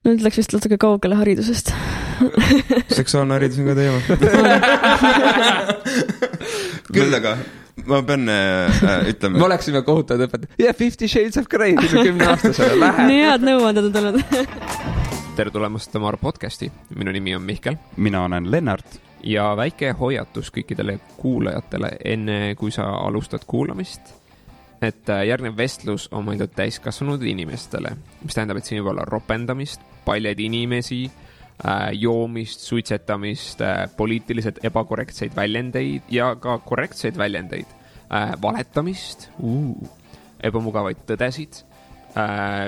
Nüüd läks vist natuke kaugele haridusest. Seksuaalne haridus on ka teema. Küll aga ma pean ütlema. Me oleksime kohutavad õpetajad. 50 Shades of Grey 10-aastasele lähe. Nii head nõuanded on tulnud. Tere tulemast Tamar podcasti. Minu nimi on Mihkel. Mina olen Lennart. Ja väike hoiatus kõikidele kuulajatele enne kui sa alustad kuulamist. Et järgnev vestlus on mõeldud täiskasvanud inimestele, mis tähendab, et siin võib olla ropendamist, paljad inimesi, joomist, suitsetamist, poliitiliselt ebakorrektseid väljendeid ja ka korrektseid väljendeid, valetamist, ebamugavaid tõdesid,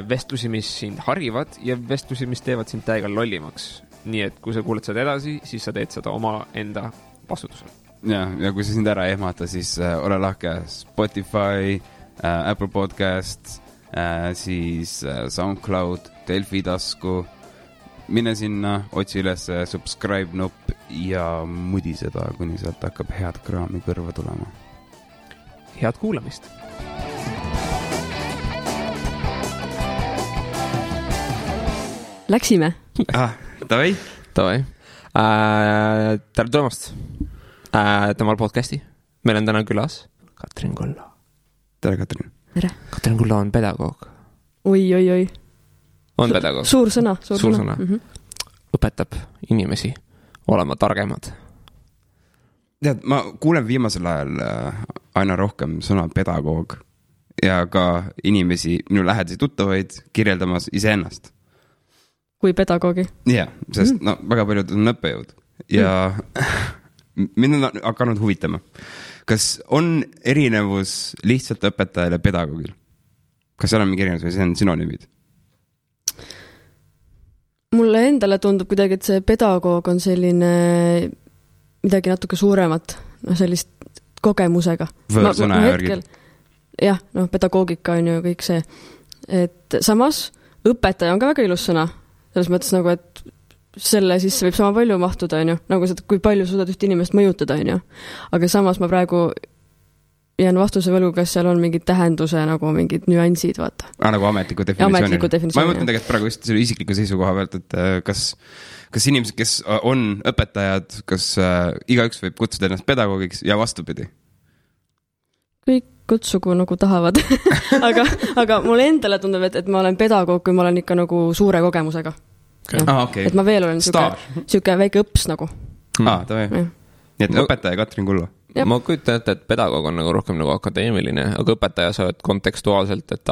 vestlusi, mis sind harivad ja vestlusi, mis teevad sind täiega lollimaks. Nii et kui sa kuuled seda edasi, siis sa teed seda oma enda vastutusel. Ja kui sa sind ära ehmata, siis ole lahke Spotify, Apple Podcast, siis SoundCloud, Delfi tasku. Mine sinna, otsi üles subscribe nupp ja mudi seda, kuni sealt hakkab head kraami kõrva tulema. Head kuulamist! Läksime. Tavai. Tere tulemast Tamal podcasti. Meil on täna külas Katrin Kulla. Tere, Katrin. Tere. Katrin Kulla on pedagoog. Oi. On pedagoog. Suur sõna. Õpetab inimesi olema targemad. Tead, ma kuulen viimasel ajal aina rohkem sõna pedagoog ja ka inimesi, minu lähedasi tuttavaid kirjeldamas iseennast. Kui pedagoogi. Jah, sest väga paljud on õppejõud ja mind on hakanud huvitama. Kas on erinevus lihtsalt õpetajale pedagoogil? Kas seal on mingi erinevus või see on synonüümid? Mulle endale tundub kuidagi, et see pedagoog on selline midagi natuke suuremat, sellist kogemusega. Võõrsõna järgi. Jah, pedagoogika on ju kõik see. Et samas õpetaja on ka väga ilus sõna. Selles mõttes nagu, et selle sisse võib sama palju mahtuda, on ju. Nagu seda, kui palju suudad üht inimest mõjutada, on ju. Aga samas ma praegu jään vastuse võlgu, kas seal on mingid tähenduse, nagu mingid nüansid, vaata. Nagu ametliku definitsiooni. Ma ei mõtlen tegelikult praegu just selle isikliku seisukoha pealt, et kas inimesed, kes on õpetajad, kas igaüks võib kutsuda ennast pedagoogiks ja vastupidi? Kõik kutsugu nagu tahavad. aga mulle endale tundub, et ma olen pedagoog, kui ma olen ikka nagu suure kogemusega. Okay. Et ma veel olen siuke väike õps nagu. Tavai. Nii et õpetaja Katrin Kulla. Ma kujutan ette, et pedagoog on nagu rohkem nagu akadeemiline, aga õpetaja sa oled kontekstuaalselt, et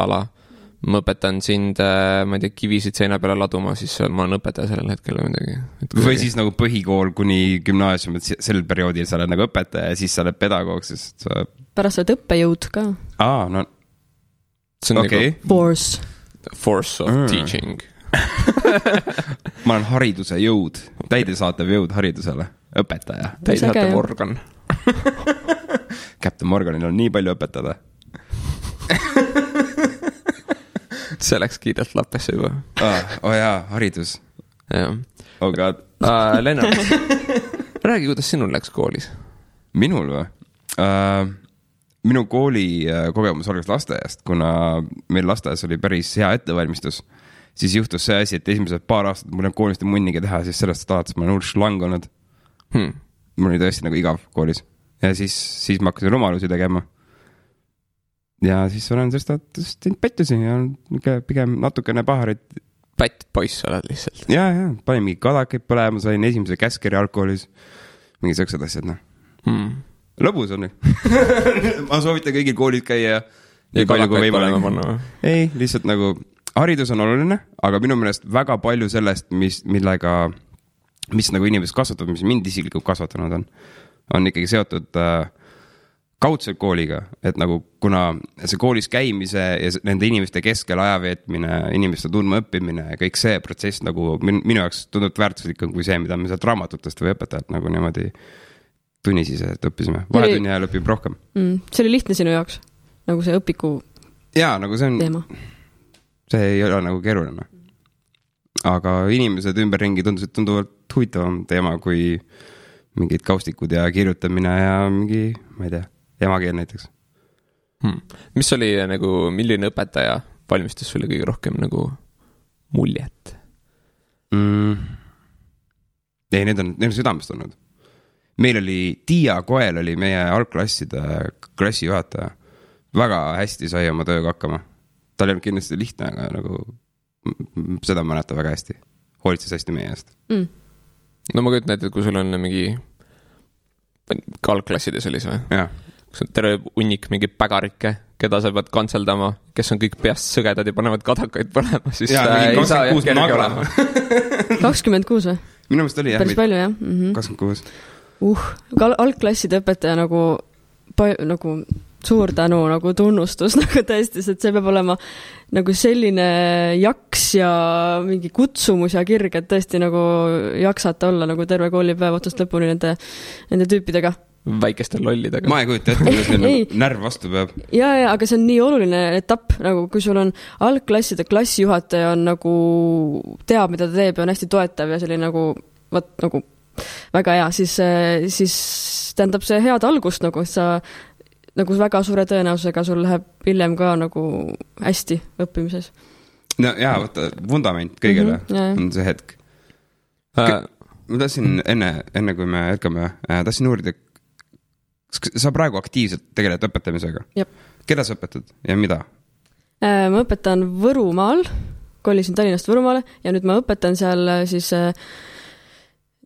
ma õpetan sind, ma ei tea, kivisid seina peale laduma, siis ma olen õpetaja sellel hetkel või midagi. Või siis nagu põhikool kuni gümnaasium, et sel perioodil sa oled nagu õpetaja ja siis sa oled pedagoog, sest sa... Pärast oled õppejõud ka. See on okay. Nagu force of teaching. Ma olen hariduse jõud, täidesaatev jõud haridusele, õpetaja. Täidesaatev organ. Captain Morganil on nii palju õpetada. See läks kiirelt lappesse juba. Haridus. Oh God. Lennart, räägi, kuidas sinul läks koolis? Minul või? Minu kooli kogemus algas lasteaiast, kuna meil lasteaias oli päris hea ettevalmistus. Siis juhtus see asi, et esimesed paar aastat mul on koolist munnigi teha, siis sellest alates ma olen hull šlang olnud. Mul oli tõesti nagu igav koolis. Ja siis ma hakkasin rumalusi tegema. Ja siis olen sellest pettusi ja pigem natukene paharit. Pätt poiss oled lihtsalt. Ja, panin mingi kadakaid põlema, sain esimese käskeri alkoholis. Mingi sõksad asjad, Lõbus on. Ma soovitan kõigil koolid käia. Ja kadakaid põlema panna. Ei, lihtsalt nagu haridus on oluline, aga minu meelest väga palju sellest, mis nagu inimesed kasvatab, mis mind isiklikult kasvatanud on ikkagi seotud kaudselt kooliga, et nagu kuna see koolis käimise ja nende inimeste keskel ajaveetmine, inimeste tundma õppimine ja kõik see protsess nagu minu jaoks tundub väärtuslikum kui see, mida me sealt raamatutest või õpetajalt nagu niimoodi tunnisisest õppisime. Vahetunni ajal õpib rohkem. See oli lihtne sinu jaoks, nagu see õpiku nagu see on teema. See ei ole nagu keeruline. Aga inimesed ümberringi tunduvalt huvitavam teema kui mingid kaustikud ja kirjutamine ja mingi, ma ei tea, emakeel näiteks. Mis oli nagu, milline õpetaja valmistas sulle kõige rohkem nagu muljet? ei, need on südamest olnud. Meil oli Tiia Koel oli meie algklasside klassijuhataja. Väga hästi sai oma tööga hakkama. Tal ei olnud kindlasti lihtne, aga nagu seda mäletan väga hästi. Hoolitses hästi meie eest. No ma kujutan, et kui sul on mingi algklassides oli see või? Jah. Kus on terve unnik mingi pägarikke, keda sa pead kantseldama, kes on kõik peast sõgedad ja panevad kadakaid põlema, siis ei saa jah kerge olema. 26 või? Minu meelest oli jah. Päris palju jah. 26. Algklasside õpetaja nagu suur tänu, nagu tunnustus, nagu tõesti, et see peab olema nagu selline jaks ja mingi kutsumus ja kirg, et tõesti nagu jaksata olla nagu terve koolipäev otsast lõpuni nende tüüpidega. Väikeste lollidega. Ma ei kujuta ette, kuidas neil närv vastu peab. Ja, aga see on nii oluline etapp, nagu kui sul on algklasside klassijuhataja on nagu teab, mida ta teeb ja on hästi toetav ja selline nagu väga hea, siis tähendab see head algust nagu, et sa nagu väga suure tõenäosusega sul läheb hiljem ka nagu hästi õppimises. No jaa, võtta vundament kõigele on see hetk. Ma tahtsin enne kui me jätkame, tahtsin uurida, sa praegu aktiivselt tegeled õpetamisega? Jep. Keda sa õpetad ja mida? Ma õpetan Võrumaal, kolisin Tallinnast Võrumaale ja nüüd ma õpetan seal siis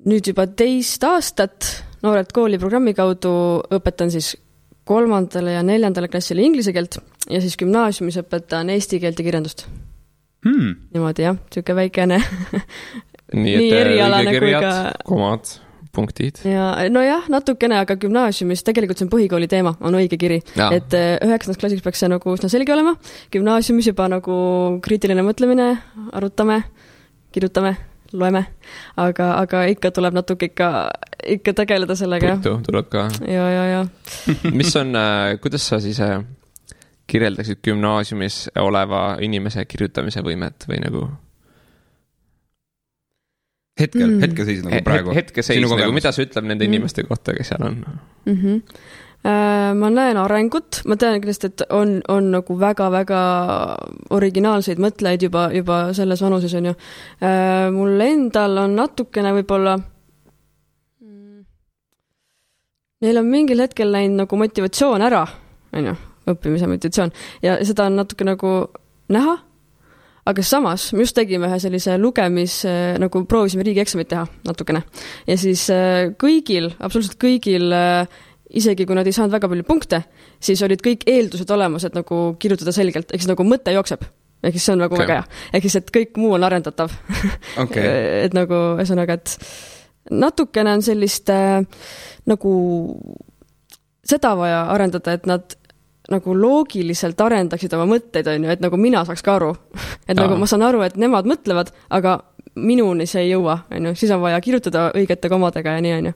nüüd juba 2 aastat Noored kooli programmi kaudu õpetan siis 3. ja 4. klassile inglise keelt ja siis gümnaasiumis õpetan eesti keelt ja kirjandust. Niimoodi jah, tüüke väikene nii erialane kui ka komad, punktid. Ja, no jah, natukene, aga gümnaasiumis tegelikult see on põhikooli teema, on õige kiri. Ja. Et 9. klassiks peaks see nagu üsna selge olema. Gümnaasiumis juba nagu kriitiline mõtlemine, arutame, kirjutame, loeme, aga ikka tuleb natuke ikka tegeleda sellega. Puitu tuleb ka. Ja. Mis on, kuidas sa siis kirjeldaksid gümnaasiumis oleva inimese kirjutamise võimet või nagu? Hetkeseis nagu praegu. Hetkeseis nagu, mida sa ütleb nende inimeste kohta, kes seal on? Ma näen arengut, ma tean kindlasti, et on nagu väga-väga originaalseid mõtlejaid juba selles vanuses on ju. Mul endal on natukene võib-olla neil on mingil hetkel läinud nagu motivatsioon ära, on ju, õppimise motivatsioon ja seda on natuke nagu näha. Aga samas, me just tegime ühe sellise lugemis, nagu proovisime riigieksamit teha natukene. Ja siis absoluutselt kõigil, isegi kui nad ei saanud väga palju punkte, siis olid kõik eeldused olemas, et nagu kirjutada selgelt, ehk siis nagu mõte jookseb. Ehk siis see on nagu väga hea. Ehk siis, et kõik muu on arendatav. Okay. Et nagu, ühesõnaga, et natukene on sellist nagu seda vaja arendada, et nad nagu loogiliselt arendaksid oma mõtteid, on ju, et nagu mina saaks ka aru. Et nagu ma saan aru, et nemad mõtlevad, aga minuni see ei jõua, on ju. Siis on vaja kirjutada õigete komadega ja nii, on ju.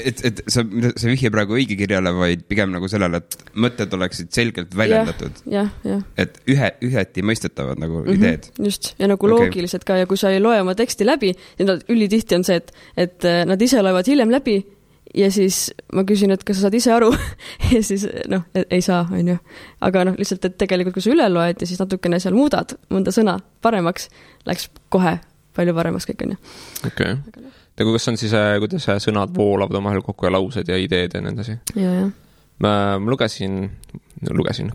Et sa vihje praegu õige kirjale, vaid pigem nagu sellele, et mõtted oleksid selgelt väljendatud. Ja. Et üheti mõistetavad nagu ideed. Just, ja nagu loogiliselt ka, ja kui sa ei loe oma teksti läbi, ülitihti on see, et nad ise loevad hiljem läbi, ja siis ma küsin, et kas sa saad ise aru ja siis ei saa, on ju. Aga lihtsalt, et tegelikult kui sa üle loed ja siis natukene seal muudad mõnda sõna paremaks, läks kohe palju paremaks kõik, on ju. Okay. Ja kas on siis, kuidas sõnad voolavad omahel kokku ja laused ja ideed ja nendasi? Ja. Ma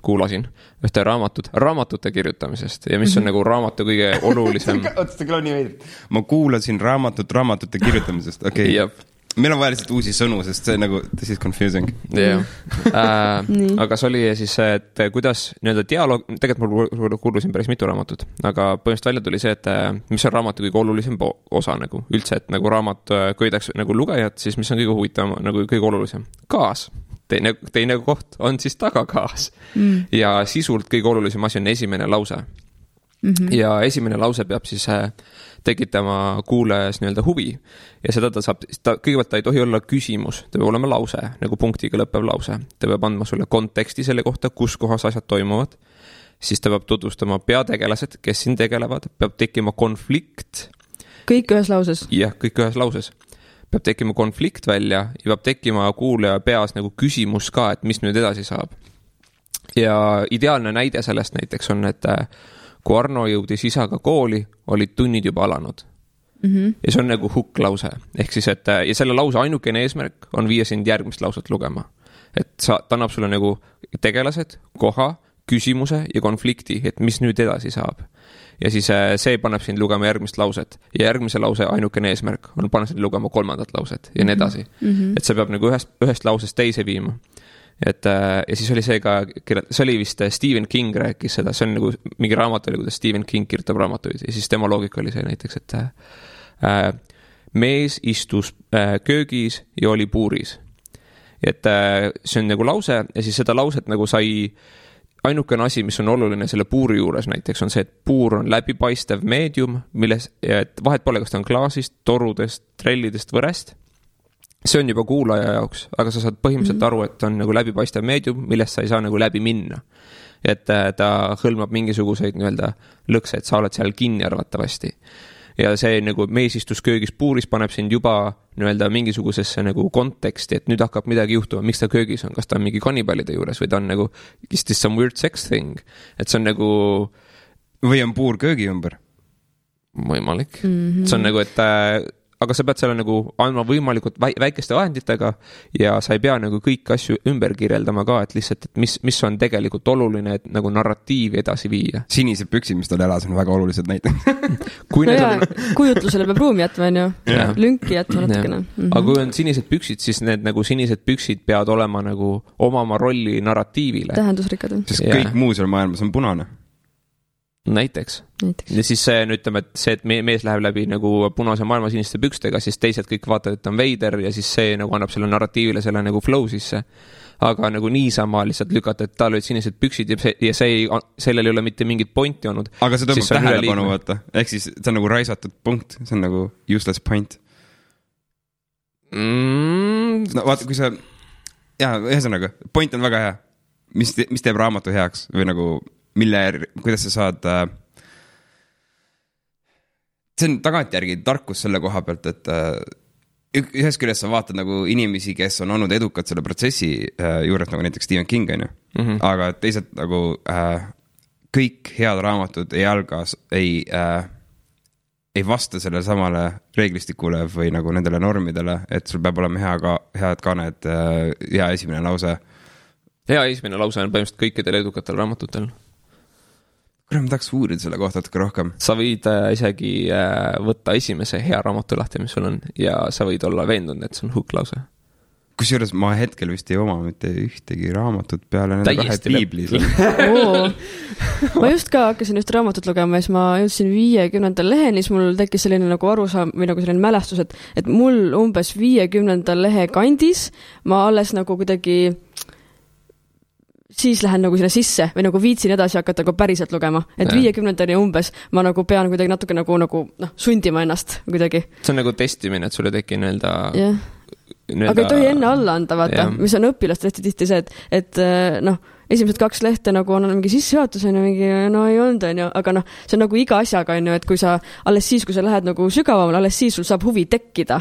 kuulasin ühte raamatute kirjutamisest ja mis on nagu raamatu kõige olulisem. Ootasta küll on nii veidrit. Ma kuulasin raamatute kirjutamisest, okei. Jep. Meil on vaja lihtsalt uusi sõnu, sest see nagu, this is confusing. Yeah. Aga see oli siis, et kuidas nii-öelda dialoog, tegelikult ma kuulusin päris mitu raamatut, aga põhimõtteliselt välja tuli see, et mis on raamatu kõige olulisem osa nagu üldse, et nagu raamat köidaks nagu lugejat, siis mis on kõige huvitavam, nagu kõige olulisem? Kaas. Teine koht on siis tagakaas. Ja sisult kõige olulisem asi on esimene lause. Ja esimene lause peab siis tekitama kuulajas nii-öelda huvi ja seda kõigepealt ta ei tohi olla küsimus, ta peab olema lause, nagu punktiga lõppev lause. Ta peab andma sulle konteksti selle kohta, kus kohas asjad toimuvad, siis ta peab tutvustama peategelased, kes siin tegelevad, peab tekkima konflikt. Kõik ühes lauses? Jah, kõik ühes lauses. Peab tekkima konflikt välja ja peab tekkima kuulaja peas nagu küsimus ka, et mis nüüd edasi saab. Ja ideaalne näide sellest näiteks on, et kui Arno jõudis isaga kooli, olid tunnid juba alanud. ja see on nagu hukklause. Ehk siis, et ja selle lause ainukene eesmärk on viia sind järgmist lauset lugema. Et ta annab sulle nagu tegelased, koha, küsimuse ja konflikti, et mis nüüd edasi saab. Ja siis see paneb sind lugema järgmist lauset ja järgmise lause ainukene eesmärk on panna sind lugema kolmandat lauset ja nii edasi. Et see peab nagu ühest lausest teise viima. Et, ja siis oli see ka, see oli vist Stephen King rääkis seda, see on nagu mingi raamat oli, kuidas Stephen King kirjutab raamatuid ja siis tema loogika oli see näiteks, et mees istus köögis ja oli puuris. Et see on nagu lause ja siis seda lauset nagu sai ainukene asi, mis on oluline selle puuri juures näiteks on see, et puur on läbipaistev meedium, milles et vahet pole, kas ta on klaasist, torudest, trellidest, võrest. See on juba kuulaja jaoks, aga sa saad põhimõtteliselt aru, et on nagu läbipaistev meedium, millest sa ei saa nagu läbi minna. Et ta hõlmab mingisuguseid nii-öelda lõkse, et sa oled seal kinni arvatavasti. Ja see nagu mees istus köögis puuris paneb sind juba nii-öelda mingisugusesse nagu konteksti, et nüüd hakkab midagi juhtuma, miks ta köögis on, kas ta on mingi kannibaalide juures või ta on nagu is this some weird sex thing, et see on nagu või on puur köögi ümber võimalik. See on nagu, et aga sa pead selle nagu andma võimalikult väikeste vahenditega ja sa ei pea nagu kõik asju ümber kirjeldama ka, et lihtsalt, et mis on tegelikult oluline, et nagu narratiivi edasi viia. Sinised püksid, mis tal elas, on väga olulised näiteks. Kujutlusele peab ruumi jätma, on ju. Lünki jätma natukene. Aga kui on sinised püksid, siis need nagu sinised püksid peavad olema nagu omama rolli narratiivile. Tähendusrikkad. Sest kõik muu seal maailmas on punane. Näiteks. Ja siis see, ütleme, et see, et mees läheb läbi nagu punase maailma siniste pükstega, siis teised kõik vaatavad, et ta on veider ja siis see nagu annab selle narratiivile selle nagu flow sisse. Aga nagu niisama lihtsalt lükata, et tal olid sinised püksid ja sellel ei ole mitte mingit pointi olnud. Aga see tõmbab tähelepanu vaata. Ehk siis see on nagu raisatud punkt, see on nagu useless point. No vaata, kui sa ühesõnaga, point on väga hea. Mis teeb raamatu heaks või nagu kuidas sa saad see on tagantjärgi tarkus selle koha pealt, et ühest küljest sa vaatad nagu inimesi, kes on olnud edukad selle protsessi juures, nagu näiteks Stephen King on ju. Aga teised nagu kõik head raamatud ei vasta selle samale reeglistikule või nagu nendele normidele, et sul peab olema head kaned, hea esimene lause. Hea esimene lause on põhimõtteliselt kõikidel edukatel raamatutel. Kuule, ma tahaks uurida selle kohta natuke rohkem. Sa võid isegi võtta esimese hea raamatu lahti, mis sul on, ja sa võid olla veendunud, et see on hukklause. Kusjuures ma hetkel vist ei oma mitte ühtegi raamatut peale nende kahe piiblis. Ma just ka hakkasin just raamatut lugema ja siis ma jõudsin 50. leheni, siis mul tekkis selline nagu arusaam või nagu selline mälestus, et mul umbes 50. lehe kandis ma alles nagu kuidagi siis lähen nagu sinna sisse või nagu viitsin edasi hakata nagu päriselt lugema. Et 50. umbes ma nagu pean kuidagi natuke nagu sundima ennast kuidagi. See on nagu testimine, et sulle teki nii-öelda... Aga ei tohi enne alla anda, vaata, mis on õpilast tihti see, et esimesed 2 lehte nagu on mingi sissejuhatus, mingi, ei olnud, aga see on nagu iga asjaga, et kui sa alles siis, kui sa lähed nagu sügavamale, alles siis sul saab huvi tekkida,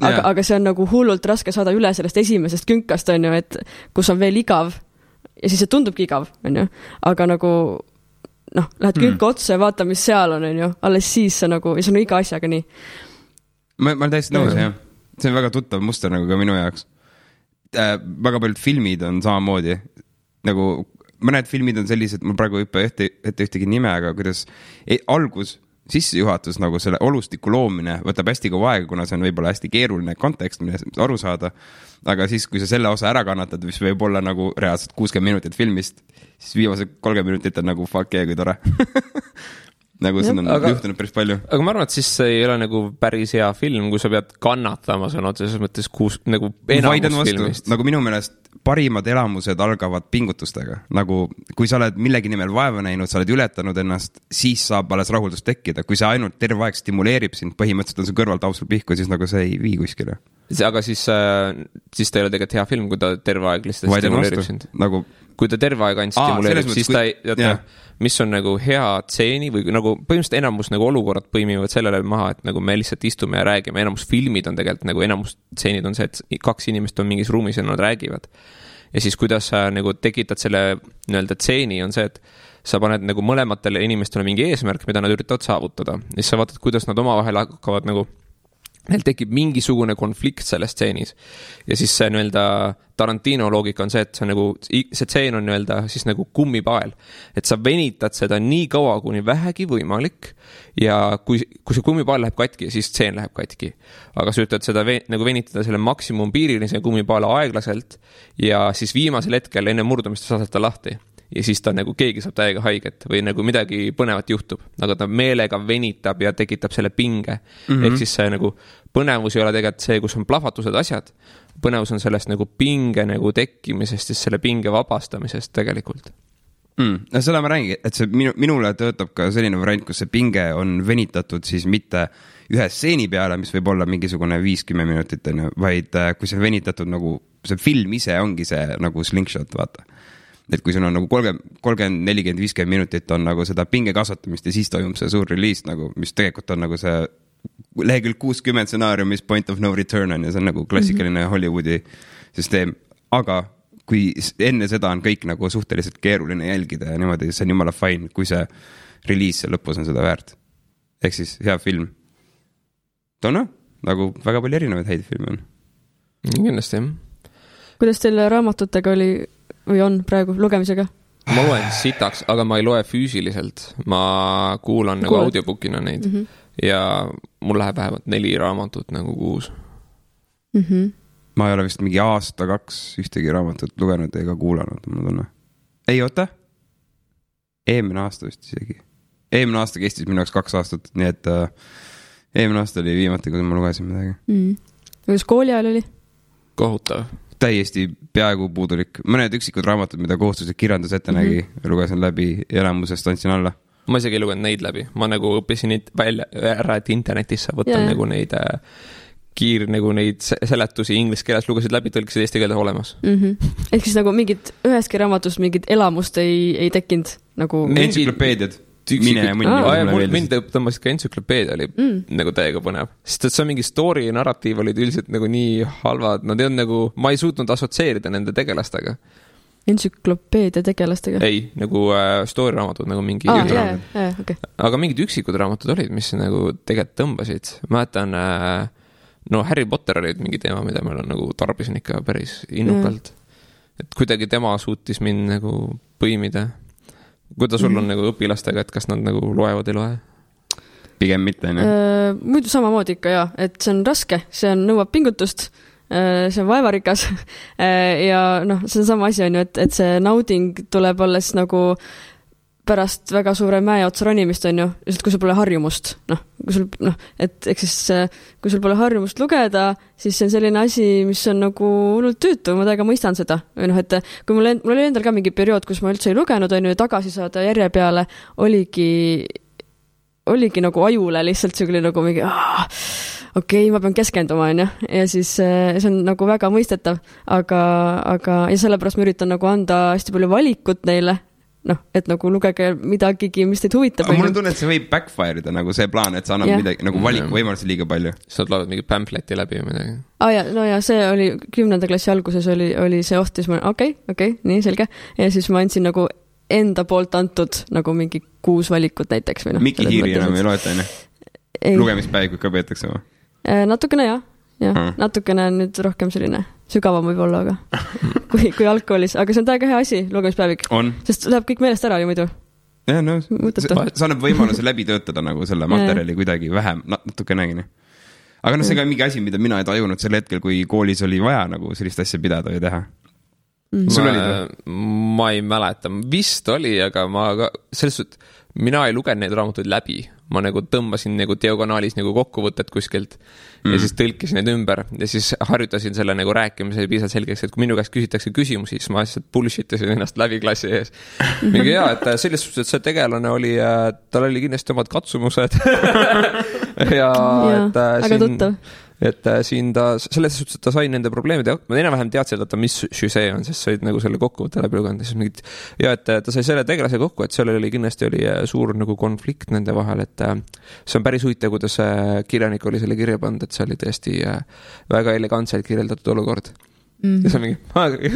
aga see on nagu hullult raske saada üle sellest esimesest künkast, et kus on veel igav ja siis see tundubki igav, aga nagu lähed künka otsa ja vaata, mis seal on, alles siis see nagu, ja see on iga asjaga nii. Ma olen täiesti nõus, jah. See on väga tuttav muster nagu ka minu jaoks. Väga paljud filmid on samamoodi. Nagu mõned filmid on sellised, mul praegu hüppe ühtegi nime, aga kuidas sissejuhatus nagu selle olustiku loomine võtab hästi kaua aega, kuna see on võib-olla hästi keeruline kontekst, mille aru saada. Aga siis, kui sa selle osa ära kannatad, mis võib olla nagu reaalselt 60 minutit filmist, siis viimased 30 minutit on nagu fuck yeah, kui tore. Nagu see on juhtunud päris palju. Aga ma arvan, et siis see ei ole nagu päris hea film, kui sa pead kannatama sõna otseses mõttes nagu enamus filmist. Nagu minu meelest parimad elamused algavad pingutustega. Nagu kui sa oled millegi nimel vaeva näinud, sa oled ületanud ennast, siis saab alles rahuldust tekkida. Kui see ainult terve aeg stimuleerib sind, põhimõtteliselt on see kõrvalt ausul pihku, siis nagu see ei vii kuskile. Aga siis ta ei ole tegelikult hea film, kui ta terve aeg lihtsalt stimuleerib sind. Nagu... Kui ta terve aeg ainult stimuleerib, siis ta ei... mis on nagu hea tseeni või nagu põhimõtteliselt enamus nagu olukorrad põimivad sellele maha, et nagu me lihtsalt istume ja räägime, enamus filmid on tegelikult nagu enamus tseenid on see, et 2 inimest on mingis ruumis ja nad räägivad. Ja siis kuidas sa nagu tekitad selle nii-öelda tseeni on see, et sa paned nagu mõlematele inimestele mingi eesmärk, mida nad üritavad saavutada. Ja siis sa vaatad, kuidas nad omavahel hakkavad nagu neil tekib mingisugune konflikt selles stseenis. Ja siis see nii-öelda Tarantino loogika on see, et see tseen on nii-öelda siis nagu kummipael. Et sa venitad seda nii kaua, kuni vähegi võimalik ja kui see kummipael läheb katki, siis tseen läheb katki. Aga sa üritad seda nagu venitada selle maksimum piirini, see kummipaela aeglaselt ja siis viimasel hetkel enne murdumist saad ta lahti. Ja siis ta nagu keegi saab täiega haiget või nagu midagi põnevat juhtub, aga ta meelega venitab ja tekitab selle pinge. Ehk siis see nagu põnevus ei ole tegelikult see, kus on plahvatused asjad. Põnevus on sellest nagu pinge nagu tekkimisest, siis selle pinge vabastamisest tegelikult. No seda ma räägin, et see minule töötab ka selline variant, kus see pinge on venitatud siis mitte ühe stseeni peale, mis võib olla mingisugune 5-10 minutit, vaid kui see venitatud nagu see film ise ongi see nagu slingshot, vaata. Et kui sul on nagu 30, 40, 50 minutit on nagu seda pinge kasvatamist ja siis toimub see suur release nagu, mis tegelikult on nagu see lehekülg 60 stsenaariumis point of no return on ja see on nagu klassikaline Hollywoodi süsteem. Aga kui enne seda on kõik nagu suhteliselt keeruline jälgida ja niimoodi, see on jumala fine, kui see release lõpus on seda väärt. Ehk siis hea film. Toona, nagu väga palju erinevaid häid filme on. Kindlasti, jah. Kuidas teil raamatutega oli või on praegu lugemisega? Ma loen sitaks, aga ma ei loe füüsiliselt. Ma kuulan nagu audiobookina neid. Ja mul läheb vähemalt 4 raamatut nagu kuus. Ma ei ole vist mingi aasta 2 ühtegi raamatut lugenud ega kuulanud. Ei, oota. Eelmine aasta vist isegi. Eelmine aasta kestis minu jaoks 2 aastat, nii et eelmine aasta oli viimati, kui ma lugesin midagi. Kuidas kooli ajal oli? Kohutav. Täiesti peaaegu puudulik. Mõned üksikud raamatud, mida kohustuslik kirjandus ette nägi, lugesin läbi ja elamusest andsin alla. Ma isegi ei lugenud neid läbi. Ma nagu õppisin neid välja ära, et internetis sa võtta nagu neid nagu neid seletusi inglise keeles lugesid läbi, tõlkisid eesti keeles olemas. Ehk siis nagu mingid üheski raamatust mingid elamust ei tekkinud nagu... Entsüklopeediad. Mind tõmbasid ka entsüklopeedia oli nagu täiega põnev. Sest et see mingi story ja narratiiv olid üldiselt nagu nii halvad. Nad ei on nagu, ma ei suutnud asotseerida nende tegelastega. Entsüklopeedia tegelastega? Ei, nagu story raamatud nagu mingi okay. Aga mingid üksikud raamatud olid, mis nagu tegelikult tõmbasid. Mäletan, Harry Potter olid mingi teema, mida meil on nagu tarbisin ikka päris innukalt. Et kuidagi tema suutis mind nagu põimida. Kuidas sul on nagu õpilastega, et kas nad nagu loevad ei loe? Pigem mitte, ne? Muidu samamoodi ikka, jah. Et see on raske, see on nõuab pingutust, see on vaevarikas ja see on sama asi on ju, et see nauding tuleb alles nagu pärast väga suure mäe otsa ronimist on ju, lihtsalt kui sul pole harjumust, et eks siis kui sul pole harjumust lugeda, siis see on selline asi, mis on nagu hullult tüütu, ma täiega mõistan seda. Või et kui mul oli endal ka mingi periood, kus ma üldse ei lugenud, on ju, tagasi saada järje peale, oligi nagu ajule lihtsalt see nagu mingi, okei, ma pean keskenduma, on ju, ja siis see on nagu väga mõistetav, aga ja sellepärast ma üritan nagu anda hästi palju valikut neile, et nagu lugege midagigi, mis teid huvitab. Aga mul on tunne, et see võib backfire'ida nagu see plaan, et sa annad midagi, nagu valiku võimalusi liiga palju. Sa loed mingi pamfleti läbi või midagi. Ja see oli 10. klassi alguses oli see oht, siis ma okei, nii selge. Ja siis ma andsin nagu enda poolt antud nagu mingi 6 valikut näiteks. Miki Hiiri enam ei loeta, lugemispäevikud ka peetakse või? Natukene jah. Natukene nüüd rohkem selline sügavam võib olla, aga kui algkoolis, aga see on täiega hea asi, lugemispäevik. Sest läheb kõik meelest ära ju muidu. Ja, sa annab võimaluse läbi töötada nagu selle materjali kuidagi vähem, natukenegi. Aga see ka mingi asi, mida mina ei tajunud sel hetkel, kui koolis oli vaja nagu sellist asja pidada või teha. Ma ei mäleta, vist oli, aga selles suhtes mina ei lugenud neid raamatuid läbi. Ma nagu tõmbasin nagu diagonaalis nagu kokkuvõtted kuskilt ja siis tõlkisin need ümber ja siis harjutasin selle nagu rääkimise piisavalt selgeks, et kui minu käest küsitakse küsimusi, siis ma lihtsalt bullshitasin ennast läbi klassi ees. Mingi et selles suhtes, et see tegelane oli, tal oli kindlasti omad katsumused ja aga tuttav. Et siin ta, selles suhtes, et ta sai nende probleemide, ma enam-vähem teadsin, et mis see on, sest said nagu selle kokkuvõtte läbi luganud. Ja et ta sai selle tegelase kokku, et seal oli kindlasti suur nagu konflikt nende vahel, et see on päris huvitav, kuidas kirjanik oli selle kirja pannud, et see oli tõesti väga elegantselt kirjeldatud olukord. ja see on mingi,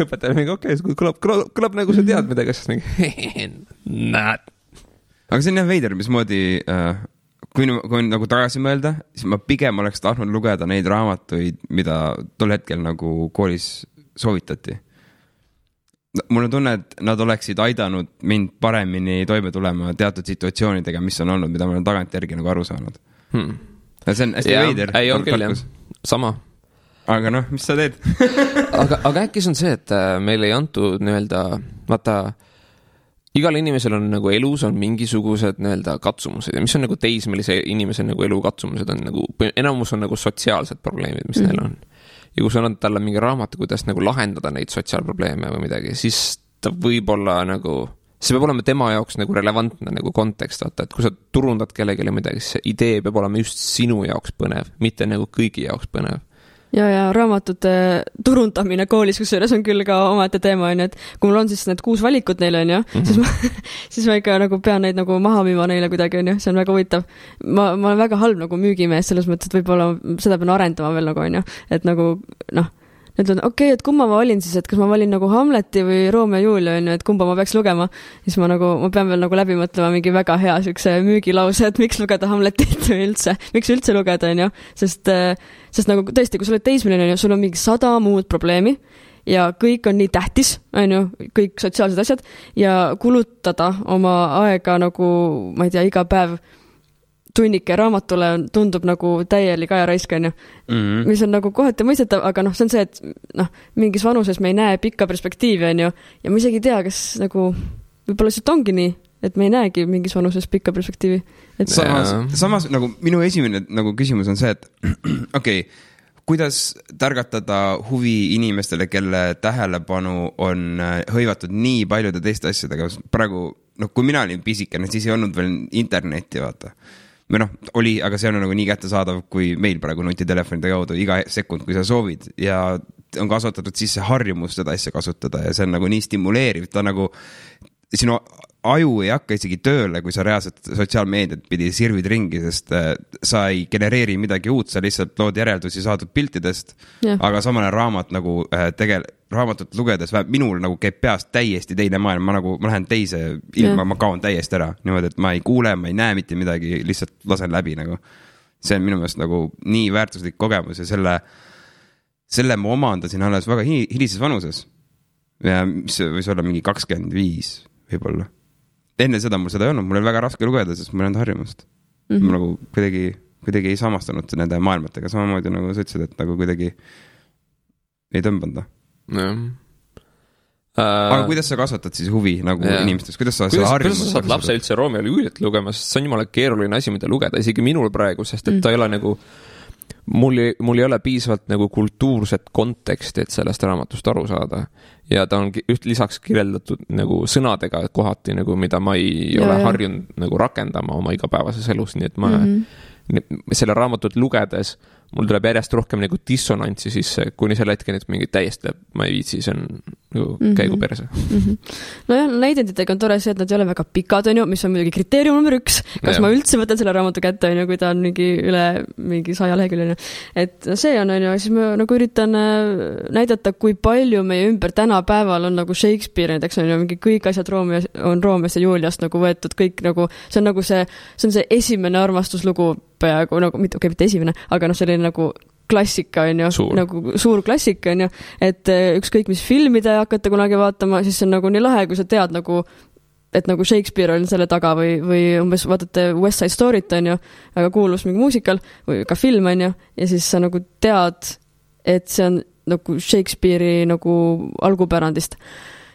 õpetaja mingi, okei, kõlab nagu sa tead midagi, siis mingi, näed. Aga see on jah veider, mismoodi, kui nagu tagasi mõelda, siis ma pigem oleks tahtnud lugeda neid raamatuid, mida tol hetkel nagu koolis soovitati. Mul on tunne, et nad oleksid aidanud mind paremini toime tulema teatud situatsioonidega, mis on olnud, mida ma olen tagant järgi nagu aru saanud. See on hästi veider. Ei on küll, jah. Sama. Aga noh, mis sa teed? aga äkki see on see, et meil ei antud nii-öelda, vaata, igal inimesel on nagu elus on mingisugused nii-öelda katsumused ja mis on nagu teismelise inimese nagu elu katsumused on nagu, enamus on nagu sotsiaalsed probleemid, mis neil on. Ja kui sa annad talle mingi raamatu, kuidas nagu lahendada neid sotsiaalprobleeme või midagi, siis ta võib-olla nagu, see peab olema tema jaoks nagu relevantne nagu kontekst, vaata, et kui sa turundad kellelegi midagi, siis see idee peab olema just sinu jaoks põnev, mitte nagu kõigi jaoks põnev. Ja raamatute turundamine koolis, kusjuures on küll ka omaette teema, on ju, et kui mul on siis need 6 valikut neile, on ju, siis ma ikka nagu pean neid nagu maha müüma neile kuidagi, on ju, see on väga huvitav. Ma olen väga halb nagu müügimees selles mõttes, et võib-olla seda pean arendama veel nagu, on ju, et nagu, noh, nüüd on okei, et kumma ma valin siis, et kas ma valin nagu Hamleti või Romeo ja Julia, on ju, et kumba ma peaks lugema, siis ma pean veel nagu läbi mõtlema mingi väga hea sükse müügilause, et miks lugeda Hamletit või üldse, miks üldse lugeda, on ju, sest nagu tõesti, kui sa oled teismeline, on ju, sul on mingi 100 muud probleemi ja kõik on nii tähtis, on ju, kõik sotsiaalsed asjad ja kulutada oma aega nagu, ma ei tea, iga päev tunnike raamatule tundub nagu täielik ajaraisk, on ju, mis on nagu kohati mõistetav, aga noh, see on see, et noh, mingis vanuses me ei näe pikka perspektiivi, on ju, ja ma isegi ei tea, kas nagu võib-olla lihtsalt ongi nii, et me ei näegi mingis vanuses pikka perspektiivi. Et samas nagu minu esimene nagu küsimus on see, et okei, kuidas targatada huvi inimestele, kelle tähelepanu on hõivatud nii paljude teiste asjadega. Praegu, noh, kui mina olin pisikene, siis ei olnud veel internetti, vaata. Või noh, oli, aga see on nagu nii kättesaadav, kui meil praegu nutitelefonide kaudu iga sekund, kui sa soovid ja on kasvatatud sisse harjumus seda asja kasutada ja see on nagu nii stimuleeriv, ta nagu sinu aju ei hakka isegi tööle, kui sa reaalselt sotsiaalmeediat pidi sirvid ringi, sest sa ei genereeri midagi uut, sa lihtsalt lood järeldusi saadud piltidest, aga samane raamat nagu raamatut lugedes, minul nagu käib peast täiesti teine maailm, ma lähen teise ilma, ma kaon täiesti ära, niimoodi, et ma ei kuule, ma ei näe mitte midagi, lihtsalt lasen läbi nagu. See on minu meelest nagu nii väärtuslik kogemus ja selle ma omandasin alles väga hilises vanuses. Ja mis võis olla mingi 25 võib-olla. Enne seda mul seda ei olnud, mul oli väga raske lugeda, sest mul ei olnud harjumust. Ma nagu kuidagi ei samastanud nende maailmatega, samamoodi nagu sa ütlesid, et nagu kuidagi ei tõmbanda. Aga kuidas sa kasvatad siis huvi nagu inimestes? Kuidas sa saad lapse üldse Romeo ja Juliet lugema, sest see on jumala keeruline asi, mida lugeda, isegi minul praegu, sest et ta ei ole nagu mul ei ole piisavalt nagu kultuurset konteksti, et sellest raamatust aru saada. Ja ta on lisaks kirjeldatud nagu sõnadega kohati, nagu, mida ma ei ole harjunud nagu rakendama oma igapäevases elus, nii et ma selle raamatut lugedes mul tuleb järjest rohkem nagu dissonantsi sisse, kuni selle hetken, et mingi täiesti ma ei viitsi, see on nagu käigu perse. Nojah, näidenditega on tore see, et nad ei ole väga pikad, on ju, mis on muidugi kriteerium number 1. Kas ma üldse võtan selle raamatu kätte, on ju, kui ta on üle 100 lehekülje. Et see on ju, siis ma nagu üritan näidata, kui palju meie ümber tänapäeval on nagu Shakespeare, näiteks on ju mingi kõik asjad Romeost ja Juliast nagu võetud, kõik nagu, see on see esimene armastuslugu peaaegu, nagu, mitte esimene, aga noh, selline nagu klassika, on ju, nagu suur klassika, on ju, et ükskõik mis filmide hakata kunagi vaatama, siis see on nagu nii lahe, kui sa tead nagu, et nagu Shakespeare on selle taga või umbes vaatate West Side Story't, on ju, väga kuulus mingi muusikal või ka film, on ju, ja siis sa nagu tead, et see on nagu Shakespeare'i nagu algupärandist.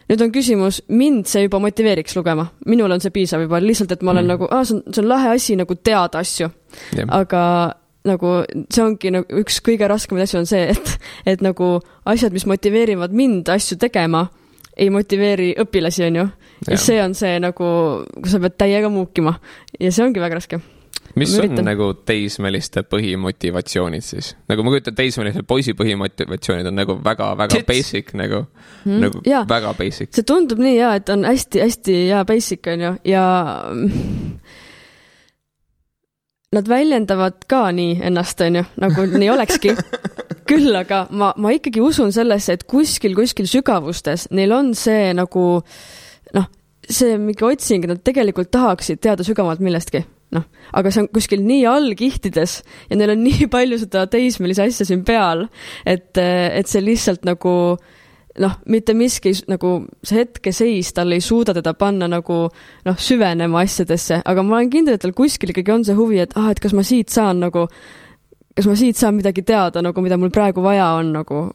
Nüüd on küsimus, mind see juba motiveeriks lugema. Minul on see piisav juba, lihtsalt, et ma olen nagu, see on lahe asi nagu teada asju. Aga nagu see ongi nagu üks kõige raskemaid asju on see, et nagu asjad, mis motiveerivad mind asju tegema, ei motiveeri õpilasi, on ju. Ja see on see nagu, kui sa pead täiega muukima. Ja see ongi väga raske. Mis on nagu teismeliste põhimotivatsioonid siis? Nagu ma kujutan, teismeliste poisi põhimotivatsioonid on nagu väga basic, nagu väga basic. See tundub nii hea, et on hästi basic, on ju, ja nad väljendavad ka nii ennast, on ju, nagu nii olekski. küll, aga ma ikkagi usun sellesse, et kuskil sügavustes neil on see nagu see mingi otsing, nad tegelikult tahaksid teada sügavalt millestki. Aga see on kuskil nii allkihtides ja neil on nii palju seda teismelise asja siin peal, et see lihtsalt nagu mitte miski nagu see hetkeseis, tal ei suuda teda panna nagu süvenema asjadesse, aga ma olen kindel, et tal kuskil ikkagi on see huvi, et kas ma siit saan midagi teada, nagu mida mul praegu vaja on nagu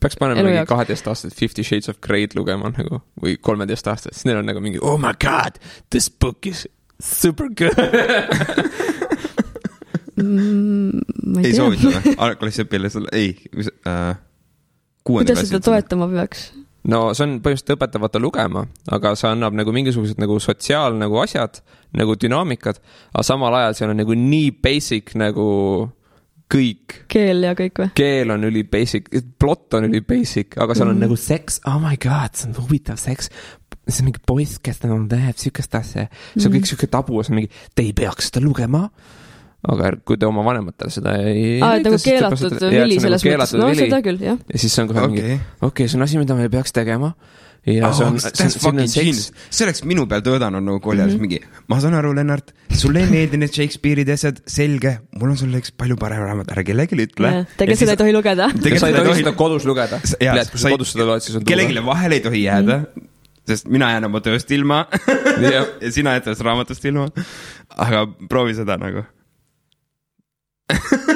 peaks panema mingi 12 aastat 50 Shades of Grey'd lugema nagu, või 13 aastat, siis neil on nagu mingi, oh my god, this book is super good. ei soovita või? Klassiõpilasel, ei. Kuidas seda toetama peaks? No see on põhimõtteliselt õpetavata lugema, aga see annab nagu mingisugused nagu sotsiaal nagu asjad, nagu dünaamikad, aga samal ajal seal on nagu nii basic nagu kõik. Keel ja kõik või? Keel on üli basic, plot on üli basic, aga seal on nagu seks, oh my god, see on huvitav seks, see on mingi poiss, kes on teeb sükest asja, see on kõik süke tabu, see on mingi, te ei peaks seda lugema, aga kui te oma vanematele seda ei... nagu keelatud vili selles mõttes, no seda küll, jah. Ja siis see on kohe mingi, okei, see on asi, mida me ei peaks tegema. Ja see oleks minu peal töödanud nagu kooliajas mingi, ma saan aru, Lennart, sulle ei meeldi need Shakespeare'id asjad, selge, mul on sulle üks palju parem raamat, ära kellelegi ütle. Tegelikult seda ei tohi lugeda. Sa ei tohi seda kodus lugeda. Kui sa kodus seda loed, siis on kellegile vahel ei tohi jääda, sest mina jään oma tööst ilma ja sina jääd sellest raamatust ilma. Aga proovi seda nagu.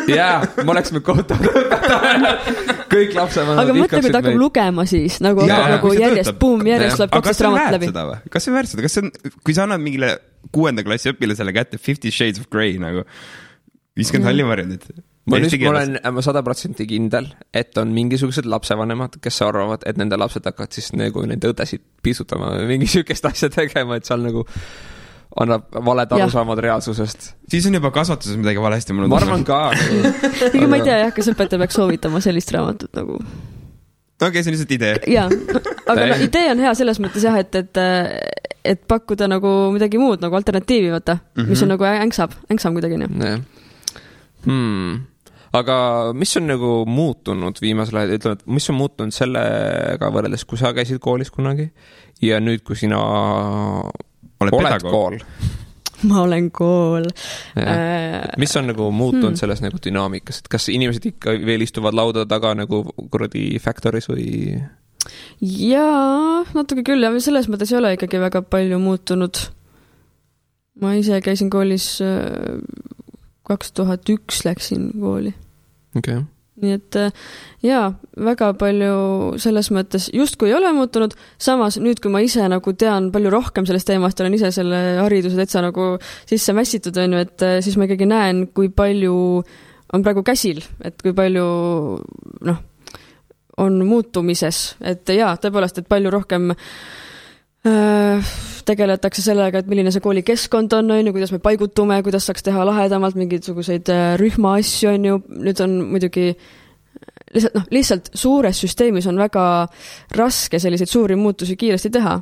Jaa, ma oleksime kohtav kõik lapsevanemad. Aga mõtle, kui ta hakkab lugema siis nagu järjest tuleb 12 raamat läbi. Kas see väärts seda? Kui sa annad mingile 6. klassi õpilasele kätte 50 Shades of Grey nagu 50 hallivarjundit. Ma olen 100% kindel, et on mingisugused lapsevanemad, kes arvavad, et nende lapsed hakkavad siis nagu nende õdesid pisutama mingi sükest asja tegema, et seal nagu annab valed arusaamad reaalsusest. Siis on juba kasvatuses midagi valesti. Ma arvan ka. Ma ei tea, kas õpetaja peaks soovitama sellist raamatut nagu. Okei, see on lihtsalt idee. Jaa, aga idee on hea selles mõttes jah, et pakkuda nagu midagi muud, nagu alternatiivi võtta, mis on nagu ängsam kuidagi. Aga mis on nagu muutunud viimasel ajal, ütleme, et mis on muutunud sellega võrreldes, kui sa käisid koolis kunagi ja nüüd, kui sina oled kool. Ma olen kool. Mis on nagu muutunud selles nagu dünaamikas? Et kas inimesed ikka veel istuvad lauda taga nagu kuradi factoris või? Jaa, natuke küll. Ja selles mõttes ei ole ikkagi väga palju muutunud. Ma ise käisin koolis 2001 läksin kooli. Okay. Nii et väga palju selles mõttes justkui ei ole muutunud, samas nüüd, kui ma ise nagu tean palju rohkem sellest teemast, olen ise selle hariduse täitsa nagu sisse mässitud, et siis ma ikkagi näen, kui palju on praegu käsil, et kui palju on muutumises, et tõepoolest, et palju rohkem tegeletakse sellega, et milline see kooli keskkond on, kuidas me paigutume, kuidas saaks teha lahedamalt mingisuguseid rühma asju, nüüd on muidugi lihtsalt suures süsteemis on väga raske selliseid suuri muutusi kiiresti teha,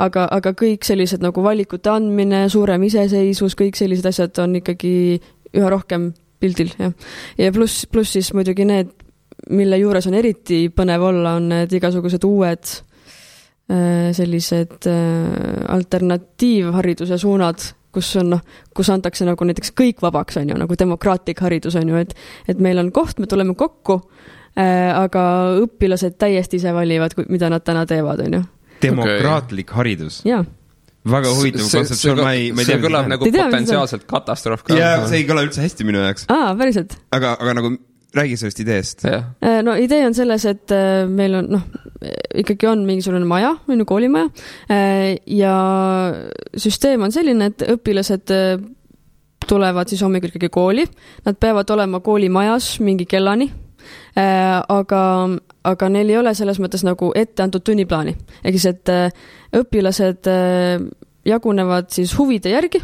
aga kõik sellised nagu valikute andmine, suurem iseseisvus, kõik sellised asjad on ikkagi üha rohkem pildil. Ja pluss siis muidugi need, mille juures on eriti põnev olla, on need igasugused uued sellised alternatiivhariduse suunad, kus antakse nagu näiteks kõik vabaks, nagu demokraatlik haridus, et meil on koht, me tuleme kokku, aga õpilased täiesti ise valivad, mida nad täna teevad, Demokraatlik haridus? Jaa. Väga huvitav kontseptsioon, ma ei tea. See kõlab nagu potentsiaalselt katastroof ka. Ja see ei kõla üldse hästi minu jaoks. Päriselt. Aga nagu räägi sellest ideest. No idee on selles, et meil on, ikkagi on mingisugune maja, koolimaja, ja süsteem on selline, et õpilased tulevad siis hommikul ikkagi kooli, nad peavad olema koolimajas mingi kellani, aga neil ei ole selles mõttes nagu ette antud tunniplaani. Ehk siis, et õpilased jagunevad siis huvide järgi,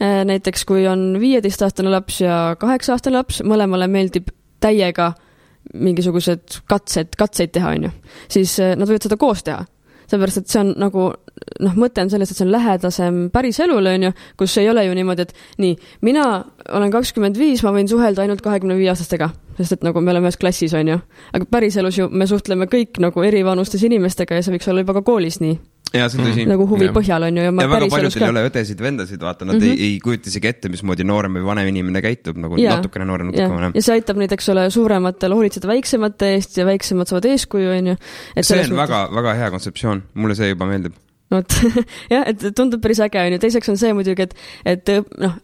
näiteks kui on 15-aastane laps ja 8-aastane laps, mõlemale meeldib täiega mingisugused katseid teha, siis nad võivad seda koos teha. Seepärast, et see on nagu, mõte on selles, et see on lähedasem päris elule, on ju, kus ei ole ju niimoodi, et nii, mina olen 25, ma võin suhelda ainult 25-aastastega, sest et nagu me oleme ühes klassis, on ju. Aga päris elus ju me suhtleme kõik nagu erivanustes inimestega ja see võiks olla juba ka koolis nii. Ja, see tõsi. Nagu huvi põhjal on ju. Ja väga paljudel ei ole õdesid, vendasid, vaata, nad ei kujuta isegi ette, mismoodi noorem või vanem inimene käitub, nagu natukene noorem, natukene vanem. Ja see aitab neid, eks ole, suurematel hoolitseda väiksemate eest ja väiksemad saavad eeskuju, on ju. See on väga, väga hea kontseptsioon, mulle see juba meeldib. Jah, et tundub päris äge, on ju. Teiseks on see muidugi, et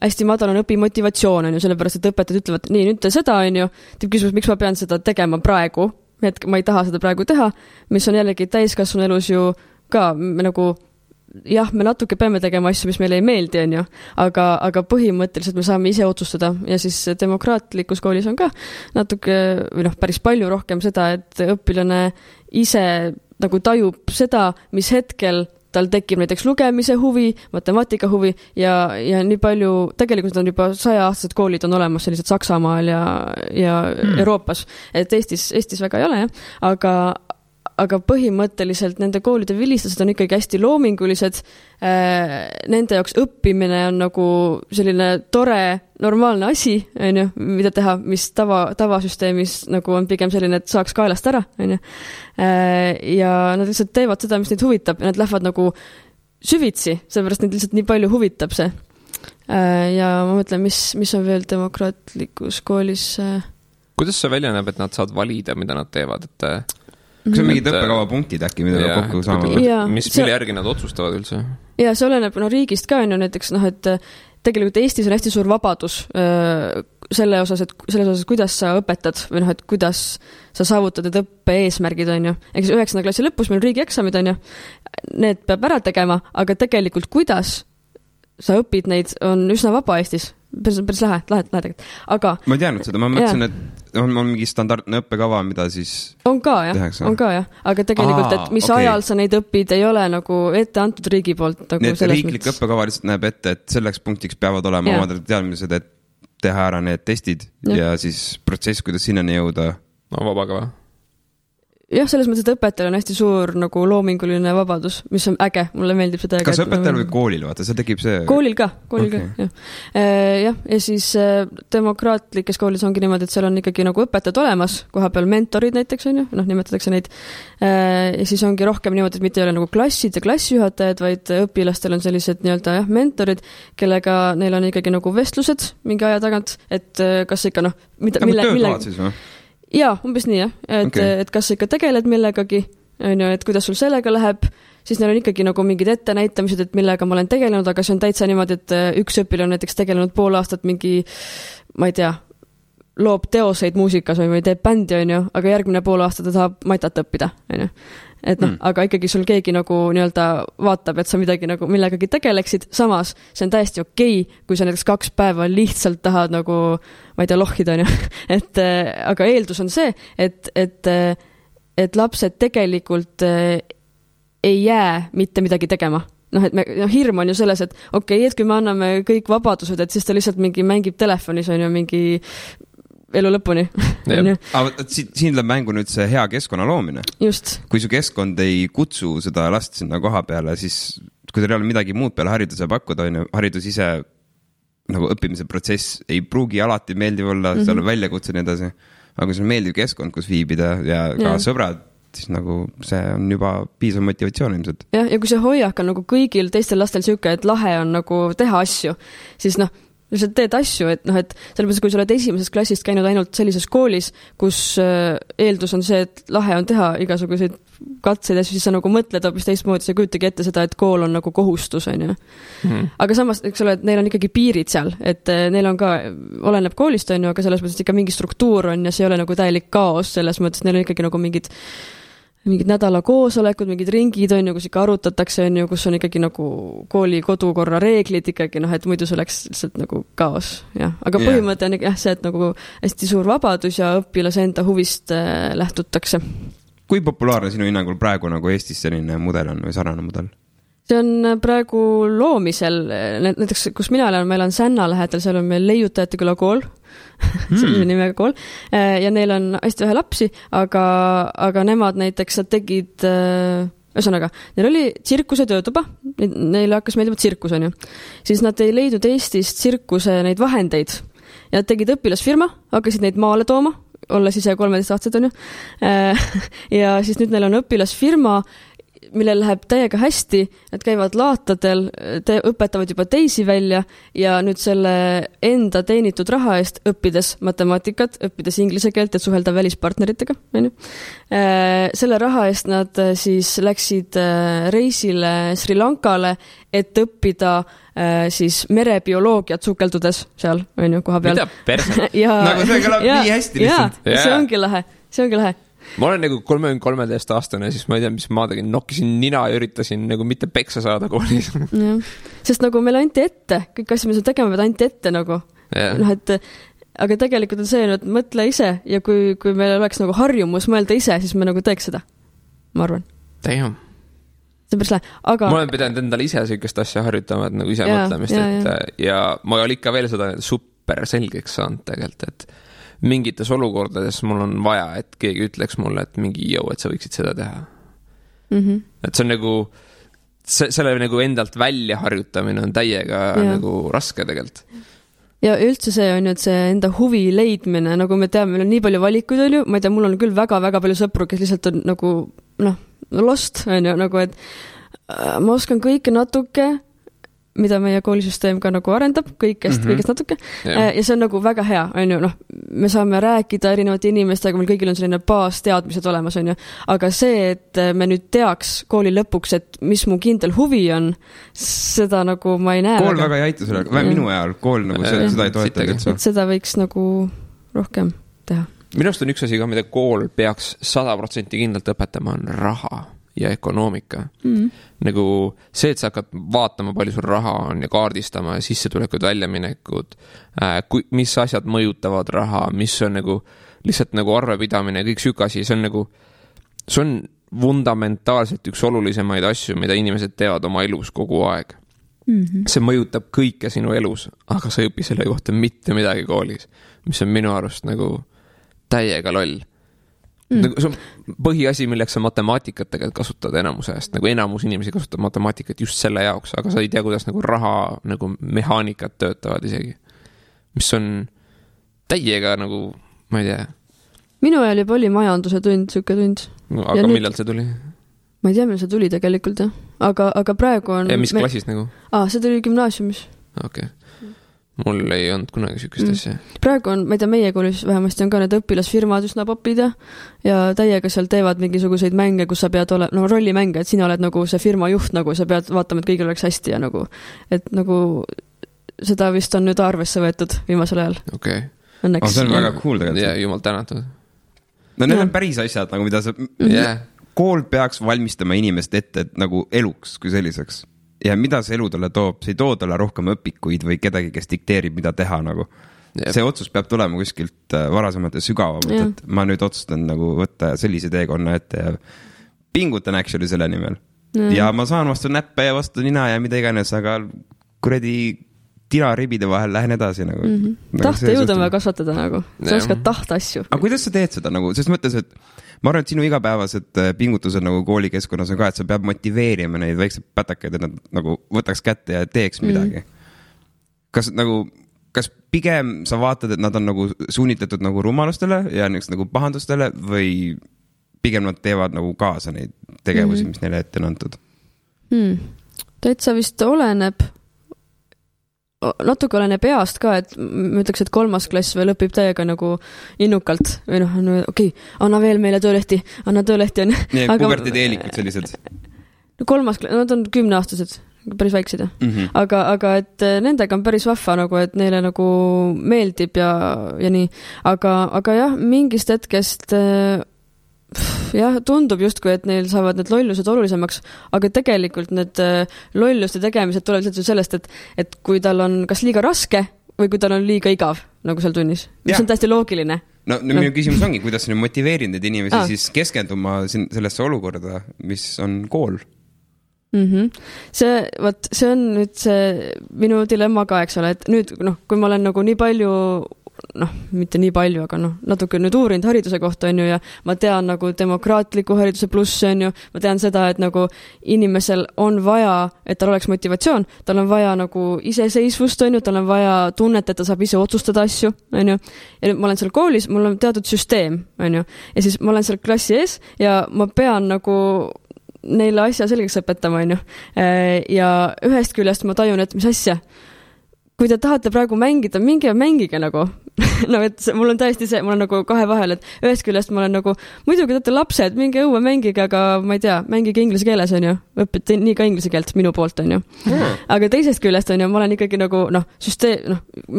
hästi madal on õpimotivatsioon, on ju, sellepärast, et õpetajad ütlevad, nii, nüüd te seda, on ju, teeb küsimus, miks ma pean seda tegema praegu, et ma ei taha seda praegu teha, mis on jällegi täiskasvanu elus ju ka nagu, jah, me natuke peame tegema asju, mis meile ei meeldi, on ju, aga põhimõtteliselt me saame ise otsustada ja siis demokraatlikus koolis on ka natuke, või päris palju rohkem seda, et õpilane ise nagu tajub seda, mis hetkel tal tekib näiteks lugemise huvi, matemaatika huvi ja nii palju, tegelikult on juba 100-aastased koolid on olemas sellised Saksamaal ja Euroopas, et Eestis väga ei ole, jah, aga põhimõtteliselt nende koolide vilistused on ikkagi hästi loomingulised. Nende jaoks õppimine on nagu selline tore, normaalne asi, on ju, mida teha, mis tavasüsteemis nagu on pigem selline, et saaks kaelast ära, on ju. Ja nad lihtsalt teevad seda, mis neid huvitab ja nad lähevad nagu süvitsi, sellepärast neid lihtsalt nii palju huvitab see. Ja ma mõtlen, mis on veel demokraatlikus koolis. Kuidas see välja näeb, et nad saavad valida, mida nad teevad, et kas on mingid õppekava punktid äkki, mida kokku saavad? Mille järgi nad otsustavad üldse? Ja see oleneb riigist ka, on ju näiteks, et tegelikult Eestis on hästi suur vabadus selles osas, kuidas sa õpetad või et kuidas sa saavutad need õppe eesmärgid, on ju. Eks 9. klassi lõpus meil riigieksamid, on ju. Need peab ära tegema, aga tegelikult kuidas sa õpid neid on üsna vaba Eestis. Päris lähe tegelikult. Aga ma ei teadnud seda, ma mõtlesin, et on mingi standardne õppekava, mida siis on ka, jah. Aga tegelikult, et mis ajal sa neid õpid, ei ole nagu ette antud riigi poolt. Nagu need riiklik õppekava lihtsalt näeb ette, et selleks punktiks peavad olema omad teadmised, et teha ära need testid ja siis protsess, kuidas sinnani jõuda. No vabakava. Jah, selles mõttes, et õpetajal on hästi suur nagu loominguline vabadus, mis on äge, mulle meeldib seda. Kas õpetajal või koolil, vaata, see tekib see? Koolil ka, jah. Ja siis demokraatlikes koolis ongi niimoodi, et seal on ikkagi nagu õpetajad olemas, koha peal mentorid näiteks on ju, nimetatakse neid. Ja siis ongi rohkem niimoodi, et mitte ei ole nagu klassid ja klassijuhatajad, vaid õpilastel on sellised nii-öelda mentorid, kellega neil on ikkagi nagu vestlused mingi aja tagant, et kas ikka töökohad siis või? Jaa, umbes nii, jah. Et kas sa ikka tegeled millegagi, et kuidas sul sellega läheb, siis neil on ikkagi nagu mingid ettenäitamised, et millega ma olen tegelenud, aga see on täitsa niimoodi, et üks õpilane on näiteks tegelenud pool aastat mingi, ma ei tea, loob teoseid muusikas või teeb bändi, on ju, aga järgmine pool aasta ta tahab matat õppida, on ju. Et aga ikkagi sul keegi nagu nii-öelda vaatab, et sa midagi nagu millegagi tegeleksid, samas see on täiesti okei, kui sa näiteks 2 päeva lihtsalt tahad nagu, ma ei tea, lohida, on ju. Aga eeldus on see, et lapsed tegelikult ei jää mitte midagi tegema. Hirm on ju selles, et okei, et kui me anname kõik vabadused, et siis ta lihtsalt mingi mängib telefonis, on ju, mingi elu lõpuni. Aga siin tuleb mängu nüüd see hea keskkonna loomine. Just. Kui su keskkond ei kutsu seda last sinna koha peale, siis kui teil ei ole midagi muud peale hariduse pakkuda, haridus ise nagu õppimise protsess ei pruugi alati meeldiv olla, seal on väljakutse nii edasi. Aga kui see on meeldiv keskkond, kus viibida ja ka sõbrad, siis nagu see on juba piisav motivatsioon ilmselt. Ja kui see hoiak on nagu kõigil teistel lastel siuke, et lahe on nagu teha asju, siis lihtsalt teed asju, et sellepärast, kui sa oled esimesest klassist käinud ainult sellises koolis, kus eeldus on see, et lahe on teha igasuguseid katseid ja siis sa nagu mõtled hoopis teistmoodi, sa kujutagi ette seda, et kool on nagu kohustus, on ju. Aga samas, eks ole, et neil on ikkagi piirid seal, et neil on ka, oleneb koolist, on ju, aga selles mõttes ikka mingi struktuur on ja see ei ole nagu täielik kaos, selles mõttes neil on ikkagi nagu mingid nädala koosolekud, mingid ringid on ju, kus ikka arutatakse, on ju, kus on ikkagi nagu kooli kodukorra reeglid ikkagi, et muidu see oleks lihtsalt nagu kaos, jah. Aga põhimõte on see, et nagu hästi suur vabadus ja õpilase enda huvist lähtutakse. Kui populaarne sinu hinnangul praegu nagu Eestis selline mudel on või sarnane mudel? See on praegu loomisel, näiteks kus mina olen, meil on Sänna lähedal, seal on meil Leiutajate küla kool, sellise nimega kool, ja neil on hästi vähe lapsi, aga nemad näiteks tegid ühesõnaga, neil oli tsirkuse töötuba, neile hakkas meeldima tsirkus, on ju. Siis nad ei leidnud Eestist tsirkuse neid vahendeid ja nad tegid õpilasfirma, hakkasid neid maale tooma, olles ise 13-aastased, on ju. Ja siis nüüd neil on õpilasfirma, millel läheb täiega hästi, nad käivad laatadel, õpetavad juba teisi välja ja nüüd selle enda teenitud raha eest õppides matemaatikat, õppides inglise keelt, et suhelda välispartneritega, on ju. Selle raha eest nad siis läksid reisile Sri Lankale, et õppida siis merebioloogiat sukeldudes seal, on ju, koha peal. Mida perse? Nagu see kõlab nii hästi lihtsalt. See ongi lahe. Ma olen nagu 33-aastane, siis ma ei tea, mis ma tegin, nokkisin nina ja üritasin nagu mitte peksa saada koolis. Sest nagu meil anti ette, kõik asja, mis on tegema, pead anti ette nagu. Noh, et aga tegelikult on see, et mõtle ise ja kui meil oleks nagu harjumus mõelda ise, siis me nagu teeks seda, ma arvan. Damn. See päris lähe, aga... Ma olen pidanud endale ise sellist asja harjutama, et nagu ise mõtlemist, ja ma olen ikka veel seda super selgeks saanud tegelikult, et mingites olukordades mul on vaja, et keegi ütleks mulle, et mingi jõu, et sa võiksid seda teha. Et see on nagu, selle nagu endalt välja harjutamine on täiega nagu raske tegelikult. Ja üldse see on ju, et see enda huvi leidmine, nagu me teame, meil on nii palju valikuid, on ju, ma ei tea, mul on küll väga-väga palju sõpru, kes lihtsalt on nagu, lost, on ju, nagu, et ma oskan kõike natuke, mida meie koolisüsteem ka nagu arendab, kõigest natuke. Ja see on nagu väga hea, on ju, me saame rääkida erinevate inimestega, meil kõigil on selline baasteadmised olemas, on ju. Aga see, et me nüüd teaks kooli lõpuks, et mis mu kindel huvi on, seda nagu ma ei näe. Kool väga ei aita selle, minu ajal kool nagu seda ei toeta. Et seda võiks nagu rohkem teha. Minust on üks asi ka, mida kool peaks 100% kindlalt õpetama, on raha ja ökonoomika. Nagu see, et sa hakkad vaatama, palju sul raha on ja kaardistama ja sissetulekud, väljaminekud, mis asjad mõjutavad raha, mis on nagu lihtsalt nagu arvepidamine ja kõik sükasi, see on nagu, see on fundamentaalselt üks olulisemaid asju, mida inimesed teevad oma elus kogu aeg. See mõjutab kõike sinu elus, aga sa ei õpi selle kohta mitte midagi koolis, mis on minu arust nagu täiega loll. Nagu, see on põhiasi, milleks sa matemaatikat tegelikult kasutad enamuse eest, nagu enamus inimesi kasutab matemaatikat just selle jaoks, aga sa ei tea, kuidas nagu raha nagu mehaanikat töötavad isegi, mis on täiega nagu, ma ei tea. Minu ajal juba oli majanduse tund, süke tund. Aga ja millal see tuli? Ma ei tea, millal see tuli tegelikult, jah. Aga praegu on... Ja mis klassis nagu? See tuli gümnaasiumis. Okei. Mul ei olnud kunagi sükest asja. Praegu on, ma ei tea, meie koolis vähemasti on ka need õpilasfirmad üsna popid ja täiega seal teevad mingisuguseid mänge, kus sa pead olema, rollimänge, et sina oled nagu see firma juht, nagu sa pead vaatama, et kõigil oleks hästi ja nagu, et nagu seda vist on nüüd arvesse võetud viimasel ajal. Okei. Õnneks. See on väga cool tegelikult. Ja jumal tänatud. No need on päris asjad, nagu mida sa... Kool peaks valmistama inimest ette nagu eluks kui selliseks. Ja mida see elu talle toob, see ei too talle rohkem õpikuid või kedagi, kes dikteerib, mida teha nagu. See otsus peab tulema kuskilt varasemalt ja sügavamalt, et ma nüüd otsustan nagu võtta sellise teekonna ette ja pingutan actually selle nimel. Ja ma saan vastu näppe ja vastu nina ja mida iganes, aga kuradi tinaribide vahel lähen edasi nagu. Tahte jõuda on vaja kasvatada nagu. Sa oskad tahta asju. Aga kuidas sa teed seda nagu, sest mõttes, et ma arvan, et sinu igapäevased pingutused nagu koolikeskkonnas on ka, et sa peab motiveerima neid väikseid pätakaid, et nad nagu võtaks kätte ja teeks midagi. Kas pigem sa vaatad, et nad on nagu suunitletud nagu rumalustele ja nagu pahandustele või pigem nad teevad nagu kaasa neid tegevusi, mis neile ette on antud? Täitsa vist oleneb, natuke oleneb east ka, et ma ütleks, et 3. klass veel õpib täiega nagu innukalt või okei, anna veel meile töölehti, anna töölehti on. Nii, pubertiteelikud sellised. 3. klass, nad on 10-aastased, päris väiksed. Aga et nendega on päris vahva nagu, et neile nagu meeldib ja nii. Aga jah, mingist hetkest tundub justkui, et neil saavad need lollused olulisemaks, aga tegelikult need lolluste tegemised tulevad lihtsalt sellest, et kui tal on kas liiga raske või kui tal on liiga igav nagu seal tunnis, mis on täiesti loogiline. No minu küsimus ongi, kuidas sa nüüd motiveerid need inimesi siis keskenduma sellesse olukorda, mis on kool? See on nüüd see minu dilemma ka, eks ole, et nüüd, kui ma olen nagu nii palju mitte nii palju, aga natuke nüüd uurinud hariduse kohta, on ju, ja ma tean nagu demokraatliku hariduse plusse, on ju, ma tean seda, et nagu inimesel on vaja, et tal oleks motivatsioon, tal on vaja nagu iseseisvust, on ju, tal on vaja tunnet, et ta saab ise otsustada asju, on ju, ja ma olen seal koolis, mul on teatud süsteem, on ju, ja siis ma olen seal klassi ees ja ma pean nagu neile asja selgeks õpetama, on ju. Ja ühest küljest ma tajun, et mis asja, kui te tahate praegu mängida, minge mängige nagu. Et mul on täiesti see, mul on nagu kahe vahel, et ühest küljest ma olen nagu, muidugi teate lapsed, minge õue mängige, aga ma ei tea, mängige inglise keeles, on ju. Õpite nii ka inglise keelt minu poolt, on ju. Aga teisest küljest, on ju, ma olen ikkagi nagu,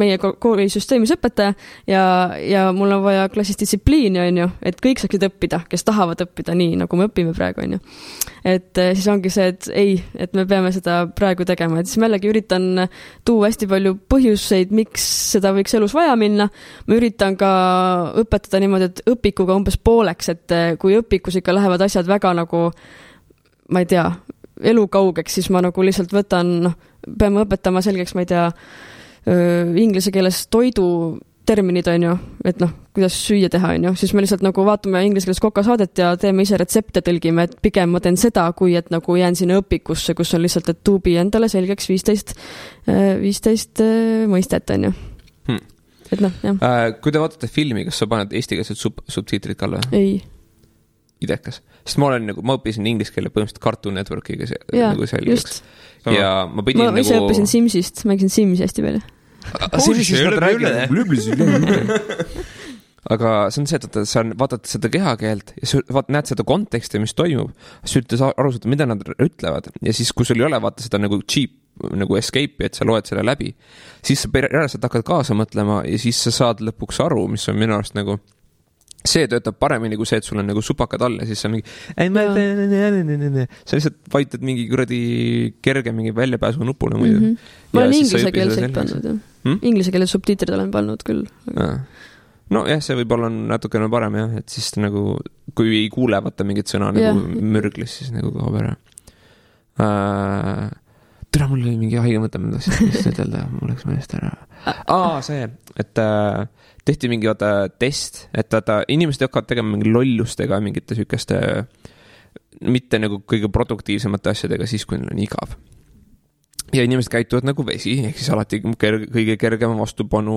meie kooli süsteemis õpetaja ja mul on vaja klassis distsipliini, on ju, et kõik saaksid õppida, kes tahavad õppida nii, nagu me õpime praegu, on ju. Et siis ongi see, et ei, et me peame seda praegu tegema, et siis ma jällegi üritan tuua hästi palju põhjuseid, miks seda võiks elus vaja minna. Ma üritan ka õpetada niimoodi, et õpikuga umbes pooleks, et kui õpikus ikka lähevad asjad väga nagu, ma ei tea, elukaugeks, siis ma nagu lihtsalt võtan, peame õpetama selgeks, ma ei tea, inglise keeles toidu terminid, on ju, et kuidas süüa teha, on ju, siis me lihtsalt nagu vaatame inglise keeles kokasaadet ja teeme ise retsepte, tõlgime, et pigem ma teen seda, kui et nagu jään sinna õpikusse, kus on lihtsalt, et tuubi endale selgeks 15 mõistet, on ju. Et jah. Kui te vaatate filmi, kas sa paned eestikeelsed subtiitrid ka või? Ei. Idekas. Sest ma õppisin inglise keele põhimõtteliselt Cartoon Networkiga nagu selgeks. Ja ma ise õppisin Simsist, mängisin Simsi hästi palju. Aga see on see, et sa vaatad seda kehakeelt ja sa näed seda konteksti, mis toimub, sa üritas aru saada, mida nad ütlevad ja siis, kui sul ei ole vaata seda nagu cheap nagu escape'i, et sa loed selle läbi, siis sa järjest hakkad kaasa mõtlema ja siis sa saad lõpuks aru, mis on minu arust nagu see töötab paremini kui see, et sul on nagu supakad all ja siis sa mingi sa lihtsalt vajutad mingi kuradi kerge mingi väljapääsu nupule muidu. Ma olen inglise keelselt pannud, jah. Inglise keele subtiitrid olen pannud küll. No jah, see võib olla natukene parem jah, et siis nagu, kui ei kuule vaata mingit sõna nagu mürglis, siis nagu kaob ära. Tere, mul oli mingi haige mõte, ma tahtsin ütelda, mul läks meelest ära. See, et tehti mingi test, et inimesed hakkavad tegema mingi lollustega, mingite sükeste mitte nagu kõige produktiivsemate asjadega siis, kui neil on igav. Ja inimesed käituvad nagu vesi, ehk siis alati kõige kergema vastupanu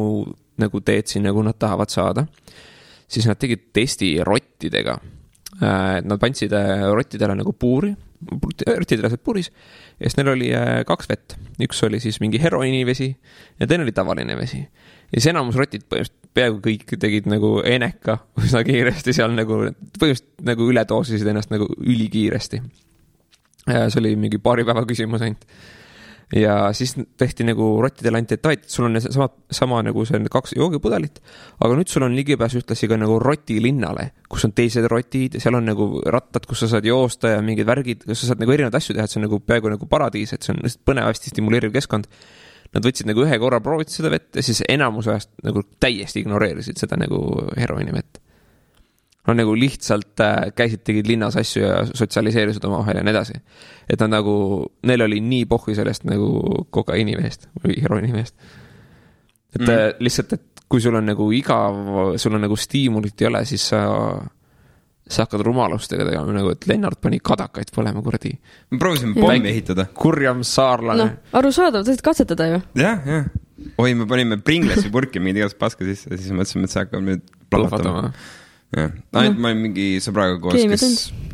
nagu teed siin, nagu nad tahavad saada. Siis nad tegid testi rottidega. Nad pandsid rottidele nagu puuri, rottidele saad puuris, ja siis neil oli 2 vett. Üks oli siis mingi heroinivesi ja teine oli tavaline vesi. Ja siis enamus rotid peaaegu kõik tegid nagu eneka üsna kiiresti seal nagu, põhimõtteliselt nagu ületoosisid ennast nagu ülikiiresti. See oli mingi paari päeva küsimus ainult. Ja siis tehti nagu rottidele anti, et sul on sama nagu see 2 joogipudelit, aga nüüd sul on ligipääs ühtlasi ka nagu rotilinnale, kus on teised rotid ja seal on nagu rattad, kus sa saad joosta ja mingid värgid, kus sa saad nagu erinevad asju teha, et see on nagu peaaegu nagu paradiis, et see on põnev, hästi stimuleeriv keskkond. Nad võtsid nagu ühe korra prooviti seda vett ja siis enamus ajast nagu täiesti ignoreerisid seda nagu heroini vett. Nad nagu lihtsalt käisid, tegid linnas asju ja sotsialiseerisid oma vahel ja nii edasi. Et nad nagu, neil oli nii pohvi sellest nagu kokaiinivehest või heroinivehest. Et lihtsalt, et kui sul on nagu igav, sul on nagu stiimulit ei ole, siis sa hakkad rumalustega tegema, nagu et Lennart pani kadakaid põlema kuradi. Me proovisime pommi ehitada. Kurjam saarlane. Arusaadav, tõid katsetada ju. Jah. Oi, me panime Pringlesi purki mingi igast paska sisse ja siis mõtlesime, et see hakkab nüüd plahvatama. Ainult ma olin mingi sõbraga koos,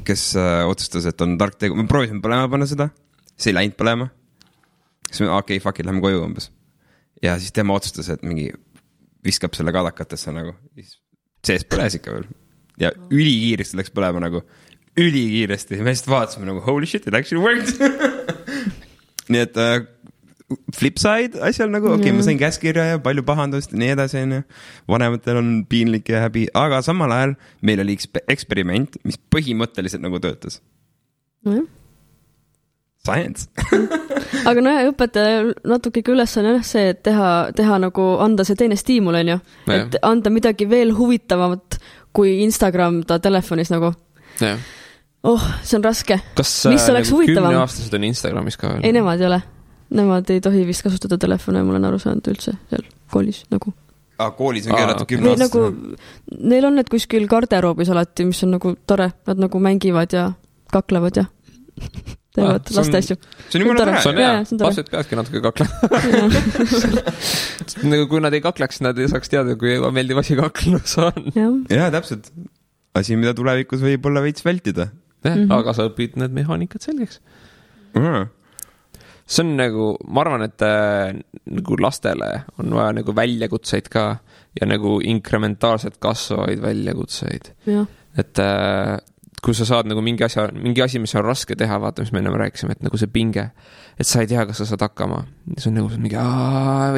kes otsustas, et on tark tegu. Me proovisime põlema panna seda, see ei läinud põlema. Siis me, fuck it, lähme koju umbes. Ja siis tema otsustas, et mingi viskab selle kadakatesse nagu. Sees põles ikka veel. Ja ülikiiresti läks põlema nagu. Ülikiiresti. Me lihtsalt vaatasime nagu, holy shit, it actually worked. Nii et flipside asjal nagu, ma sain käskirja ja palju pahandust ja nii edasi. Vanematel on piinlik ja häbi, aga samal ajal meil oli eksperiment, mis põhimõtteliselt nagu töötas. Science. Aga õpetaja natuke ülesanne on see, et teha nagu, anda see teine stiimul, on ju. Et anda midagi veel huvitavamat kui Instagram ta telefonis nagu. See on raske. Kas mis oleks huvitavam? 10-aastased on Instagramis ka veel? Ei, nemad ei ole. Nemad ei tohi vist kasutada telefone, mul on aru saanud üldse seal koolis nagu. koolis on keelatud 10 või aastas. nagu, neil on need kuskil garderoobis alati, mis on nagu tore, nad nagu mängivad ja kaklevad ja teevad laste asju. See on jumala tore. See on hea, lapsed peadki natuke kaklema. Nagu kui nad ei kakleks, nad ei saaks teada, kui meeldiv asi kaklus on. Jaa, täpselt. Asi, mida tulevikus võib olla veits vältida. Aga sa õpid need mehaanikad selgeks. See on nagu, ma arvan, et nagu lastele on vaja nagu väljakutseid ka ja nagu inkrementaalselt kasvavaid väljakutseid. Et kui sa saad nagu mingi asi, mis on raske teha, vaata, mis me ennem rääkisime, et nagu see pinge, et sa ei tea, kas sa saad hakkama. See on nagu mingi,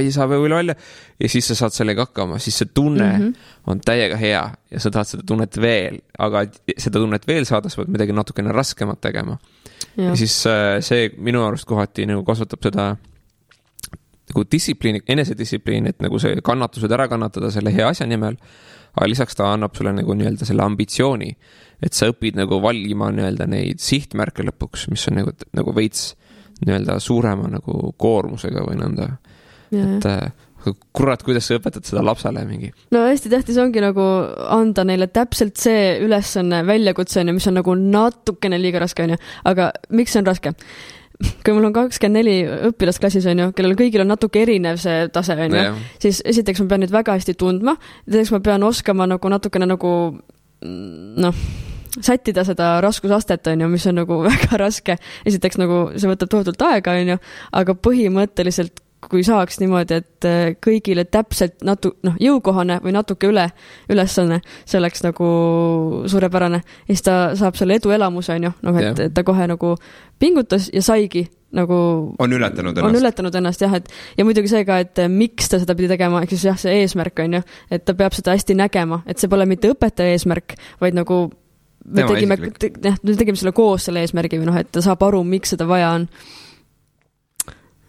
ei saa või välja. Ja siis sa saad sellega hakkama, siis see tunne on täiega hea ja sa tahad seda tunnet veel, aga seda tunnet veel saada, sa pead midagi natukene raskemat tegema. Ja siis see minu arust kohati nagu kasvatab seda nagu distsipliini, enesedistsipliini, et nagu see kannatused ära kannatada selle hea asja nimel, aga lisaks ta annab sulle nagu nii-öelda selle ambitsiooni, et sa õpid nagu valima nii-öelda neid sihtmärke lõpuks, mis on nagu veits nii-öelda suurema nagu koormusega või nõnda. Et kurat, kuidas sa õpetad seda lapsele mingi? No hästi tähtis ongi nagu anda neile täpselt see ülesanne väljakutse, mis on nagu natukene liiga raske, aga miks see on raske? Kui mul on 24 õpilasklassis, kellel kõigil on natuke erinev see tase, siis esiteks ma pean nüüd väga hästi tundma, teiseks ma pean oskama nagu natukene nagu sättida seda raskusastet, mis on nagu väga raske. Esiteks nagu see võtab tohutult aega, aga põhimõtteliselt kui saaks niimoodi, et kõigile täpselt jõukohane või natuke ülesanne, see oleks nagu suurepärane. Ja siis ta saab selle eduelamuse, et ta kohe nagu pingutas ja saigi nagu on ületanud ennast jah, ja muidugi see ka, et miks ta seda pidi tegema, eks siis jah, see eesmärk on et ta peab seda hästi nägema, et see pole mitte õpetaja eesmärk, vaid nagu me tegime selle koos selle eesmärgi või et ta saab aru, miks seda vaja on.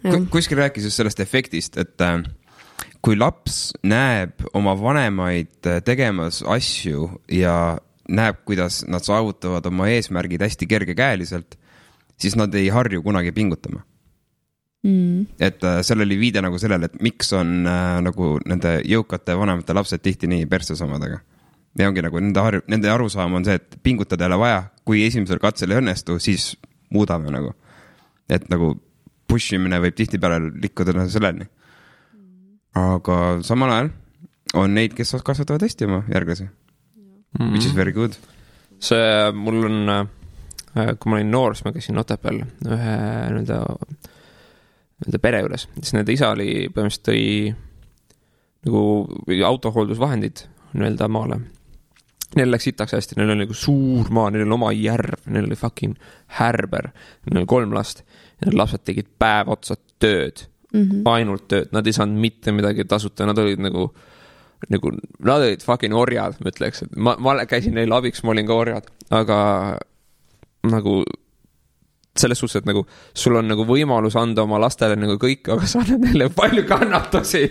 Kuskil rääkis just sellest efektist, et kui laps näeb oma vanemaid tegemas asju ja näeb, kuidas nad saavutavad oma eesmärgid hästi kergekäeliselt, siis nad ei harju kunagi pingutama. Et seal oli viide nagu sellele, et miks on nagu nende jõukate vanemate lapsed tihti nii perses omadega. Ja ongi nagu nende arusaam on see, et pingutada ei ole vaja, kui esimesel katsel ei õnnestu, siis muudame nagu. Et nagu pushimine võib tihti peale likkuda selleni. Aga samal ajal on neid, kes kasvatavad hästi oma järglasi. Which is very good. See mul on, kui ma olin noor, siis ma käisin Otepääl ühe nende pere juures. Siis nende isa oli põhimõtteliselt tõi nagu autohooldusvahendid nii-öelda maale. Neil läks itaks hästi, neil oli nagu suur maa, neil oli oma järv, neil oli fucking härber, neil oli 3 last ja need lapsed tegid päev otsa tööd, ainult tööd, nad ei saanud mitte midagi tasuta, nad olid nagu nad olid fucking orjad, ma ütleks, et ma käisin neil abiks, ma olin ka orjad, aga nagu selles suhtes, et nagu sul on nagu võimalus anda oma lastele nagu kõik, aga sa annad neile palju kannatusi.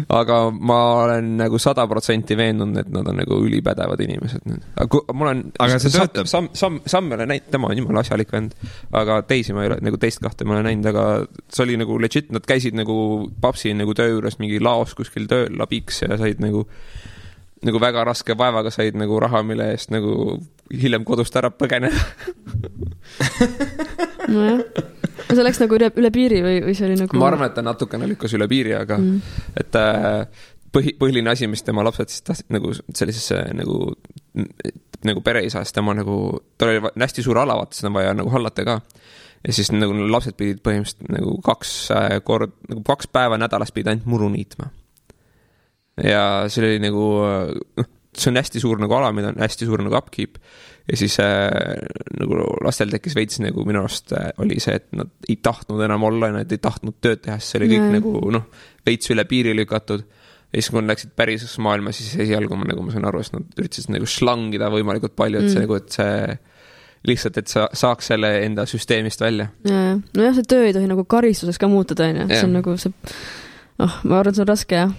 Aga ma olen nagu 100% veendunud, et nad on nagu ülipädevad inimesed. Aga see töötab. Sam ei ole näinud, tema on jumala asjalik vend, aga teisi ma ei ole, nagu teist kahte ma olen näinud, aga see oli nagu legit, nad käisid nagu papsi nagu töö juures mingi laos kuskil tööl labiks ja said nagu väga raske vaevaga said nagu raha, mille eest nagu hiljem kodust ära põgeneda. Nojah. See läks nagu üle piiri või see oli nagu... Ma arvan, et ta natukene lükkas üle piiri, aga et põhiline asi, mis tema lapsed siis tahtsid nagu sellisesse nagu pereisa, sest tema nagu, ta oli hästi suur ala, vaata, seda vaja nagu hallata ka. Ja siis nagu lapsed pidid põhimõtteliselt nagu 2 päeva nädalas pidid ainult muru niitma. Ja see oli nagu, see on hästi suur nagu ala, mida on hästi suur nagu upkeep. Ja siis nagu lastel tekkis veits nagu minu arust oli see, et nad ei tahtnud enam olla, nad ei tahtnud tööd teha, see oli kõik nagu veits üle piiri lükatud. Ja siis kui nad läksid päris maailma, siis esialgu ma sain aru, et nad üritasid nagu slangida võimalikult palju, et see nagu, et see lihtsalt, et sa saaks selle enda süsteemist välja. Nojah, see töö ei tohi nagu karistuseks ka muutuda, see on nagu see, ma arvan, see on raske, jah.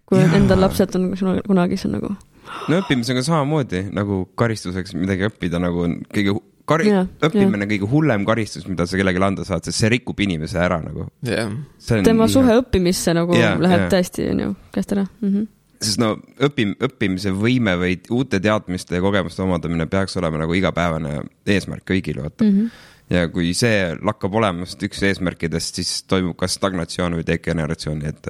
Kui endal lapsed on kunagi, see on nagu... No õppimisega samamoodi, nagu karistuseks midagi õppida, nagu kõige õppimine kõige hullem karistus, mida sa kellelegi anda saad, sest see rikub inimese ära nagu. Tema suhe õppimisse nagu läheb täiesti käest ära. Sest õppimise võime või uute teadmiste ja kogemuste omandamine peaks olema nagu igapäevane eesmärk kõigil, vaata. Ja kui see lakkab olemast üks eesmärkidest, siis toimub kas stagnatsioon või degeneratsioon, et...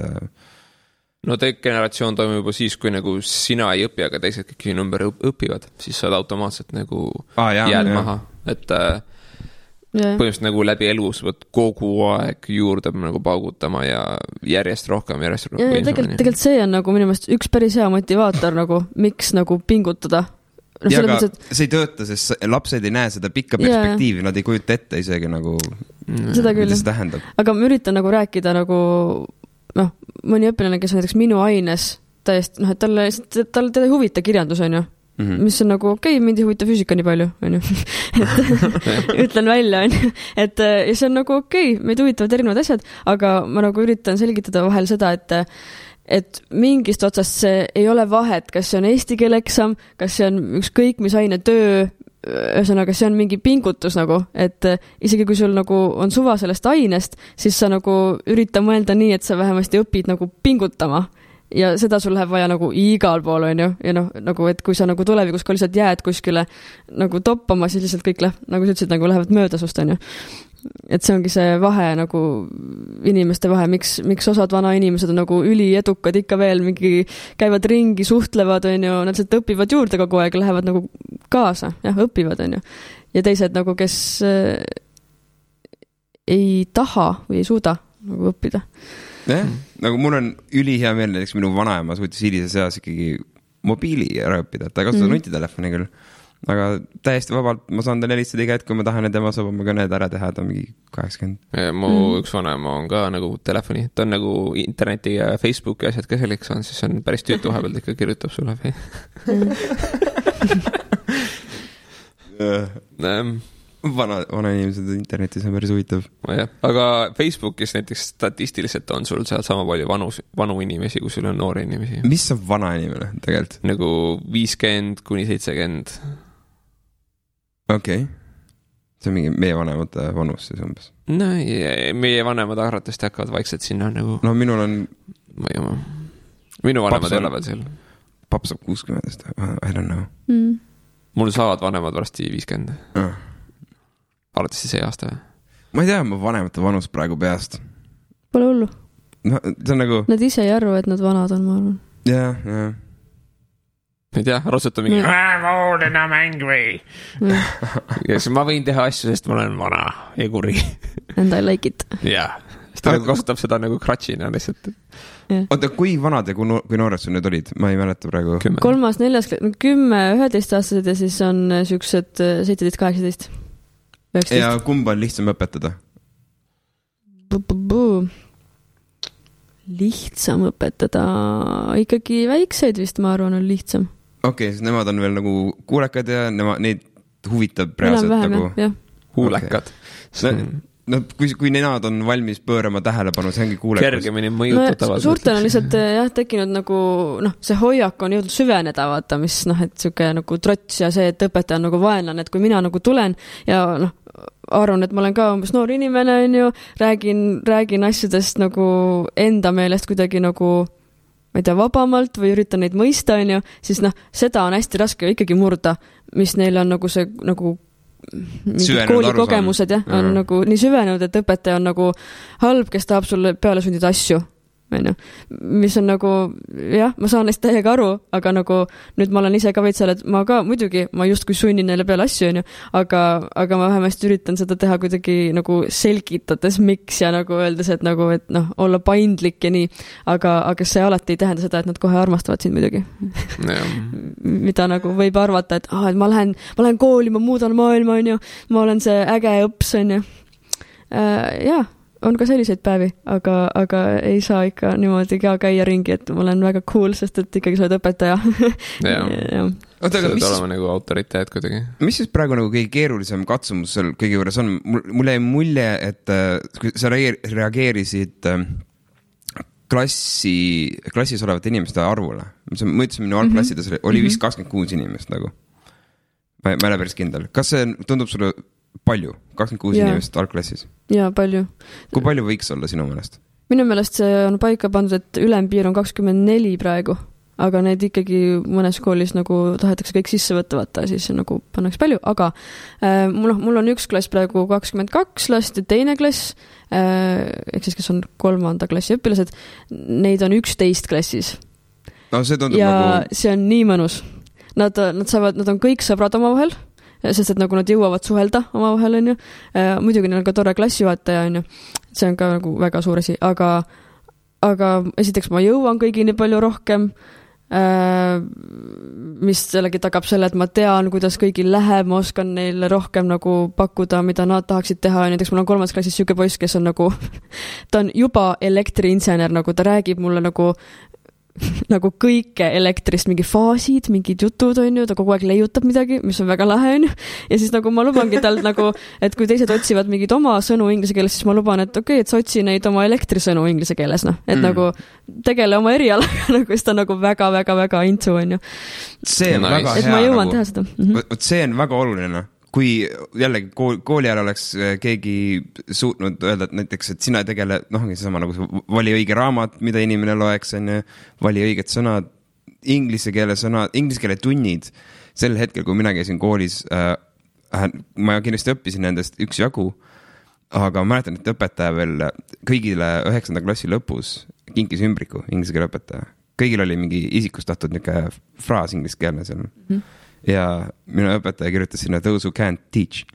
No degeneratsioon toimub juba siis, kui nagu sina ei õpi, aga teised kõik sinu ümber õpivad, siis saad automaatselt nagu jääd maha, et põhimõtteliselt nagu läbi elu sa võid kogu aeg juurde nagu paugutama ja järjest rohkem. Ja tegelikult see on nagu minu meelest üks päris hea motivaator nagu, miks nagu pingutada. Ja aga see ei tööta, sest lapsed ei näe seda pikka perspektiivi, nad ei kujuta ette isegi nagu, seda küll. Mida see tähendab. Aga ma üritan nagu rääkida nagu, mõni õpilane, kes on näiteks minu aines täiesti, et talle teda ei huvita kirjandus, on ju. Mis on nagu mind ei huvita füüsika nii palju, on ju. Ütlen välja, on ju. Ja see on nagu meid huvitavad erinevad asjad, aga ma nagu üritan selgitada vahel seda, et mingist otsast see ei ole vahet, kas see on eesti keele eksam, kas see on ükskõik mis aine töö, ühesõnaga see on mingi pingutus nagu, et isegi kui sul nagu on suva sellest ainest, siis sa nagu ürita mõelda nii, et sa vähemasti õpid nagu pingutama. Ja seda sul läheb vaja nagu igal pool, on ju, ja nagu, et kui sa nagu tulevikus ka lihtsalt jääd kuskile nagu toppama, siis lihtsalt kõik nagu sa ütlesid, nagu lähevad mööda sust, on ju. Et see ongi see vahe nagu inimeste vahe, miks osad vana inimesed on nagu üliedukad ikka veel, mingi käivad ringi, suhtlevad, on ju, nad lihtsalt õpivad juurde kogu aeg, lähevad nagu kaasa, õpivad, on ju. Ja teised nagu, kes ei taha või ei suuda nagu õppida. Nagu mul on ülihea meel, näiteks minu vanaema suutis hilises eas ikkagi mobiili ära õppida, ta ei kasuta nutitelefoni küll, aga täiesti vabalt ma saan talle helistada iga hetk, kui ma tahan, et tema saab oma kõned ära teha, ta on mingi 80. Mu üks vanaema on ka nagu telefoni, ta on nagu interneti ja Facebooki asjad ka selliks on, siis on päris tüütu vahepealt ikka kirjutab sulle. Vana inimesed internetis on päris huvitav. Aga Facebookis näiteks statistiliselt on sul seal sama palju vanu inimesi, kui sul on noori inimesi. Mis on vana inimene tegelikult? Nagu 50 kuni 70. Okei. See on mingi meie vanemate vanus siis umbes. No, meie vanemad arvatavasti hakkavad vaikselt sinna nagu... No minul on... Minu vanemad ei ole veel seal. Paps saab 60, I don't know. Mul saavad vanemad varsti 50. Arvatavasti see aasta või? Ma ei tea, ma vanemate vanus praegu peast. Pole hullu. No, see on nagu... Nad ise ei arvu, et nad vanad on, ma arvan. Jah. Ei tea, rassuta mingi voodina mäng või. Ma võin teha asju, sest ma olen vana ja kuri. And I like it. Jah. Ta kasutab seda nagu kratšina lihtsalt. Oota, kui vanad ja kui noored sul nüüd olid? Ma ei mäleta praegu. 3., 4., 10, 11 aastased ja siis on siuksed 17, 18. 19. Ja kumba on lihtsam õpetada? Lihtsam õpetada ikkagi väikseid vist, ma arvan, on lihtsam. Okei, siis nemad on veel nagu kuulekad ja neid huvitab reaalselt nagu... Huulekad. No, kui nemad on valmis pöörama tähelepanu, see ongi kuulekus. Kergemini mõjutatavad. Suurtel on lihtsalt tekkinud nagu, see hoiak on jõudnud süveneda, vaata, mis et siuke nagu trots ja see, et õpetaja on nagu vaenlane, et kui mina nagu tulen ja arvan, et ma olen ka umbes noor inimene, on ju, räägin asjadest nagu enda meelest kuidagi nagu, ma ei tea, vabamalt või üritan neid mõista, on ju, siis seda on hästi raske ikkagi murda, mis neil on nagu see nagu koolikogemused on nagu nii süvenenud, et õpetaja on nagu halb, kes tahab sulle peale sundida asju, mis on nagu, ma saan neist täiega aru, aga nagu nüüd ma olen ise ka veits seal, et ma ka muidugi, ma just kui sunnin neile peale asju, aga ma vähemasti üritan seda teha kuidagi nagu selgitades miks ja nagu öeldes, et nagu, et olla paindlik ja nii, aga see alati ei tähenda seda, et nad kohe armastavad sind muidugi. Mida nagu võib arvata, et ma lähen kooli, ma muudan maailma, on ju, ma olen see äge õps, on ju. On ka selliseid päevi, aga ei saa ikka niimoodi ka käia ringi, et ma olen väga cool, sest et ikkagi sa oled õpetaja. Sa oled olema nagu autoriteet kuidagi. Mis siis praegu nagu kõige keerulisem katsumus seal kõige juures on? Mulle jäi mulje, et sa reageerisid klassis olevate inimeste arvule. Ma ütlesin, minu algklassides oli vist 26 inimest nagu. ma ei ole päris kindel. Kas see tundub sulle palju? 26 inimest algklassis? Jaa, palju. Kui palju võiks olla sinu meelest? Minu meelest see on paika pandud, et ülempiir on 24 praegu, aga need ikkagi mõnes koolis nagu tahetakse kõik sisse võtta, siis nagu pannaks palju, aga mul on üks klass praegu 22 last ja teine klass, ehk siis kes on 3. klassi õpilased, neid on 11 klassis. No, see tundub ja nagu... see on nii mõnus. Nad on kõik sõbrad omavahel, sest et nagu nad jõuavad suhelda omavahel, on ju. Muidugi neil on ka tore klassijuhataja, on ju. See on ka nagu väga suur asi, aga esiteks ma jõuan kõigini palju rohkem, mis sellegi tagab selle, et ma tean, kuidas kõigil läheb, ma oskan neile rohkem nagu pakkuda, mida nad tahaksid teha. Näiteks mul on 3. klassis siuke poiss, kes on nagu, ta on juba elektriinsener, nagu ta räägib mulle nagu kõike elektrist, mingi faasid, mingid jutud, on ju, ta kogu aeg leiutab midagi, mis on väga lahe, on ju. Ja siis nagu ma lubangi tal nagu, et kui teised otsivad mingid oma sõnu inglise keeles, siis ma luban, et okei, et sa otsi neid oma elektrisõnu inglise keeles, noh. Et nagu tegele oma erialaga, nagu siis ta nagu väga intsu, on ju. See on väga hea. Et ma jõuan teha seda. See on väga oluline. Kui jällegi kooli ajal oleks keegi suutnud öelda, et näiteks, et sina tegele, seesama nagu vali õige raamat, mida inimene loeks, vali õiged sõnad, inglise keele tunnid. Sel hetkel, kui mina käisin koolis, ma kindlasti õppisin nendest üksjagu, aga ma mäletan, et õpetaja veel kõigile 9. klassi lõpus kinkis ümbriku, inglise keele õpetaja. Kõigil oli mingi isikustatud niisugune fraas inglise keelne seal. Ja minu õpetaja kirjutas sinna those who can't teach.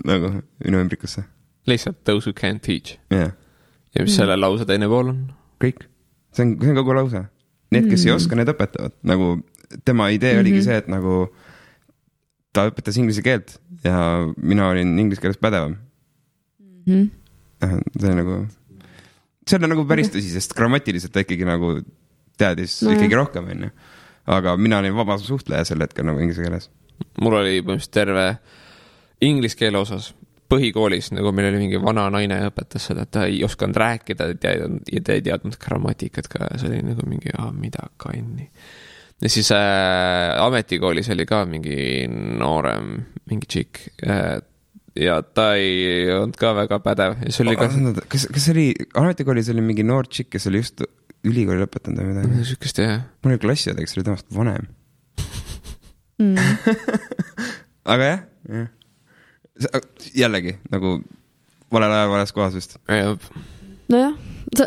Nagu minu ümbrikusse. Lihtsalt those who can't teach. Yeah. Ja mis selle lause teine pool on? Kõik. See on kogu lause. Need, kes ei oska, need õpetavad. Nagu tema idee oligi see, et nagu ta õpetas inglise keelt ja mina olin inglise keeles pädevam. See on nagu päris tõsi, sest grammatiliselt ta ikkagi nagu teadis ikkagi rohkem, on ju. Aga mina olin vaba suhtleja sel hetkel nagu inglise keeles. Mul oli põhimõtteliselt terve inglise keele osas põhikoolis, nagu meil oli mingi vana naine õpetas seda, et ta ei osanud rääkida ja ta ei teadnud grammatikat ka. See oli nagu mingi, mida kanni. Ja siis ametikoolis oli ka mingi noorem, mingi tšik. Ja ta ei olnud ka väga pädev. Ja see oli kas oli, ametikoolis oli mingi noor tšik, kes oli just ülikooli lõpetanud või midagi? Sükest, jah. Mul oli klassiõde, kes oli temast vanem. Aga jah. Jällegi, nagu valel ajal, vales kohas vist. Nojah,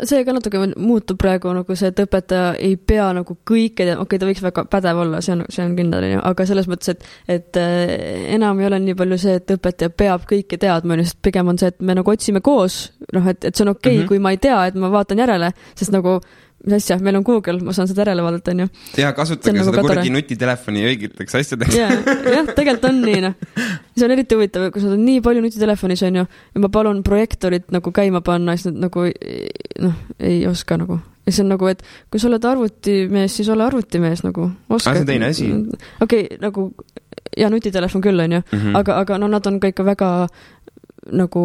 see ka natuke muutub praegu nagu see, et õpetaja ei pea nagu kõike, okei, ta võiks väga pädev olla, see on kindel, aga selles mõttes, et enam ei ole nii palju see, et õpetaja peab kõike teadma, sest pigem on see, et me nagu otsime koos, et see on okei, kui ma ei tea, et ma vaatan järele, sest nagu mis asja, meil on Google, ma saan seda järele vaadata, on ju. Ja kasutage seda nagu kurgi nutitelefoni õigeteks asjadeks. Jah, tegelikult on nii, noh. See on eriti huvitav, kui sa oled nii palju nutitelefonis, on ju, ja ma palun projektorit nagu käima panna, siis nad nagu, ei oska nagu. Ja see on nagu, et kui sa oled arvutimees, siis ole arvutimees nagu. Oska. See teine asi. Okei, nagu, ja nutitelefon küll, on ju, aga no nad on ka ikka väga nagu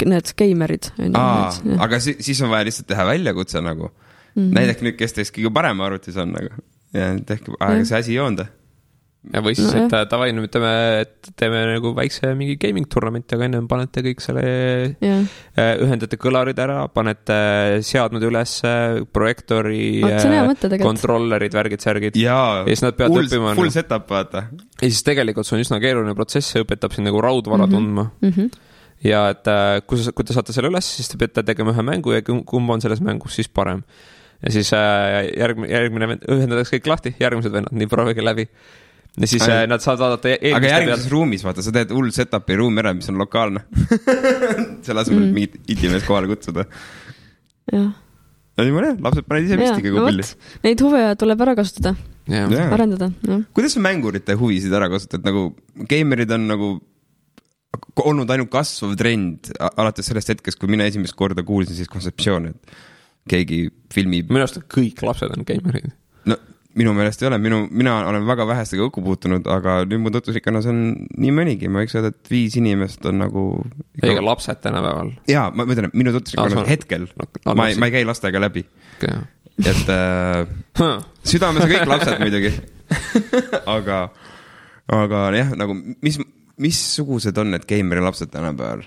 need geimerid. Aga siis on vaja lihtsalt teha väljakutse nagu. Näidake nüüd, kes teist kõige parem arvutis on nagu. Ja tehke, aga see asi ei joonda. Ja või siis, et tavainu teeme nagu väikse mingi gaming tournamenti, aga enne panete kõik selle ühendate kõlarid ära, panete seadmed üles, projektori, kontrollerid, värgid, särgid. Ja siis nad peavad õppima. Full setup, vaata. Ja siis tegelikult see on üsna keeruline protsess, see õpetab siin nagu raudvara tundma. Ja et kui te saate selle üles, siis te peate tegema ühe mängu ja kumb on selles mängus siis parem. Ja siis järgmine ühendatakse kõik lahti, järgmised vennad, nii proovige läbi. Ja siis nad saavad vaadata aga järgmises ruumis, vaata, sa teed hull setupi ruumi ära, mis on lokaalne. Selle asemel mingit itimees kohale kutsuda. Jah. No niimoodi, lapsed paned ise vist ikkagi pilli. Neid huve tuleb ära kasutada, arendada. Kuidas sa mängurite huvisid ära kasutad? Nagu gamerid on nagu olnud ainult kasvav trend alates sellest hetkest, kui mina esimest korda kuulsin siis kontseptsiooni, et keegi filmib. Minu arust kõik lapsed on gamerid. No minu meelest ei ole, mina olen väga vähestega õkku puutunud, aga nüüd mu tutvusrikkonnus on nii mõnigi, ma võiks öelda, et 5 inimest on nagu ega lapsed tänapäeval. Jaa, ma mõtlen, minu tutvusrikkonnus hetkel, ma ei käi lastega läbi. Et südames on kõik lapsed muidugi. aga jah, nagu missugused on need geimeri lapsed tänapäeval?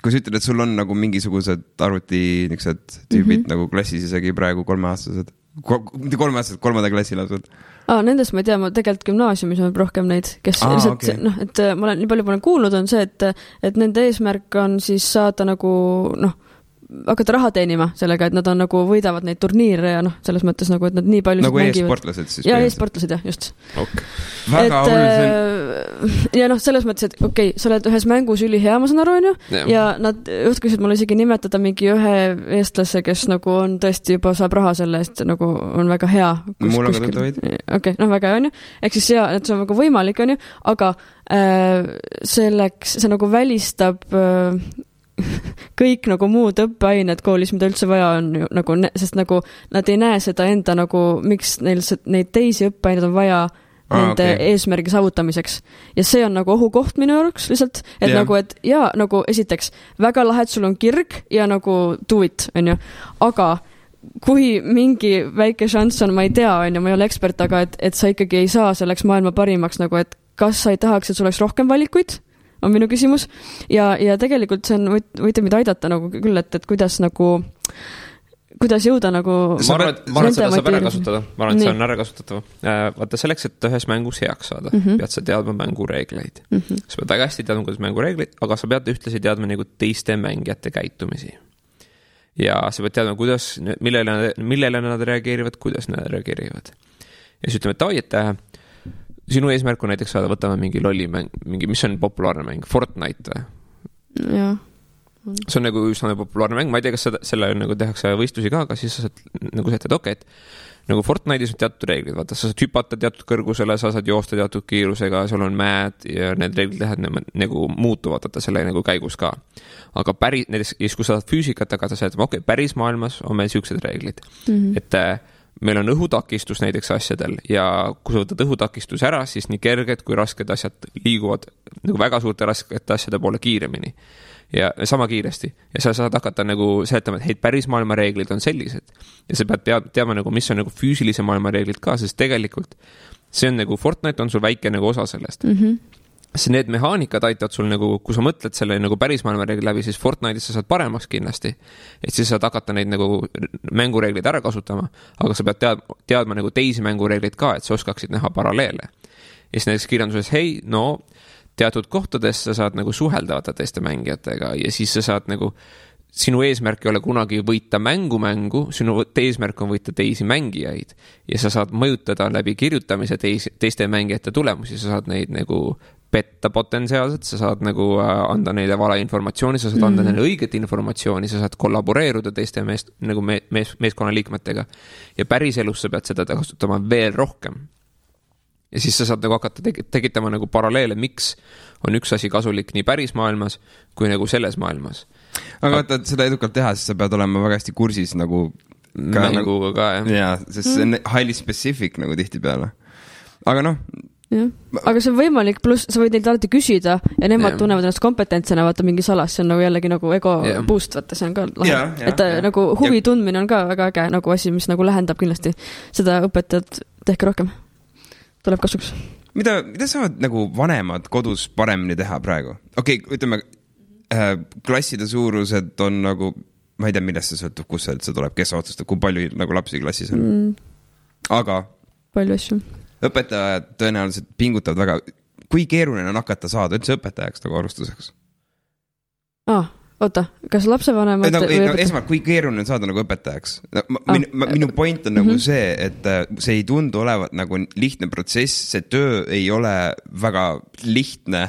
Kui sa ütled, et sul on nagu mingisugused arvuti niisugused tüübid nagu klassis isegi praegu 3-aastased, mitte 3-aastased, 3. klassi lapsed. Nendest ma ei tea, ma tegelikult gümnaasiumis on rohkem neid, kes lihtsalt, et ma olen nii palju kuulnud, on see, et nende eesmärk on siis saada nagu, hakata raha teenima sellega, et nad on nagu võidavad neid turniire ja selles mõttes nagu, et nad nii palju nagu e-sportlased siis? Ja e-sportlased, jah, just. Okay. Väga oluline. Ja selles mõttes, et okei, sa oled ühes mängus ülihea, ma saan aru, on ju, ja nad juhtkusid mulle isegi nimetada mingi ühe eestlase, kes nagu on tõesti juba saab raha selle eest, nagu on väga hea. Mul on ka tõid. Okei, väga hea, on ju. Ehk siis ja, et see on väga võimalik, on ju, aga selleks see nagu välistab kõik nagu muud õppeained koolis, mida üldse vaja on ju, nagu, sest nagu nad ei näe seda enda nagu, miks neil neid teisi õppeaineid on vaja nende eesmärgi saavutamiseks. Ja see on nagu ohukoht minu jaoks lihtsalt, et nagu, et jaa, nagu esiteks, väga lahe, et sul on kirg ja nagu do it, on ju, aga kui mingi väike šanss on, ma ei tea, on ju, ma ei ole ekspert, aga et sa ikkagi ei saa selleks maailma parimaks, nagu, et kas sa ei tahaks, et sul oleks rohkem valikuid, on minu küsimus. Ja tegelikult see on, võite mida aidata nagu küll, et kuidas nagu, kuidas jõuda nagu... Ma arvan, et seda saab ära kasutada. Ma arvan, et see on ära kasutatav. Vaata, selleks, et ühes mängus heaks saada, pead sa teadma mängureegleid. Sa pead väga hästi teadma, kuidas mängureegleid, aga sa pead ühtlasi teadma nagu teiste mängijate käitumisi. Ja sa pead teadma, kuidas, millele nad reageerivad, kuidas nad reageerivad. Ja siis ütleme, et sinu eesmärk on näiteks saada, võtame mingi lolli mäng, mis on populaarne mäng, Fortnite või? Jah. See on nagu üsna populaarne mäng, ma ei tea, kas selle nagu tehakse võistlusi ka, aga siis sa saad nagu sätted, et nagu Fortnite'is on teatud reeglid, vaata, sa saad hüpata teatud kõrgusele, sa saad joosta teatud kiirusega, sul on mäed ja need reeglid nagu muutuvad, vaata selle nagu käigus ka. Aga näiteks, kui sa saad füüsikat, aga sa saad, päris maailmas on meil siuksed reeglid, et meil on õhutakistus näiteks asjadel ja kui sa võtad õhutakistus ära, siis nii kerged kui rasked asjad liiguvad nagu väga suurte raskete asjade poole kiiremini ja sama kiiresti. Ja sa saad hakata nagu seletama, et päris maailma reeglid on sellised. Ja sa pead teadma nagu, mis on nagu füüsilise maailma reeglid ka, sest tegelikult see on nagu Fortnite on sul väike nagu osa sellest. See need mehaanikad aitavad sul nagu, kui sa mõtled selle nagu päris maailma reeglid läbi, siis Fortnite'is sa saad paremaks kindlasti. Et siis saad hakata neid nagu mängureeglid ära kasutama, aga sa pead teadma nagu teisi mängureeglid ka, et sa oskaksid näha paralleele. Ja siis näiteks kirjanduses, teatud kohtades sa saad nagu suheldavata teiste mängijatega ja siis sa saad nagu, sinu eesmärk ei ole kunagi võita mängu, sinu eesmärk on võita teisi mängijaid ja sa saad mõjutada läbi kirjutamise teiste mängijate tulemusi, sa saad neid nagu petta potentsiaalselt, sa saad nagu anda neile vale informatsiooni, sa saad anda neile õiget informatsiooni, sa saad kollaboreeruda teiste meeskonna liikmetega ja päris elus sa pead seda kasutama veel rohkem. Ja siis sa saad nagu hakata tegitama nagu paralleele, miks on üks asi kasulik nii päris maailmas kui nagu selles maailmas. Aga vaata, et seda edukalt teha, siis sa pead olema väga hästi kursis nagu mänguga ka, jah. Jaa, sest see on highly specific nagu tihti peale. Aga jah. Aga see on võimalik, pluss sa võid neilt alati küsida ja nemad tunnevad ennast kompetentsena, vaata mingi salas, see on nagu jällegi nagu ego boost, vaata, see on ka lahe. Et nagu huvi tundmine on ka väga äge nagu asi, mis nagu lähendab kindlasti seda õpetajat, tehke rohkem. Tuleb kasuks. Mida saavad nagu vanemad kodus paremini teha praegu? Okei, ütleme, klasside suurused on nagu, ma ei tea, millest see sõltub, kus see tuleb, kes otsustab, kui palju nagu lapsi klassis on. Aga palju asju. Õpetajad tõenäoliselt pingutavad väga, kui keeruline on hakata saada üldse õpetajaks nagu arvustuseks? Oota, kas lapsevanemad esmalt, kui keeruline on saada nagu õpetajaks? Minu point on nagu see, et see ei tundu olevat nagu lihtne protsess, see töö ei ole väga lihtne.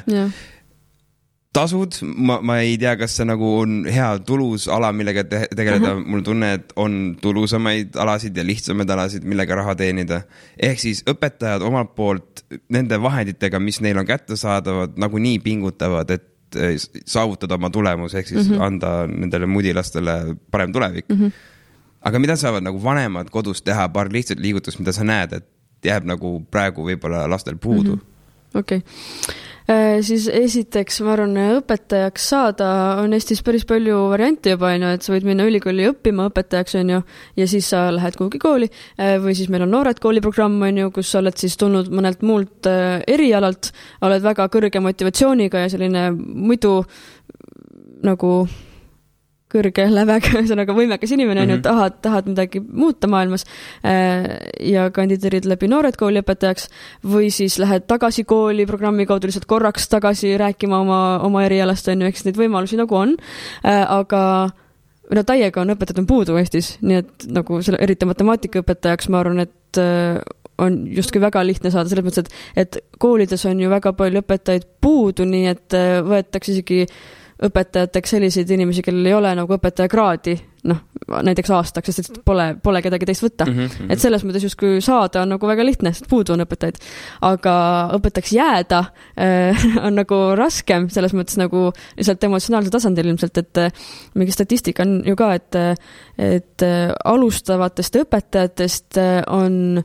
Tasud, ma ei tea, kas see nagu on hea tulus ala, millega tegeleda. Mul tunne, et on tulusamaid alasid ja lihtsamaid alasid, millega raha teenida. Ehk siis õpetajad omalt poolt nende vahenditega, mis neil on kätte saadavad, nagu nii pingutavad, et saavutada oma tulemus, ehk siis anda nendele mudilastele parem tulevik. Aga mida saavad nagu vanemad kodus teha, paar lihtsalt liigutust, mida sa näed, et jääb nagu praegu võib-olla lastel puudu? Okei. Siis esiteks, ma arvan, õpetajaks saada on Eestis päris palju variante juba, et sa võid minna ülikooli õppima õpetajaks, ja siis sa lähed kuhugi kooli, või siis meil on noored kooliprogramm, kus sa oled siis tulnud mõnelt muult erialalt, oled väga kõrge motivatsiooniga ja selline muidu nagu kõrge lävega, ühesõnaga võimekas inimene, tahad midagi muuta maailmas ja kandideerid läbi noored kooli õpetajaks või siis lähed tagasi kooli programmi kaudu lihtsalt korraks tagasi rääkima oma erialast, eks neid võimalusi nagu on, aga täiega on õpetajad on puudu Eestis, nii et nagu selle, eriti matemaatikaõpetajaks ma arvan, et on justkui väga lihtne saada, selles mõttes, et koolides on ju väga palju õpetajaid puudu, nii et võetakse isegi õpetajateks selliseid inimesi, kellel ei ole nagu õpetajakraadi, näiteks aastaks, sest pole kedagi teist võtta. Et selles mõttes justkui saada on nagu väga lihtne, sest puudu on õpetajaid. Aga õpetajaks jääda on nagu raskem, selles mõttes nagu lihtsalt emotsionaalsel tasandil ilmselt, et mingi statistika on ju ka, et alustavatest õpetajatest on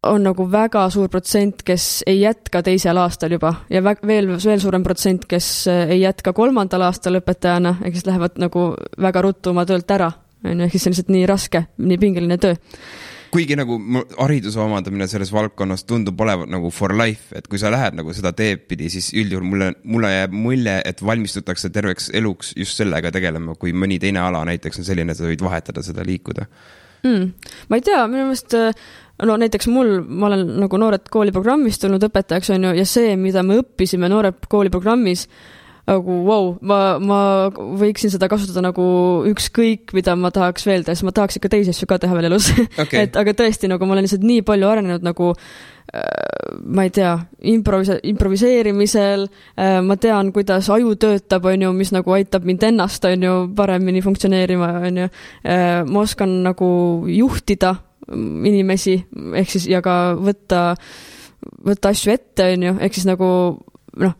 nagu väga suur protsent, kes ei jätka teisel aastal juba ja veel suurem protsent, kes ei jätka 3. aastal õpetajana, kes lähevad nagu väga ruttu oma töölt ära, ehk siis see on lihtsalt nii raske, nii pingeline töö. Kuigi nagu hariduse omandamine selles valdkonnas tundub olevat nagu for life, et kui sa lähed nagu seda teed pidi, siis üldjuhul mulle jääb mulje, et valmistutakse terveks eluks just sellega tegelema, kui mõni teine ala näiteks on selline, et sa võid vahetada seda liikuda. Ma ei tea, minu meelest näiteks ma olen nagu noored kooliprogrammis tulnud õpetajaks, ja see, mida me õppisime noored kooliprogrammis, nagu ma võiksin seda kasutada nagu ükskõik, mida ma tahaks veel teha, sest ma tahaks ikka teisi asju ka teha veel elus. Okay. Aga tõesti, nagu ma olen lihtsalt nii palju arenenud nagu ma ei tea, improviseerimisel, ma tean, kuidas aju töötab, mis nagu aitab mind ennast, paremini funktsioneerima, ma oskan nagu juhtida inimesi, ehk siis ja ka võtta asju ette, ehk siis nagu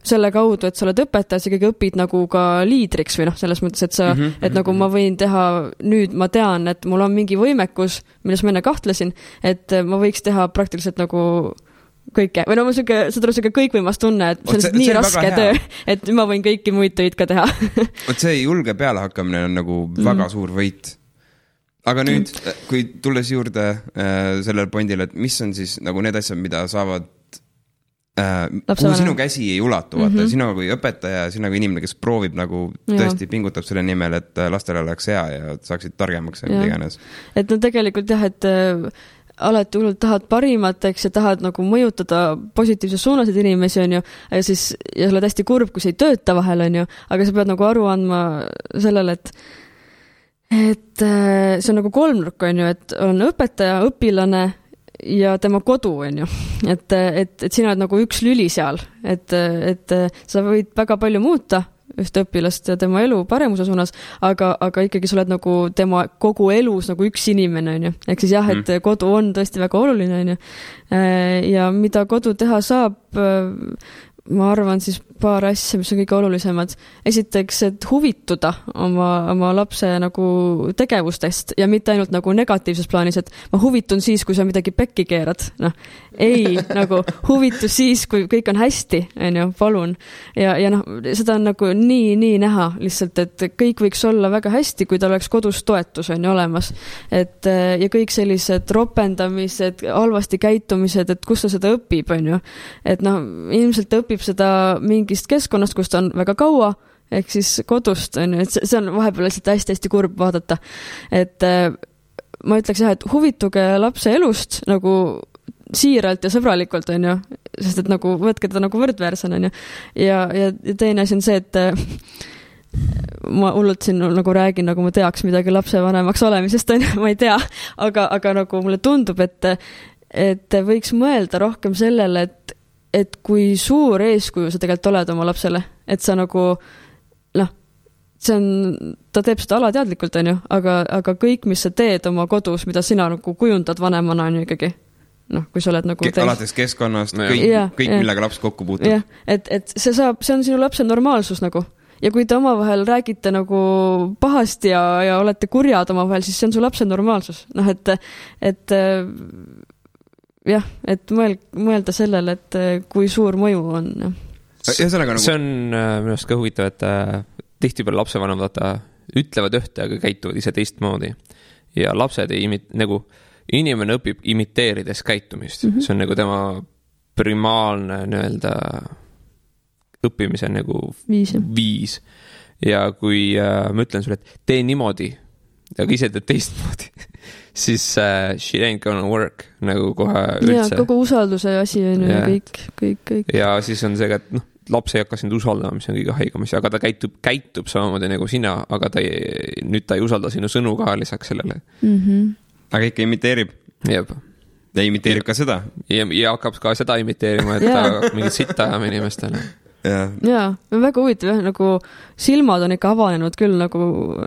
selle kaudu, et sa oled õpetaja, sa ikkagi õpid nagu ka liidriks või selles mõttes, et et nagu ma võin teha, nüüd ma tean, et mul on mingi võimekus, milles ma enne kahtlesin, et ma võiks teha praktiliselt nagu kõike, või mul see kõikvõimas tunne, et see on nii raske töö, et ma võin kõiki muid töid ka teha. See julge pealehakkamine on nagu väga suur võit. Aga nüüd, kui tulles juurde sellel pointile, et mis on siis nagu need asjad, mida saavad kuhu sinu käsi ei ulatu, vaata, sina kui õpetaja, sina kui inimene, kes proovib nagu tõesti pingutab selle nimel, et lastele oleks hea ja saaksid targemaks ja mida iganes. Et tegelikult jah, et alati hullult tahad parimat, eks, ja tahad nagu mõjutada positiivses suunasid inimesi, ja siis ja sa oled hästi kurb, kui see ei tööta vahel, aga sa pead nagu aru andma sellele, et see on nagu kolmnurk, et on õpetaja, õpilane ja tema kodu, et sina oled nagu üks lüli seal, et sa võid väga palju muuta ühte õpilast ja tema elu paremuse suunas, aga ikkagi sa oled nagu tema kogu elus nagu üks inimene, ehk siis jah, et kodu on tõesti väga oluline, ja mida kodu teha saab, ma arvan siis paar asja, mis on kõige olulisemad. Esiteks, et huvituda oma lapse nagu tegevustest ja mitte ainult nagu negatiivses plaanis, et ma huvitun siis, kui sa midagi pekki keerad. Ei, nagu huvitus siis, kui kõik on hästi, palun. Ja seda on nagu nii näha lihtsalt, et kõik võiks olla väga hästi, kui ta oleks kodus toetus olemas. Ja kõik sellised ropendamised, halvasti käitumised, et kus ta seda õpib, et ilmselt õpib seda mingist keskkonnast, kus ta on väga kaua, ehk siis kodust, et see on vahepeal lihtsalt hästi kurb vaadata. Et ma ütleks jah, et huvituge lapse elust nagu siiralt ja sõbralikult, sest et nagu võtke teda nagu võrdväärsena, ja teine asi on see, et ma hullult siin nagu räägin, nagu ma teaks midagi lapsevanemaks olemisest, ma ei tea, aga nagu mulle tundub, et võiks mõelda rohkem sellele, et kui suur eeskuju sa tegelikult oled oma lapsele, et sa nagu ta teeb seda alateadlikult, aga kõik, mis sa teed oma kodus, mida sina nagu kujundad vanemana, on ikkagi, kui sa oled nagu alates keskkonnast, kõik millega laps kokku puutub. Jah, et see on sinu lapse normaalsus nagu. Ja kui te omavahel räägite nagu pahasti ja olete kurjad omavahel, siis see on su lapse normaalsus. Et jah, et mõelda sellele, et kui suur mõju on. Nagu... See on minu arust ka huvitav, et tihtipeale lapsevanemad ütlevad ühte, aga käituvad ise teistmoodi. Ja lapsed nagu inimene õpib imiteerides käitumist. See on nagu tema primaalne nii-öelda õppimise nagu viis. Ja kui ma ütlen sulle, et tee niimoodi, aga ise teed teistmoodi, siis shit ain't gonna work nagu kohe üldse. Ja kogu usalduse asi on ja kõik. Ja siis on see, et laps ei hakka sind usaldama, mis on kõige haigamas, aga ta käitub samamoodi nagu sina, aga nüüd ta ei usalda sinu sõnu ka lisaks sellele. Aga ikka imiteerib. Jep. Ja imiteerib ka seda. Ja hakkab ka seda imiteerima, et ta hakkab mingit sitta ajama inimestele. Jaa, väga huvitav, nagu silmad on ikka avanenud küll nagu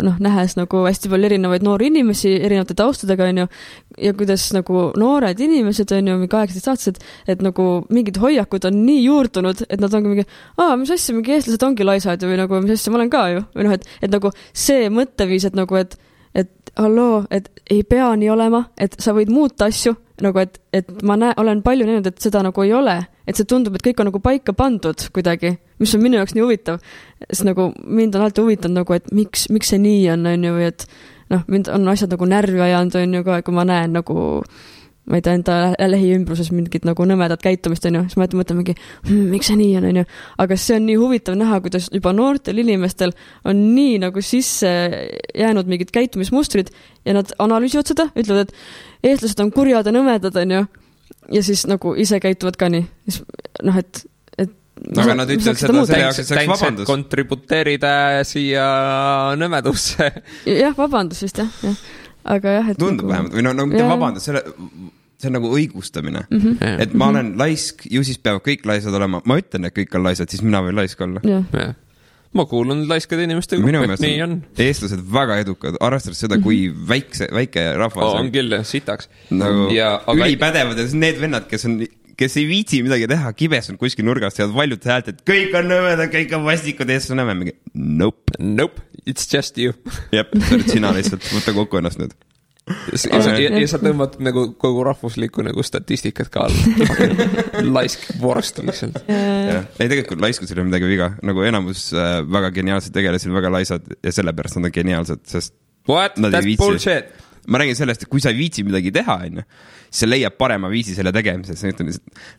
nähes nagu hästi palju erinevaid noori inimesi erinevate taustadega on ju, ja kuidas nagu noored inimesed on ju, 18-aastased, et nagu mingid hoiakud on nii juurdunud, et nad ongi mingi, mis asja, mingi eestlased ongi laisad või nagu, mis asja, ma olen ka ju, või et nagu see mõtteviis, et nagu, et halloo, et ei pea nii olema, et sa võid muuta asju, nagu et ma olen palju näinud, et seda nagu ei ole, et see tundub, et kõik on nagu paika pandud kuidagi, mis on minu jaoks nii huvitav, sest nagu mind on alati huvitanud nagu, et miks see nii on ju, või et mind on asjad nagu närvi ajanud on ju ka, kui ma näen nagu ma ei tea, enda lähiümbruses mingit nagu nõmedat käitumist on ju, siis ma mõtlen mingi, miks see nii on ju, aga see on nii huvitav näha, kuidas juba noortel inimestel on nii nagu sisse jäänud mingid käitumismustrid ja nad analüüsivad seda, ütlevad, et eestlased on kurjad ja nõmedad on ju, ja siis nagu ise käituvad ka nii, et aga nad ütlevad seda selle jaoks, et see oleks vabandus. Kontributeerida siia nõmedusse. Jah, vabandus vist, jah. Aga jah, et tundub vähemalt, või mitte vabandus, see on nagu õigustamine. Et ma olen laisk, ju siis peavad kõik laisad olema. Ma ütlen, et kõik on laisad, siis mina võin laisk olla. Ma kuulun laiskade inimeste gruppi, et nii on. Eestlased väga edukad, arvestades seda, kui väike rahvas on küll, sitaks. Nagu ülipädevad ja need vennad, kes ei viitsi midagi teha, kibes on kuskil nurgast ja valjud häält, et kõik on nõmedad, kõik on vastikud, eestlased on nõme. Nope, it's just you. Jep, sa oled sina lihtsalt, võtta kokku ennast nüüd. Ja sa tõmbad nagu kogu rahvuslikku nagu statistikat ka all. Laisk vorst lihtsalt. Ei, tegelikult laiskusel on midagi viga. Nagu enamus väga geniaalsed tegelesid väga laisad ja sellepärast nad on geniaalsed, sest what? That's bullshit. Ma räägin sellest, et kui sa ei viitsi midagi teha, siis sa leiab parema viisi selle tegemises.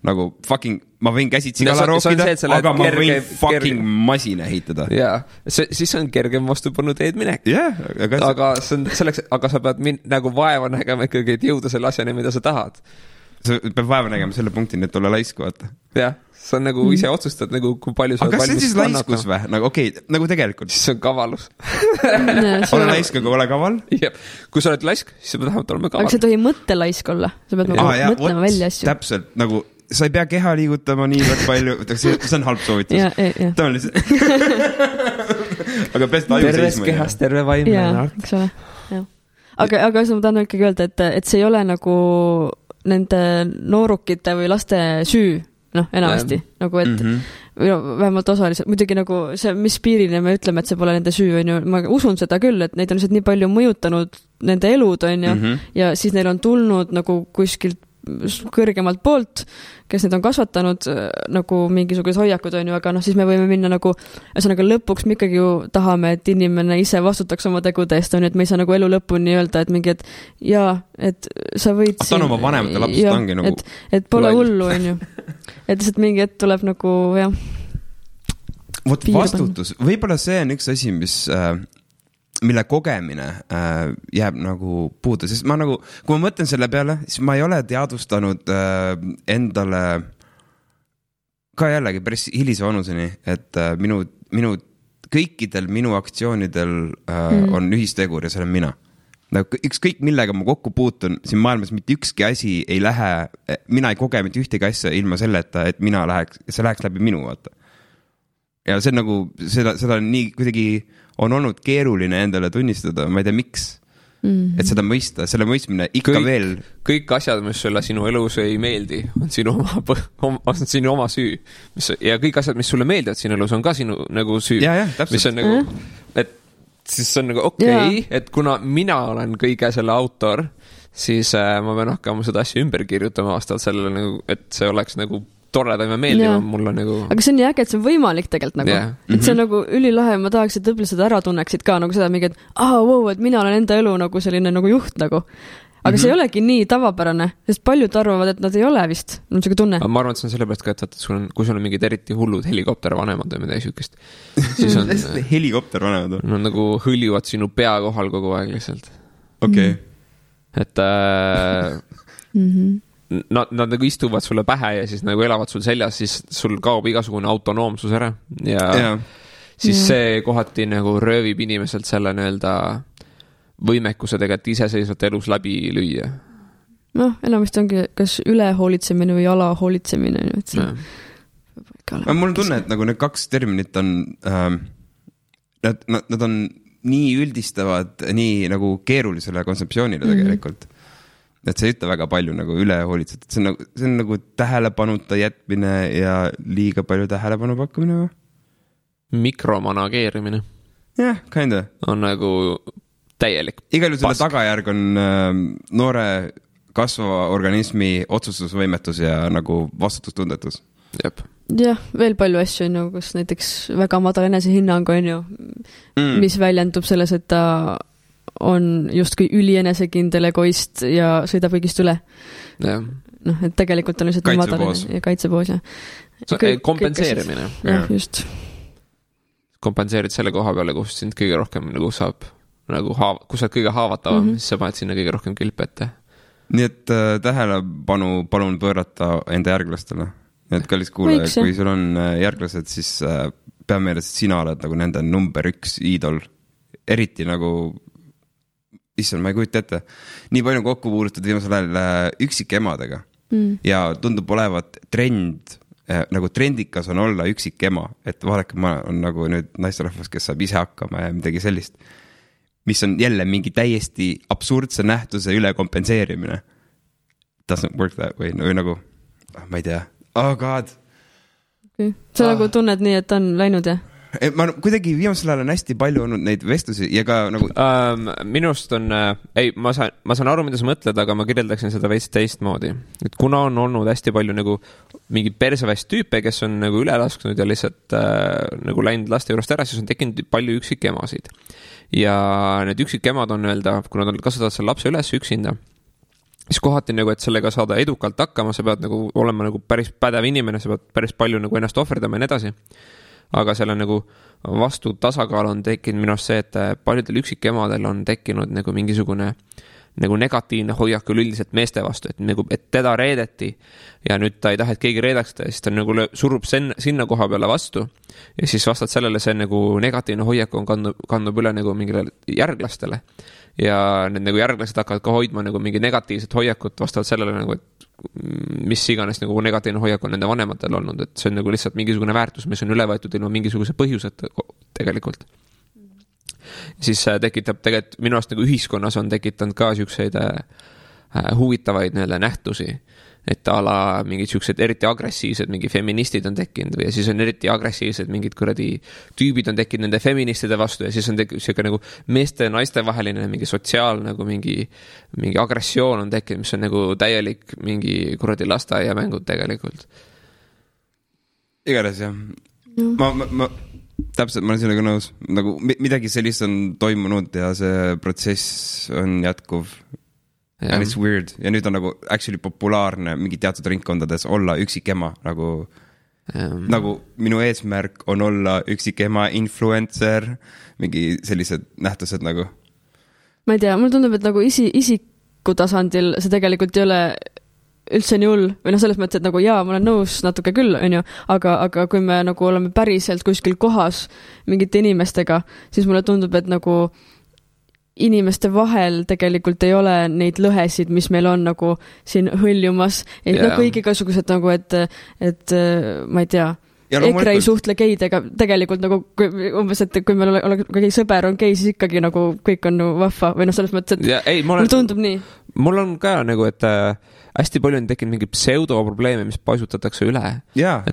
Nagu fucking, ma võin käsitsi kala rookida, aga ma võin fucking masina ehitada. Jaa, siis on kergem vastupanu teed minek. Aga sa pead nagu vaeva nägema ikkagi, et jõuda selle asjani, mida sa tahad. Sa pead vaeva nägema selle punkti, et olla laisku, vaata. Jah, sa nagu ise otsustad, nagu kui palju sa aga kas see on siis laiskus või? Nagu okei, nagu tegelikult. Siis on kavalus. Ole laisk, aga ole kaval. Jep. Kui sa oled laisk, siis sa pead vähemalt olema kaval. Aga sa ei tohi mõttelaisk olla. Sa pead mõtlema välja asju. Täpselt, nagu sa ei pea keha liigutama nii väga palju. See on halb soovitus. Ta on lihtsalt. Aga peast aju seisma. Terves kehas, terve vaimne. Jaa, eks ole. Aga ma tahan ikkagi öelda, et see ei ole nagu nende noorukite või laste süü, enamasti, nagu et vähemalt osaliselt, muidugi nagu see, mis piirine me ütleme, et see pole nende süü, on ju, ma usun seda küll, et neid on lihtsalt nii palju mõjutanud nende elud, on ju, ja siis neil on tulnud nagu kuskilt kõrgemalt poolt, kes need on kasvatanud nagu mingisugused hoiakud on ju, aga siis me võime minna nagu, ühesõnaga lõpuks me ikkagi ju tahame, et inimene ise vastutaks oma tegude eest, on ju, et me ei saa nagu elu lõpuni öelda, et mingi, et jaa, et sa võid ta on oma vanemate lapsed ongi nagu et pole hullu, on ju. Et lihtsalt mingi hetk tuleb nagu, jah. Vot vastutus, võib-olla see on üks asi, mille kogemine jääb nagu puudu, sest ma nagu, kui ma mõtlen selle peale, siis ma ei ole teadvustanud endale ka jällegi päris hilise vanuseni, et kõikidel minu aktsioonidel on ühistegur ja see olen mina. Nagu ükskõik millega ma kokku puutun siin maailmas, mitte ükski asi ei lähe, mina ei koge mitte ühtegi asja ilma selleta, et see läheks läbi minu, vaata. Ja see on nagu, seda on nii kuidagi on olnud keeruline endale tunnistada, ma ei tea miks, et seda mõista, selle mõistmine ikka veel. Kõik asjad, mis sulle sinu elus ei meeldi, on sinu oma süü. Ja kõik asjad, mis sulle meeldivad sinu elus, on ka sinu nagu süü. Täpselt. Mis on nagu, et siis on nagu okei, et kuna mina olen kõige selle autor, siis ma pean hakkama seda asja ümber kirjutama vastavalt sellele nagu, et see oleks nagu toredam ja meeldivam mulle nagu. Aga see on nii äge, et see on võimalik tegelikult nagu. Et see on nagu ülilahe, ma tahaks, et õpilased ära tunneksid ka nagu seda mingi, et wow, et mina olen enda elu nagu selline nagu juht nagu. Aga see ei olegi nii tavapärane, sest paljud arvavad, et nad ei ole vist. On see tunne. Ma arvan, et see on sellepärast ka, et kui sul on mingid eriti hullud helikoptervanemad või midagi süükest, siis on helikoptervanemad on nagu hõljuvad sinu pea kohal kogu aeg lihtsalt. Okei. Et nad nagu istuvad sulle pähe ja siis nagu elavad sul seljas, siis sul kaob igasugune autonoomsus ära ja siis see kohati nagu röövib inimeselt selle nii-öelda võimekuse tegelikult iseseisvalt elus läbi lüüa. Enamasti ongi kas ülehoolitsemine või alahoolitsemine. Mul on tunne, et nagu need kaks terminit on nad on nii üldistavad nii nagu keerulisele kontseptsioonile tegelikult. Et see ei ütle väga palju nagu ülehoolitset. See on nagu tähelepanuta jätmine ja liiga palju tähelepanu pakkumine või? Mikromanageerimine. Jah, kinda. On nagu täielik igal juhul selle tagajärg on noore kasvava organismi otsustusvõimetus ja nagu vastutustundetus. Jah, veel palju asju on ju, kus näiteks väga madal enesehinnang on ju, mis väljendub selles, et ta on justkui ülienesekindel egoist ja sõidab kõigist üle. Et tegelikult on lihtsalt kaitsepoos. Kaitsepoos, kompenseerimine. Just. Kompenseerid selle koha peale, kus sind kõige rohkem nagu saab, nagu kus sa oled kõige haavatavam, siis sa paned sinna kõige rohkem kilpe ette. Nii et tähelepanu palun pöörata enda järglastele. Nii et kallis kuulaja, kui sul on järglased, siis pea meeles, et sina oled nagu nende number 1 iidol. Eriti nagu ma ei kujuta ette. Nii palju kokku puudutud viimasel ajal üksikemadega. Ja tundub olevat trend, nagu trendikas on olla üksikema, et vaadake, ma on nagu nüüd naisterahvas, kes saab ise hakkama ja midagi sellist, mis on jälle mingi täiesti absurdse nähtuse üle kompenseerimine. Doesn't work that way, või nagu, ma ei tea. Oh god. Sa nagu tunned nii, et on läinud, jah? Ma kuidagi viimasel ajal on hästi palju olnud neid vestlusi ja ka nagu minust on ma saan aru, mida sa mõtled, aga ma kirjeldaksin seda veits teistmoodi, et kuna on olnud hästi palju nagu mingi perseväist tüüpe, kes on nagu üle lasknud ja lihtsalt nagu läinud laste juurest ära, siis on tekkinud palju üksikemasid ja need üksikemad on öelda, kui nad kasvatavad selle lapse üles üksinda, siis kohati nagu, et sellega saada edukalt hakkama, sa pead nagu olema nagu päris pädev inimene, sa pead päris palju nagu ennast ohverdama ja nii edasi. Aga selle nagu vastu tasakaal on tekkinud minu arust see, et paljudel üksikemadel on tekkinud nagu mingisugune nagu negatiivne hoiak üleüldiselt meeste vastu, et, nagu, et teda reedeti ja nüüd ta ei taha, et keegi reedaks ta, siis ta nagu surub sinna koha peale vastu ja siis vastad sellele see nagu negatiivne hoiak on kandub üle nagu mingile järglastele ja need nagu järglased hakkavad ka hoidma nagu mingi negatiivset hoiakut vastavalt sellele nagu, et mis iganes nagu negatiivne hoiak on nende vanematel olnud, et see on nagu lihtsalt mingisugune väärtus, mis on üle võetud ilma mingisuguse põhjuseta tegelikult. Siis tekitab tegelikult minu arust nagu ühiskonnas on tekitanud ka siukseid huvitavaid nähtusi, et ala mingid siuksed eriti agressiivsed mingi feministid on tekkinud või ja siis on eriti agressiivsed mingid kuradi tüübid on tekkinud nende feministide vastu ja siis on siuke nagu meeste ja naiste vaheline mingi sotsiaal nagu mingi agressioon on tekkinud, mis on nagu täielik mingi kuradi lasteaiamängud tegelikult. Igatahes jah. Ma täpselt, ma olen sellega nõus. Nagu midagi sellist on toimunud ja see protsess on jätkuv. And it's weird. Ja nüüd on nagu actually populaarne mingi teatud ringkondades olla üksikema. Nagu minu eesmärk on olla üksikema influencer, mingi sellised nähtused nagu. Ma ei tea, mul tundub, et nagu isiku tasandil see tegelikult ei ole üldse nii hull, või selles mõttes, et nagu jaa, ma olen nõus natuke küll, on ju, aga kui me nagu oleme päriselt kuskil kohas mingite inimestega, siis mulle tundub, et nagu inimeste vahel tegelikult ei ole neid lõhesid, mis meil on nagu siin hõljumas, et kõik igasugused nagu, et ma ei tea, EKRE ei suhtle geidega tegelikult nagu umbes, et kui meil oleks sõber on gei, siis ikkagi nagu kõik on nagu vahva või selles mõttes, et mul tundub nii. Mul on ka nagu, et hästi palju on tekkinud mingi pseudoprobleeme, mis paisutatakse üle. Jaa,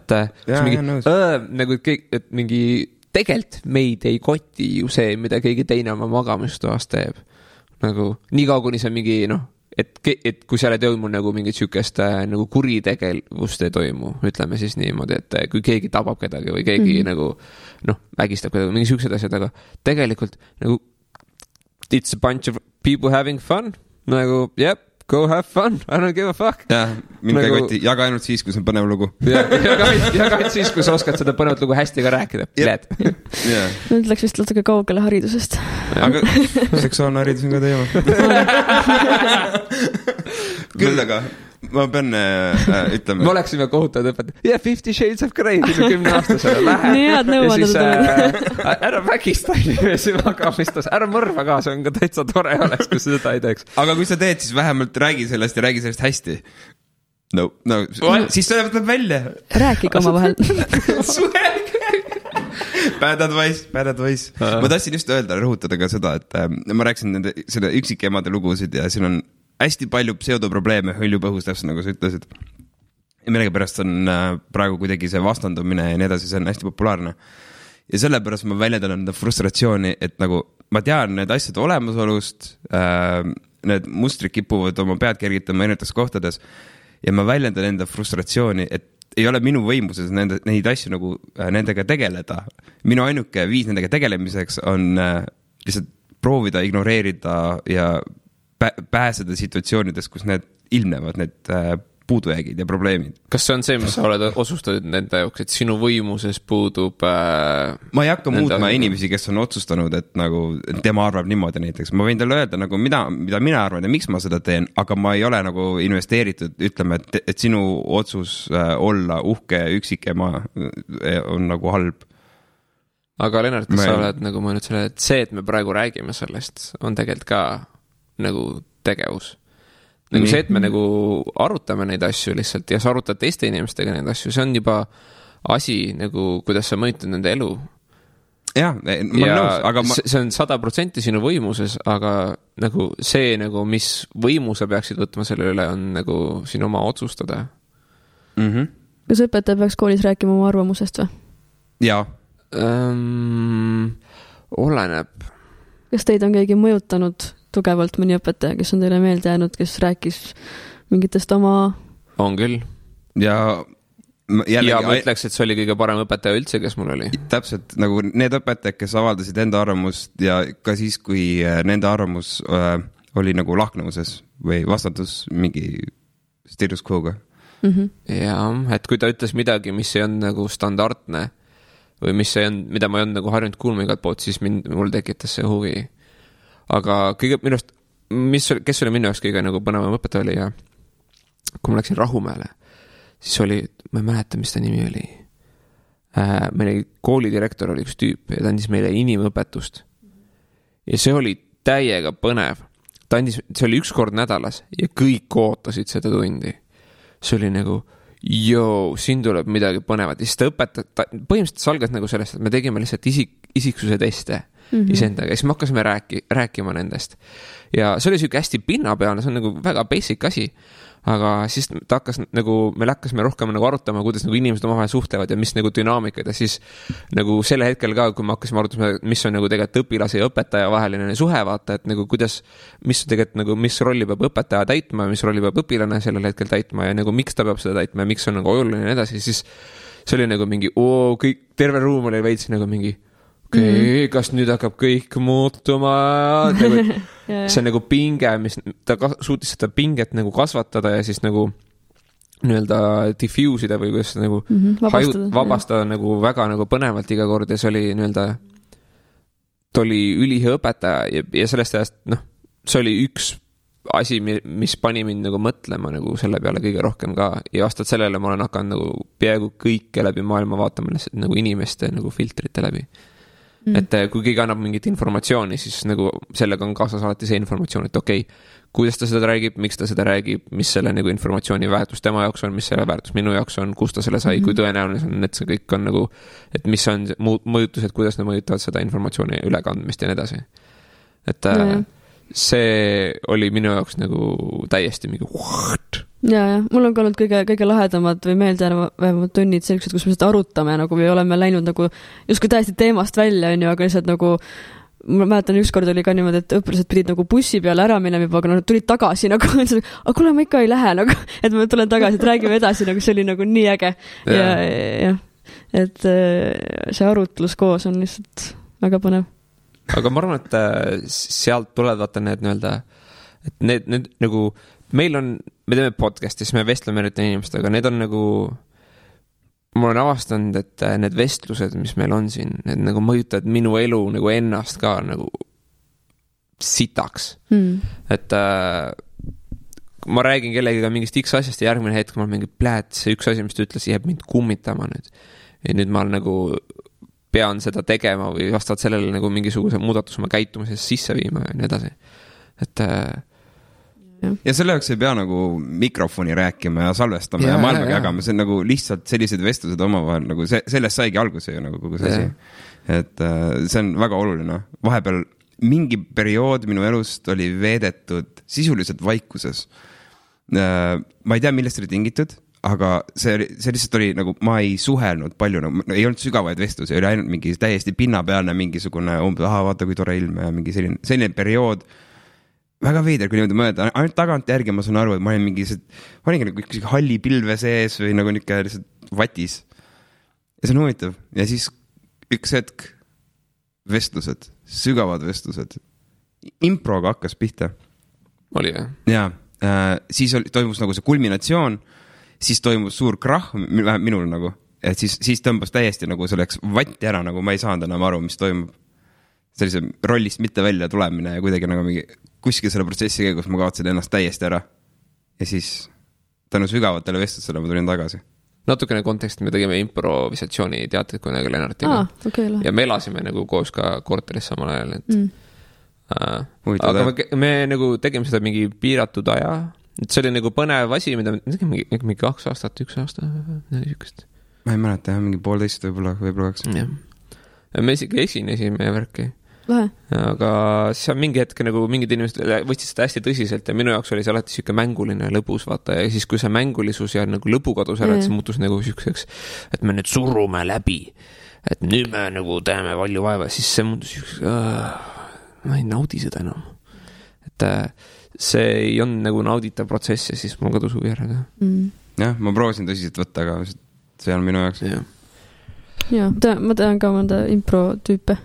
nagu kõik, et mingi tegelikult meid ei koti ju see, mida keegi teine oma magamistoas teeb. Nagu nii kaua, kuni see mingi, et kui seal ei toimu nagu mingit sükest nagu kuritegevust ei toimu, ütleme siis niimoodi, et kui keegi tabab kedagi või keegi nagu, ägistab kedagi, mingi sükesed asjad, aga tegelikult nagu it's a bunch of people having fun, nagu, yep, go have fun, I don't give a fuck. Jah, mind nagu, koti, jaga ainult siis, kui see on põnev lugu. Jaga ainult siis, kui sa oskad seda põnevat lugu hästi ka rääkida. Nüüd läks vist natuke kaugele haridusest. Aga seksuaalne haridus on ka teema. Küll aga ma pean ütlema. Me oleksime kohutavad õpetavad. 50 Shades of Grey 10 aastasele lähe. Nii head nõuanded. Ära vägista inimesi magamistas. Ära mõrva ka, see on ka täitsa tore oleks, kui seda ei teeks. Aga kui sa teed, siis vähemalt räägi sellest ja räägi sellest hästi. No, siis sa võtab välja. Rääkige oma vahel. Bad advice. Ma tahtsin just öelda, rõhutada ka seda, et ma rääkisin selle üksikemade lugusid ja siin on hästi palju pseudoprobleeme hõljupõhus, täpselt nagu sa ütlesid. Ja millegipärast on praegu kuidagi see vastandumine ja nii edasi, see on hästi populaarne. Ja sellepärast ma väljendan enda frustratsiooni, et nagu ma tean need asjad olemasolust, need mustrid kipuvad oma pead kergitama erinevates kohtades ja ma väljendan enda frustratsiooni, et ei ole minu võimuses neid asju nagu nendega tegeleda. Minu ainuke viis nendega tegelemiseks on lihtsalt proovida ignoreerida ja pääseda situatsioonides, kus need ilmnevad, need puudujäägid ja probleemid. Kas see on see, mis sa oled otsustanud nende jaoks, et sinu võimuses puudub ma ei hakka muutma inimesi, kes on otsustanud, et nagu tema arvab niimoodi näiteks. Ma võin talle öelda, nagu mida mina arvan ja miks ma seda teen, aga ma ei ole nagu investeeritud, ütleme, et sinu otsus olla uhke üksikema on nagu halb. Aga Lennart, kas sa oled nagu mõelnud selle, et see, et me praegu räägime sellest, on tegelikult ka nagu tegevus. Nagu see, et me nagu arutame neid asju lihtsalt ja sa arutad teiste inimestega neid asju, see on juba asi nagu, kuidas sa mõjutad nende elu. Jah, ma olen nõus, aga see on 100% sinu võimuses, aga nagu see nagu, mis võimu sa peaksid võtma selle üle, on nagu sinu oma otsustada. Kas õpetaja peaks koolis rääkima oma arvamusest või? Jaa. Oleneb. Kas teid on keegi mõjutanud tugevalt mõni õpetaja, kes on teile meelde jäänud, kes rääkis mingitest oma... On küll. Ja ma ütleks, et see oli kõige parem õpetaja üldse, kes mul oli. Täpselt, nagu need õpetajad, kes avaldasid enda arvamust ja ka siis, kui nende arvamus oli nagu lahknevuses või vastatus mingi status quo'ga. Ja, et kui ta ütles midagi, mis ei on nagu standardne või mis ei on, mida ma ei on nagu harjunud kuulma igalt poolt, siis mul tekitas see huvi. Aga kõige minust, kes oli minu jaoks kõige nagu põnevam õpetaja oli ja kui ma läksin Rahumäele, siis oli, ma ei mäleta, mis ta nimi oli. Meil koolidirektor oli üks tüüp ja ta andis meile inimõpetust. Ja see oli täiega põnev. See oli üks kord nädalas ja kõik ootasid seda tundi. See oli nagu, siin tuleb midagi põnevat. Ja siis ta õpetab, põhimõtteliselt salgas nagu sellest, et me tegime lihtsalt isiksuse teste isendaga. Ja siis me hakkasime rääkima nendest. Ja see oli siuke hästi pinnapealne, see on nagu väga basic asi. Aga siis ta hakkas nagu, meil hakkasime rohkem nagu arutama, kuidas nagu inimesed omavahel suhtlevad ja mis nagu dünaamikad. Ja siis nagu selle hetkel ka, kui me hakkasime arutama, mis on nagu tegelikult õpilase ja õpetaja vaheline suhe, vaata, et nagu kuidas, mis tegelikult nagu, mis rolli peab õpetaja täitma, mis rolli peab õpilane sellel hetkel täitma ja nagu miks ta peab seda täitma ja miks on nagu oluline ja edasi. Siis see oli nagu mingi, kõik, terve ruum oli veits nagu mingi kas nüüd hakkab kõik muutuma see on nagu pinge, mis ta suutis seda pinget nagu kasvatada ja siis nagu nii-öelda diffuusida või kuidas nagu vabastada nagu väga nagu põnevalt iga kord ja see oli nii-öelda ta oli ülihea õpetaja ja sellest ajast, see oli üks asi, mis pani mind nagu mõtlema nagu selle peale kõige rohkem ka ja vastavalt sellele ma olen hakanud nagu peaaegu kõike läbi maailma vaatama nagu inimeste nagu filtrite läbi. Et kui keegi annab mingit informatsiooni, siis nagu sellega on kaasas alati see informatsioon, et okei, kuidas ta seda räägib, miks ta seda räägib, mis selle nagu informatsiooni väärtus tema jaoks on, mis selle väärtus minu jaoks on, kus ta selle sai, kui tõenäoline on, et see kõik on nagu, et mis on mõjutused, kuidas nad mõjutavad seda informatsiooni ülekandmist ja nii edasi. Et see oli minu jaoks nagu täiesti mingi ja mul on ka olnud kõige lahedamad või meeldejäävamad tunnid sellised, kus me seda arutame nagu või oleme läinud nagu justkui täiesti teemast välja, on ju, aga lihtsalt nagu ma mäletan, ükskord oli ka niimoodi, et õpilased pidid nagu bussi peale ära minema juba, aga nad tulid tagasi nagu, aga kuule, ma ikka ei lähe nagu, et ma tulen tagasi, et räägime edasi, nagu see oli nagu nii äge ja et see arutlus koos on lihtsalt väga põnev. Aga ma arvan, et sealt tulevad vaata need nii-öelda, et need nagu meil me teeme podcasti, siis me vestleme eriti inimestega, need on nagu ma olen avastanud, et need vestlused, mis meil on siin, need nagu mõjutavad minu elu nagu ennast ka nagu sitaks. Et ma räägin kellegiga mingist X asjast ja järgmine hetk ma olen mingi see üks asi, mis ta ütles, jääb mind kummitama nüüd. Ja nüüd ma nagu pean seda tegema või vastavalt sellele nagu mingisuguse muudatuse oma käitumises sisse viima ja nii edasi. Et ja selle jaoks ei pea nagu mikrofoni rääkima ja salvestama ja maailmaga jagama, see on nagu lihtsalt sellised vestlused omavahel, nagu sellest saigi alguse ju nagu kogu see asi. Et see on väga oluline. Vahepeal mingi periood minu elust oli veedetud sisuliselt vaikuses. Ma ei tea, millest oli tingitud, aga see lihtsalt oli nagu, ma ei suhelnud palju, nagu, ei olnud sügavaid vestlusi, oli ainult mingi täiesti pinnapealne mingisugune vaata kui tore ilm ja mingi selline periood. Väga veider, kui niimoodi mõelda, ainult tagant järgi ma saan aru, et ma olin olingi nagu üks halli pilve sees või nagu niisugune lihtsalt vatis. Ja see on huvitav. Ja siis üks hetk vestlused, sügavad vestlused. Improga hakkas pihta. Oli jah? Ja siis toimus nagu see kulminatsioon, siis toimus suur krahh minul nagu, et siis tõmbas täiesti nagu selleks vatti ära, nagu ma ei saanud enam aru, mis toimub. Sellise rollist mitte välja tulemine ja kuidagi nagu mingi kuskil selle protsessi käigus ma kaotsin ennast täiesti ära. Ja siis tänu sügavatele vestlusele ma tulin tagasi. Natukene konteksti me tegime improvisatsiooni teatrit kunagi Lennartiga. Ja me elasime nagu koos ka korteris samal ajal. Aga me nagu tegime seda mingi piiratud aja. Et see oli nagu põnev asi, mida me tegime mingi 2 aastat, 1 aasta. Ma ei mäleta, mingi 1,5 võib-olla 2. Me isegi esinesime värki. Lahe. Aga see on mingi hetk nagu mingid inimesed võtsid seda hästi tõsiselt ja minu jaoks oli see alati siuke mänguline lõbus, vaata, ja siis kui see mängulisus ja nagu lõbu kadus ära, et see muutus nagu siukseks, et me nüüd surume läbi, et nüüd me nagu teeme palju vaeva, siis see muutus siukseks, ma ei naudi seda enam. Et see ei on nagu nauditav protsess ja siis mul kadus huvi ära. Jah, ma proovisin tõsiselt võtta, aga see on minu jaoks. Ja, ma tean ka mõnda impro-tüüpe.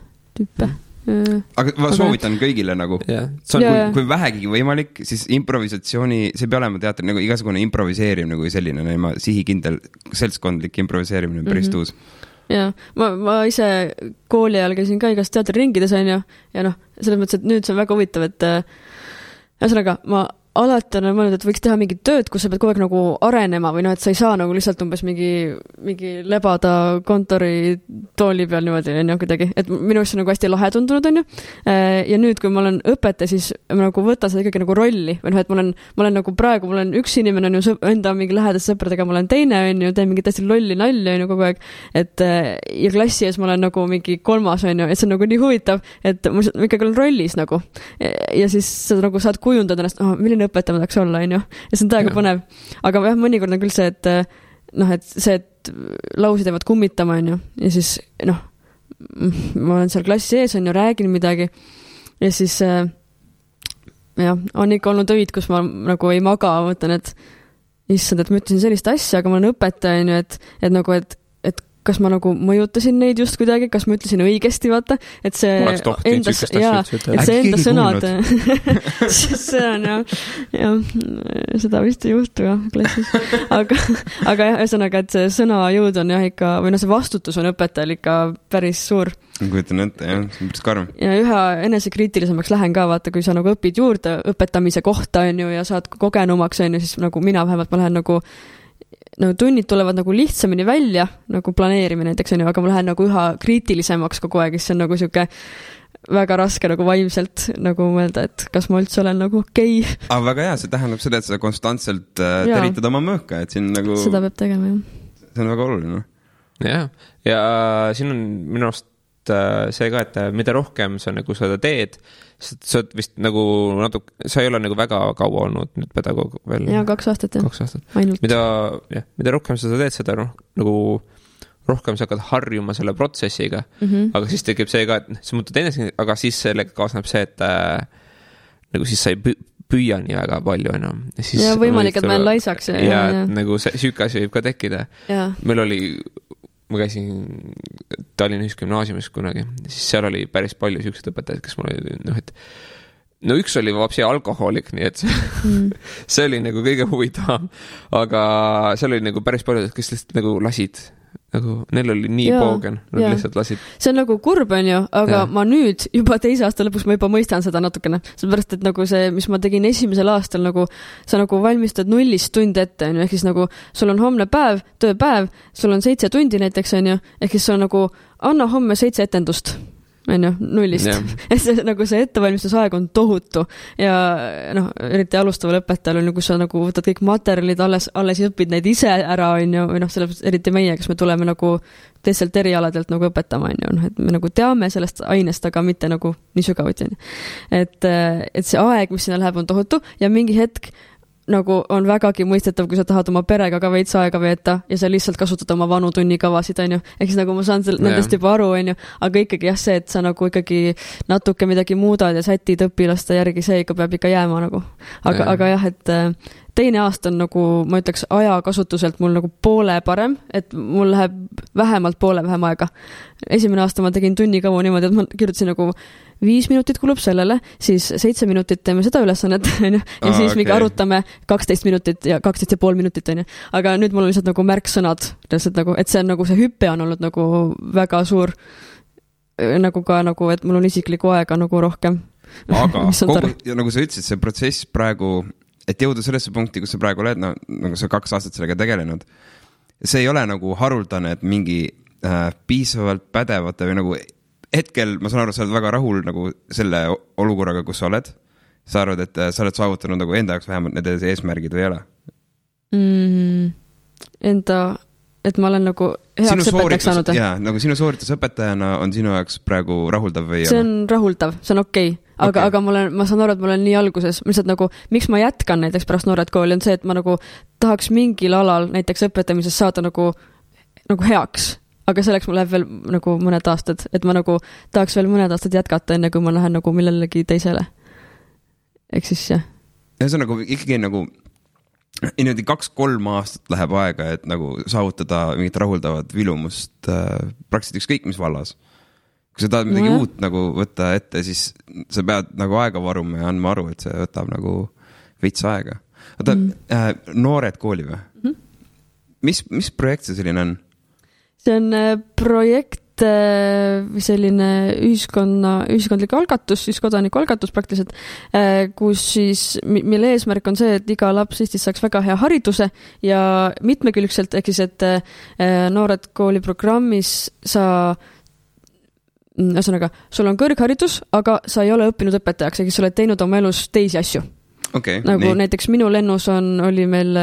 Aga ma soovitan kõigile nagu, kui vähegi võimalik, siis improvisatsiooni, see peab olema teater, nagu igasugune improviseerimine kui selline, sihikindel seltskondlik improviseerimine päris tuus. Ja, ma ise kooli ajal käisin ka igast teatriringides, on ju, ja selles mõttes, et nüüd see on väga huvitav, et ühesõnaga, ma alati on mõelnud, et võiks teha mingit tööd, kus sa pead kogu aeg nagu arenema või et sa ei saa nagu lihtsalt umbes mingi lebada kontori tooli peal niimoodi, on ju, kuidagi. Et minu arust on nagu hästi lahe tundunud, on ju. Ja nüüd, kui ma olen õpetaja, siis ma nagu võtan seda ikkagi nagu rolli. Või et ma olen nagu praegu, mul on üks inimene, on ju, enda mingi lähedast sõpradega, ma olen teine, on ju, teen mingi täiesti lolli nalja, on ju, kogu aeg. Et ja klassi ees ma olen nagu mingi 3, on ju, et see on nagu nii huvitav, et ma ikkagi olen rollis nagu. Ja siis sa nagu saad kujundada ennast, milline õpetaja ma tahaks olla, on ju. Ja see on täiega põnev. Aga mõnikord on küll see, et lausid jäävad kummitama, on ju. Ja siis, ma olen seal klassi ees, on ju, räägin midagi. Ja siis, on ikka olnud öid, kus ma nagu ei maga, mõtlen, et issand, et ma ütlesin sellist asja, aga ma olen õpetaja, on ju, et nagu, et kas ma nagu mõjutasin neid just kuidagi, kas ma ütlesin õigesti, vaata, et see enda sõnad, see on seda vist ei juhtu jah klassis, aga ühesõnaga, et see sõnajõud on jah ikka, või see vastutus on õpetajal ikka päris suur. Kujutan ette, jah, see on päris karm. Ja üha enesekriitilisemaks lähen ka, vaata, kui sa nagu õpid juurde õpetamise kohta, on ju, ja saad kogenumaks, on ju, siis nagu mina vähemalt ma lähen nagu tunnid tulevad nagu lihtsamini välja, nagu planeerimine näiteks on ju, aga ma lähen nagu üha kriitilisemaks kogu aeg, siis see on nagu siuke väga raske nagu vaimselt nagu mõelda, et kas ma üldse olen nagu okei. Aga väga hea, see tähendab seda, et sa konstantselt teritad oma mõõka, et siin nagu... Seda peab tegema, jah. See on väga oluline. Ja siin on minu arust see ka, et mida rohkem sa nagu seda teed, sa oled vist nagu sa ei ole nagu väga kaua olnud nüüd pedagoog veel. Jaa, 2 aastat, jah. 2 aastat. Mida rohkem sa teed seda, nagu rohkem sa hakkad harjuma selle protsessiga, aga siis tekib see ka, et sa muutud ennast, aga siis sellega kaasneb see, et nagu siis sa ei püüa nii väga palju enam. Ja võimalik, et ma olen laisaks. Ja nagu süüke asi võib ka tekkida. Meil oli, ma käisin Tallinna Ühisgümnaasiumis kunagi, siis seal oli päris palju süüksed õpetajaid, kes mul oli, et üks oli vapsi alkohoolik, nii et see oli nagu kõige huvitavam, aga seal oli nagu päris palju, kes lihtsalt nagu lasid. Nagu neil oli nii poogen, nad lihtsalt lasid. See on nagu kurb, on ju, aga ma nüüd juba 2. aasta lõpuks ma juba mõistan seda natukene. Sellepärast, et nagu see, mis ma tegin 1. aastal, nagu sa nagu valmistad 0 tund ette, on ju, ehk siis nagu sul on homne päev, tööpäev, sul on 7 tundi näiteks, on ju, ehk siis sul on nagu anna homme 7 etendust. On ju, 0. Et see, nagu see ettevalmistusaeg on tohutu ja eriti alustaval õpetajal on, kus sa nagu võtad kõik materjalid, alles õpid neid ise ära, on ju, või sellepärast eriti meie, kes me tuleme nagu teistelt erialadelt nagu õpetama, on ju, et me nagu teame sellest ainest, aga mitte nagu nii sügavuti, on ju. Et see aeg, mis sinna läheb, on tohutu ja mingi hetk nagu on vägagi mõistetav, kui sa tahad oma perega ka veits aega veeta ja sa lihtsalt kasutad oma vanu tunnikavasid, on ju. Ehk siis nagu ma saan nendest juba aru, on ju, aga ikkagi jah, see, et sa nagu ikkagi natuke midagi muudad ja sätid õpilaste järgi, see ikka peab ikka jääma nagu. Aga jah, et 2. aasta on nagu, ma ütleks, ajakasutuselt mul nagu poole parem, et mul läheb vähemalt poole vähem aega. 1. aasta ma tegin tunnikavu niimoodi, et ma kirjutasin nagu 5 minutit kulub sellele, siis 7 minutit teeme seda ülesannet, ja siis mingi arutame 12 minutit ja 12,5 minutit, on ju. Aga nüüd mul on lihtsalt nagu märksõnad, nagu, et see on nagu see hüppe on olnud nagu väga suur, nagu ka nagu, et mul on isiklikku aega nagu rohkem. Aga nagu sa ütlesid, see protsess praegu, et jõuda sellesse punkti, kus sa praegu oled, nagu sa 2 aastat sellega tegelenud, see ei ole nagu haruldane, et mingi piisavalt pädevate või nagu hetkel, ma saan aru, sa oled väga rahul nagu selle olukorraga, kus sa oled. Sa arvad, et sa oled saavutanud nagu enda jaoks vähemalt need eesmärgid või ei ole? Et ma olen nagu heaks õpetajaks saanud. Jaa, nagu sinu sooritus õpetajana on sinu jaoks praegu rahuldav või ei ole? See on rahuldav, see on okei. Aga ma saan aru, et ma olen nii alguses, lihtsalt nagu, miks ma jätkan näiteks pärast noored kooli, on see, et ma nagu tahaks mingil alal näiteks õpetamises saada nagu heaks. Aga selleks mul läheb veel nagu mõned aastad, et ma nagu tahaks veel mõned aastad jätkata, enne kui ma lähen nagu millelegi teisele. Ehk siis, jah. Ja see on nagu ikkagi nagu 2-3 aastat läheb aega, et nagu saavutada mingit rahuldavat vilumust praktiliselt ükskõik mis vallas. Kui sa tahad midagi uut nagu võtta ette, siis sa pead nagu aega varuma ja andma aru, et see võtab nagu veits aega. Noored kooli või? Mis projekt see selline on? See on projekt või selline ühiskondlik algatus, siis kodaniku algatus praktiliselt, kus siis, mille eesmärk on see, et iga laps Eestis saaks väga hea hariduse ja mitmekülgselt, ehk siis, et noored kooli programmis ühesõnaga, sul on kõrgharidus, aga sa ei ole õppinud õpetajaks, ehk siis sa oled teinud oma elus teisi asju. Okay, nagu nii. Näiteks minu lennus oli meil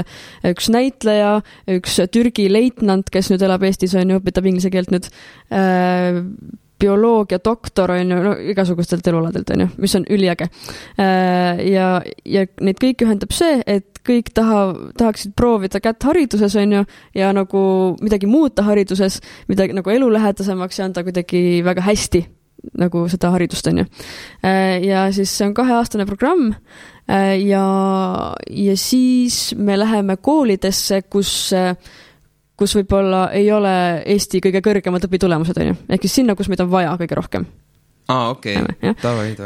üks näitleja, üks Türgi leitnant, kes nüüd elab Eestis, on ju, õpetab inglise keelt nüüd, bioloogia doktor, on ju, igasugustelt elualadelt, on ju, mis on üliäge. Ja neid kõik ühendab see, et kõik tahaksid proovida kätt hariduses, on ju, ja nagu midagi muuta hariduses, midagi nagu elulähedasemaks ja anda kuidagi väga hästi nagu seda haridust, on ju. Ja siis see on 2-aastane programm ja siis me läheme koolidesse, kus võib-olla ei ole Eesti kõige kõrgemad õpitulemused, on ju. Ehk siis sinna, kus meid on vaja kõige rohkem. Okei. Tavai.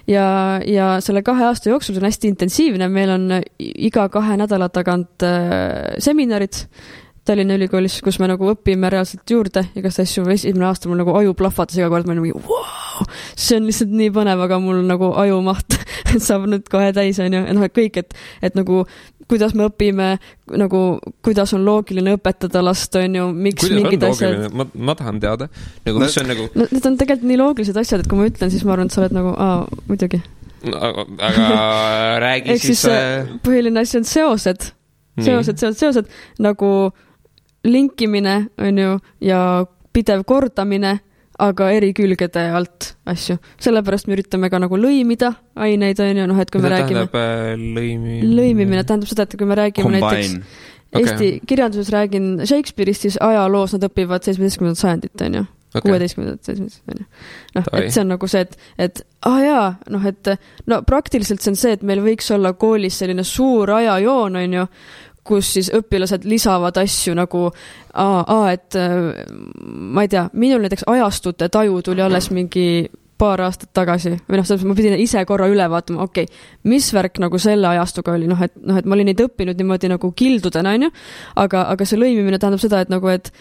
Ja selle 2 aasta jooksul on hästi intensiivne, meil on iga 2 nädala tagant seminarid Tallinna Ülikoolis, kus me nagu õpime reaalselt juurde igast asju. 1. aasta mul nagu aju plahvatas iga kord, ma olen nagu, wow, see on lihtsalt nii põnev, aga mul nagu aju maht saab nüüd kohe täis, on ju. Kõik, et nagu kuidas me õpime, nagu kuidas on loogiline õpetada last, on ju, miks mingid asjad. Ma tahan teada. Nagu, mis on nagu... Need on tegelikult nii loogilised asjad, et kui ma ütlen, siis ma arvan, et sa oled nagu, muidugi. Aga räägi siis... Põhiline asi on seosed, nagu linkimine, on ju, ja pidev kordamine, aga eri külgede alt asju. Sellepärast me üritame ka nagu lõimida aineid, on ju, et kui me räägime... Lõimimine tähendab seda, et kui me räägime näiteks Eesti kirjanduses räägin Shakespeare'ist, siis ajaloos nad õpivad 17. sajandit, on ju. 16. 17. on ju. Et see on nagu see, et praktiliselt see on see, et meil võiks olla koolis selline suur ajajoon, on ju, kus siis õpilased lisavad asju nagu et ma ei tea, minul näiteks ajastute taju tuli alles mingi paar aastat tagasi või ma pidin ise korra üle vaatama, mis värk nagu selle ajastuga oli, et ma olin neid õppinud niimoodi nagu kildudena, on ju, aga see lõimimine tähendab seda, et nagu, et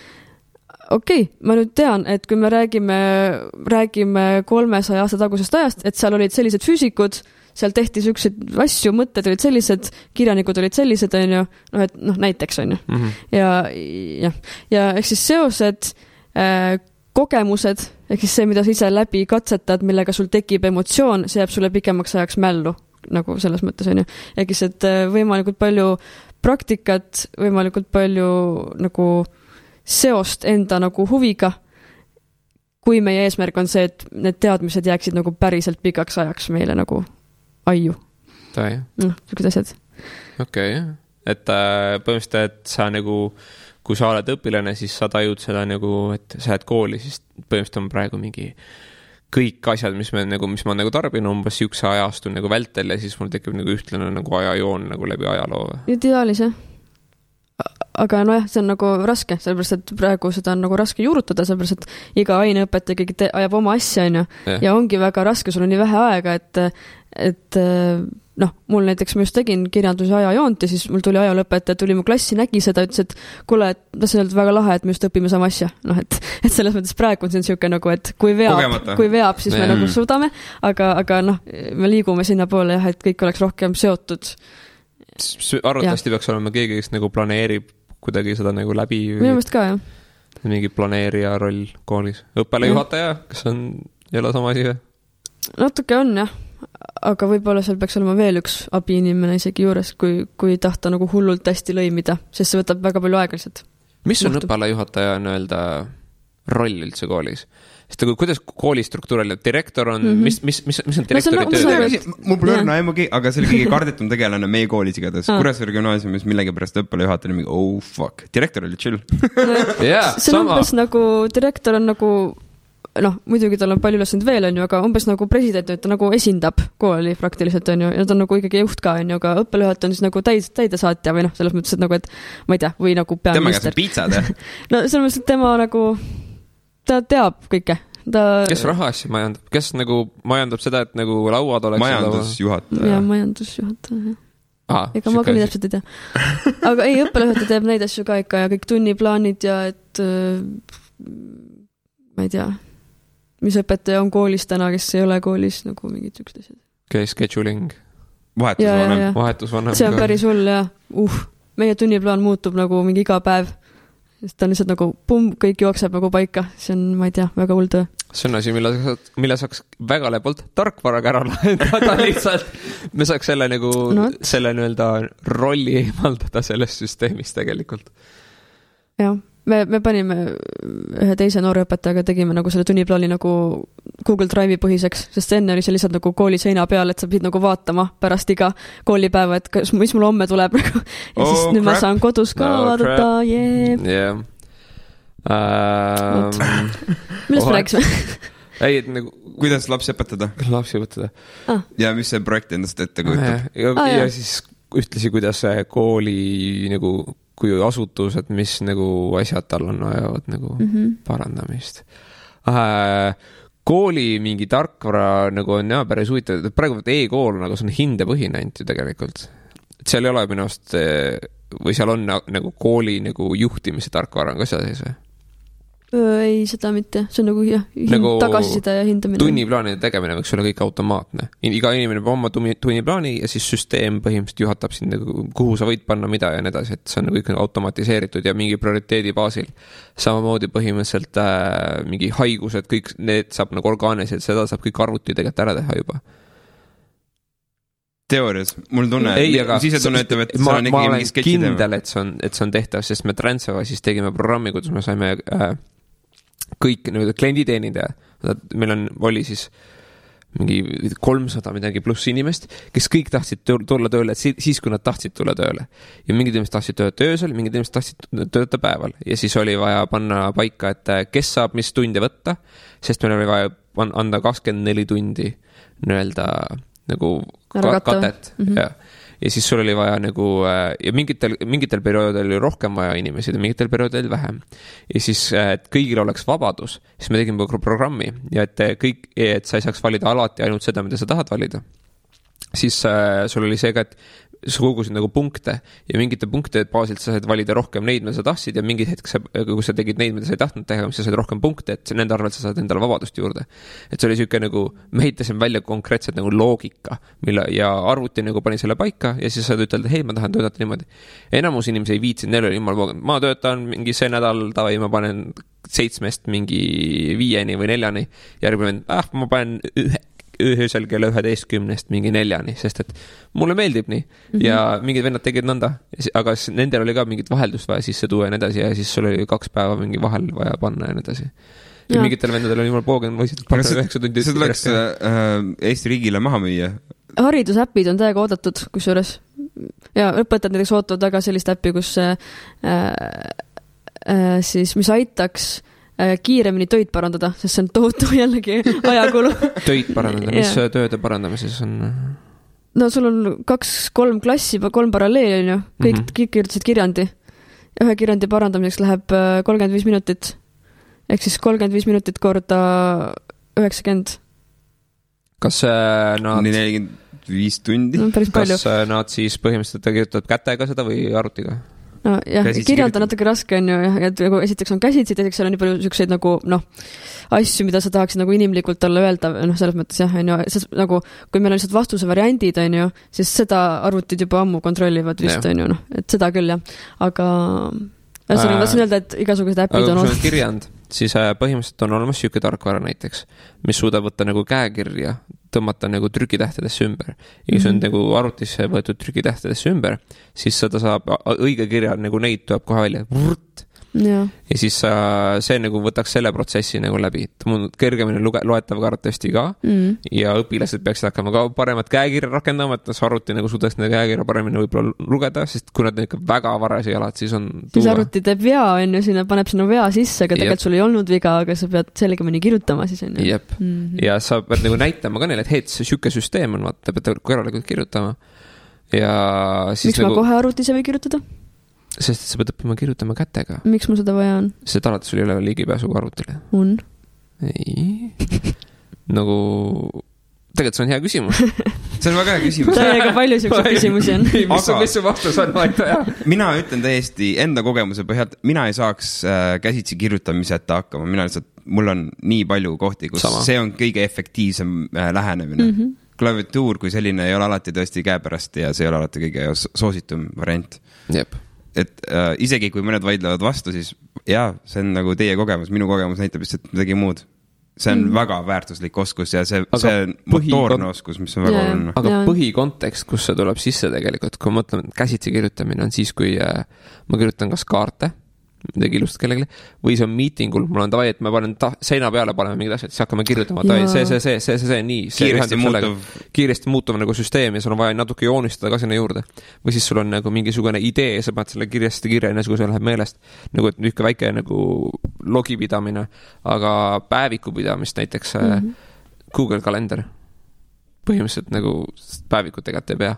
ma nüüd tean, et kui me räägime 300 aasta tagusest ajast, et seal olid sellised füüsikud, seal tehti selliseid asju, mõtted olid sellised, kirjanikud olid sellised, on ju, näiteks, on ju. Ja ehk siis seosed, kogemused, ehk siis see, mida sa ise läbi katsetad, millega sul tekib emotsioon, see jääb sulle pikemaks ajaks mällu, nagu selles mõttes, on ju. Ehk siis, et võimalikult palju praktikat, võimalikult palju nagu seost enda nagu huviga, kui meie eesmärk on see, et need teadmised jääksid nagu päriselt pikaks ajaks meile nagu aiu. Sellised asjad. Et põhimõtteliselt, et sa nagu, kui sa oled õpilane, siis sa tajud seda nagu, et sa jääd kooli, siis põhimõtteliselt on praegu mingi kõik asjad, mis ma nagu tarbin umbes siukse ajastu nagu vältel ja siis mul tekib nagu ühtlane nagu ajajoon nagu läbi ajaloo. Ideaalis, jah. Aga see on nagu raske, sellepärast, et praegu seda on nagu raske juurutada, sellepärast, et iga aineõpetaja ikkagi ajab oma asja, on ju, ja ongi väga raske, sul on nii vähe aega, et mul näiteks ma just tegin kirjanduse ajajoont ja siis mul tuli ajalõpetaja, tuli mu klassi, nägi seda, ütles, et kuule, et see on väga lahe, et me just õpime sama asja. Et selles mõttes praegu on see siuke nagu, et kui veab, siis me nagu suudame, aga me liigume sinna poole, jah, et kõik oleks rohkem seotud. Arvatavasti peaks olema keegi, kes nagu planeerib kuidagi seda nagu läbi. Minu mõist ka, jah. Mingi planeerija roll koolis. Õppealajuhataja, kas on jälle sama asi või? Natuke on, jah. Aga võib-olla seal peaks olema veel üks abiinimene isegi juures, kui tahta nagu hullult hästi lõimida, sest see võtab väga palju aega lihtsalt. Mis on õppealajuhataja öelda roll üldse koolis? Sest kuidas kooli struktuuril, direktor on, mis on direktori töö? Mul pole õrna aimugi, aga see oli kõige kardetum tegelane meie koolis igatahes. Kuressaare gümnaasiumis millegipärast õppealajuhataja mingi, fuck, direktor oli chill. See on umbes nagu, direktor on nagu, muidugi tal on palju ülesand veel, on ju, aga umbes nagu president, ta nagu esindab kooli praktiliselt, on ju, ja ta on nagu ikkagi juht ka, on ju, aga õppealajuhataja on siis nagu täidesaatja või selles mõttes, et nagu, et ma ei tea, või nagu peaminister. Tema käes piitsad, jah? Selles mõttes, et tema nagu ta teab kõike. Kes raha asja majandab? Kes nagu majandab seda, et nagu lauad oleks... Majandusjuhataja. Ja majandusjuhataja. Ega ma küll täpselt ei tea. Aga ei, õppealajuhataja teeb neid asju ka ikka ja kõik tunniplaanid ja et ma ei tea, mis õpetaja on koolis täna, kes ei ole koolis, nagu mingid üks asjad. Scheduling. Vahetusvanem. See on päris hull, jah. Meie tunniplaan muutub nagu mingi iga päev. Ta on lihtsalt nagu kõik jookseb nagu paika. See on, ma ei tea, väga hull töö. See on asi, mille saaks väga lepalt tarkvaraga ära lahendada lihtsalt. Me saaks selle nagu, selle nii-öelda rolli eemaldada sellest süsteemist tegelikult. Jah, me panime ühe teise noore õpetajaga, tegime nagu selle tunniplaani nagu Google Drive'i põhiseks, sest enne oli see lihtsalt nagu kooli seina peal, et sa pidid nagu vaatama pärast iga koolipäeva, et mis mul homme tuleb ja siis nüüd ma saan kodus ka vaadata, millest me rääkisime? Ei, et nagu... Kuidas lapsi õpetada? Ja mis see projekt endast ette kujutab? Ja siis ühtlasi, kuidas kooli nagu kui asutused, mis nagu asjad tal on vajavad nagu parandamist. Kooli mingi tarkvara nagu on päris huvitav, et praegu e-kool nagu see on hindepõhine ainult ju tegelikult. Et seal ei ole minust, või seal on nagu kooli nagu juhtimise tarkvara on ka seda sees või? Ei, seda mitte. See on nagu tagasisida ja hindamine. Tunniplaanide tegemine võiks olla kõik automaatne. Iga inimene peab oma tunniplaani ja siis süsteem põhimõtteliselt juhatab sind, nagu, kuhu sa võid panna mida ja nii edasi, et see on kõik automatiseeritud ja mingi prioriteedi baasil. Samamoodi põhimõtteliselt mingi haigused, kõik need saab nagu orgaanilised, seda saab kõik arvuti tegelikult ära teha juba. Teoorias, mul tunne, sisetunne ütleb, et ma olen kindel, et see on tehtav, sest me Transeva siis tegime programmi, kuidas me saime kõik klienditeenindaja, meil oli siis mingi 300 midagi pluss inimest, kes kõik tahtsid tulla tööle siis, kui nad tahtsid tulla tööle. Ja mingid inimesed tahtsid töötada öösel, mingid inimesed tahtsid töötada päeval. Ja siis oli vaja panna paika, et kes saab mis tunde võtta, sest meil oli vaja anda 24 tundi nii-öelda nagu katet. Ja siis sul oli vaja nagu, ja mingitel perioodil oli rohkem vaja inimesi ja mingitel perioodil vähem. Ja siis, et kõigil oleks vabadus, siis me tegime programmi ja et sa ei saaks valida alati ainult seda, mida sa tahad valida. Siis sul oli see ka, et sa kogusid nagu punkte ja mingite punktide baasilt sa said valida rohkem neid, mida sa tahtsid ja mingid hetk, kui sa tegid neid, mida sa ei tahtnud teha, siis sa said rohkem punkte, et nende arvelt sa saad endale vabadust juurde. Et see oli selline nagu, me heitasime välja konkreetselt nagu loogika, ja arvuti nagu pani selle paika ja siis saad ütelda, hei, ma tahan töötada niimoodi. Enamus inimesi ei viitsid, neil oli jumal pooganud. Ma töötan mingi see nädal, tavai, ma panen 7 mingi 5 või 4, järgmine, ma panen öösel kella 11 mingi 4, sest et mulle meeldib nii ja mingid vennad tegid nõnda, aga nendel oli ka mingit vaheldust vaja sisse tuua ja nii edasi ja siis sul oli 2 päeva mingi vahel vaja panna ja nii edasi. Ja mingitel vendadel oli jumal poogen, võisid panna 9 tundi. See tuleks Eesti riigile maha müüa. Haridusäpid on täiega oodatud, kusjuures. Ja õpetajad näiteks ootavad väga sellist äppi, kus siis, mis aitaks kiiremini töid parandada, sest see on tohutu jällegi ajakulu. Töid parandada, mis tööde parandamises on? No sul on 2-3 klassi, 3 paralleeli on ju, kõik kirjutasid kirjandi. Ühe kirjandi parandamiseks läheb 35 minutit, ehk siis 35 minutit korda 90. Kas nad... 45 tundi? No, päris palju. Kas nad siis põhimõtteliselt kirjutavad kätega seda või arvutiga? No, jah, kirjanda natuke raske on ju, et esiteks on käsitsi, teiseks seal on nii palju selliseid nagu, asju, mida sa tahaksid nagu inimlikult olla öelda, selles mõttes jah, on ju, nagu, kui meil on lihtsalt vastuse variandid, on ju, siis seda arvutid juba ammu kontrollivad vist, on ju, et seda küll, jah. Aga ma tahtsin öelda, et igasugused äpid on olemas. Kirjand, siis põhimõtteliselt on olemas siuke tarkvara näiteks, mis suudab võtta nagu käekirja, tõmmata nagu trükitähtedesse ümber. Ja kui see on nagu arvutisse võetud trükitähtedesse ümber, siis seda saab õige kirja, nagu neid tuleb kohe välja. Ja siis see nagu võtaks selle protsessi nagu läbi. Kergemini loetav kartesti ka ja õpilased peaksid hakkama ka paremat käekirja rakendama, et arvuti nagu suudaks nende käekirja paremini võib-olla lugeda, sest kui nad ikka väga varasi jalad, siis on tuua. Siis arvuti teeb vea, on ju, paneb sinna vea sisse, aga tegelikult sul ei olnud viga, aga sa pead selgemini kirjutama siis on ju. Jep. Ja sa pead nagu näitama ka neile, et hei, see süke süsteem on, vaata, pead korralikult kirjutama. Ja siis miks ma kohe arvutise või kirjutada? Sest sa pead õppima kirjutama kätega. Miks mul seda vaja on? Sest alati sul ei ole ligipääsu arvutile. On? Ei. Nagu, tegelikult see on hea küsimus. See on väga hea küsimus. Täiega palju siukseid küsimusi on. Mis su vastus on? Mina ütlen täiesti enda kogemuse põhjalt, mina ei saaks käsitsi kirjutamiseta hakkama. Mina lihtsalt, mul on nii palju kohti, kus see on kõige efektiivsem lähenemine. Klaviatuur kui selline ei ole alati tõesti käepärast ja see ei ole alati kõige soositum variant. Jep. Et isegi kui mõned vaidlevad vastu, siis jaa, see on nagu teie kogemus, minu kogemus näitab vist, et midagi muud. See on väga väärtuslik oskus ja see motoorne oskus, mis on väga oluline. Aga põhikontekst, kus see tuleb sisse tegelikult, kui mõtleme, käsitsi kirjutamine on siis, kui ma kirjutan kas kaarte, midagi ilust kellelegi, või see on miitingul, mul on tavai, et ma panen seina peale, paneme mingid asjad, siis hakkame kirjutama, see, nii, kiiresti muutuv nagu süsteem ja sul on vaja natuke joonistada ka sinna juurde. Või siis sul on nagu mingisugune idee ja sa paned selle kirjast kirja, kui see läheb meelest, nagu et niisugune väike nagu logipidamine, aga päevikupidamist näiteks Google kalender põhimõtteliselt nagu päevikut tegelikult ei pea.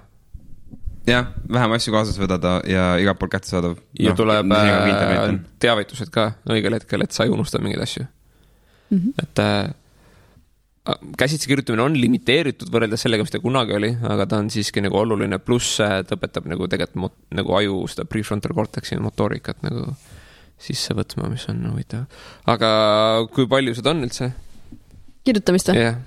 Jah, vähem asju kaasas võdada ja igalt pool kätte saadav. Ja tuleb teavitused ka õigel hetkel, et sa ei unusta mingeid asju. Et käsitsi kirjutamine on limiteeritud võrreldes sellega, mis ta kunagi oli, aga ta on siiski nagu oluline, pluss ta õpetab nagu tegelikult nagu aju seda prefrontal cortexi motoorikat nagu sisse võtma, mis on huvitav. Aga kui palju seda on üldse? Kirjutamist või? Yeah.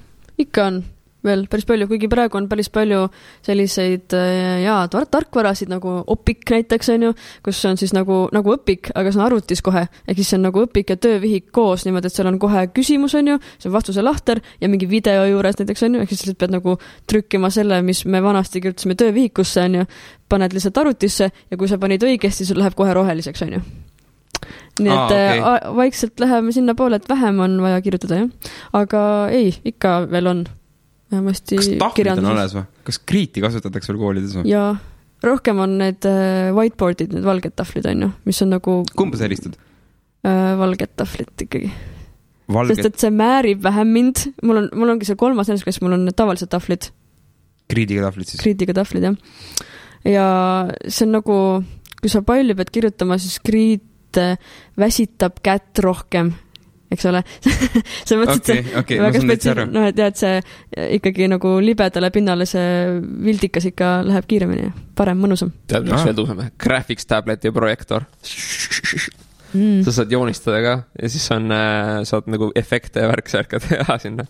Ikka on. Veel päris palju, kuigi praegu on päris palju selliseid tarkvarasid nagu Opik näiteks on ju, kus on siis nagu õpik, aga see on arvutis kohe, ehk siis see on nagu õpik ja töövihik koos niimoodi, et seal on kohe küsimus on ju, see on vastuse lahter ja mingi video juures näiteks on ju, ehk siis pead nagu trükkima selle, mis me vanasti kirjutasime töövihikusse on ju, paned lihtsalt arvutisse ja kui sa panid õigesti, sul läheb kohe roheliseks on ju. nii et vaikselt läheme sinna poole, et vähem on vaja kirjutada, jah. Aga ei, ikka veel on. Vähemasti kas tahvlid on alles või? Kas kriiti kasutatakse veel koolides või? Jaa, rohkem on need whiteboardid, need valged tahvlid on ju, mis on nagu... Kumba sa helistad? Valged tahvlid ikkagi. Sest et see määrib vähem mind. Mul ongi see 3. nendes, mul on tavalised tahvlid. Kriidiga tahvlid siis? Kriidiga tahvlid, jah. Ja see on nagu, kui sa palju pead kirjutama, siis kriit väsitab kätt rohkem, eks ole. See mõttes, et väga spetsiaalne, et jah, et see ikkagi nagu libedale pinnale see vildikas ikka läheb kiiremini, parem, mõnusam. Tead, mis veel tõuseme? Graphics tablet ja projektor. Sa saad joonistada ka ja siis saad nagu efekte ja värksärka teha sinna.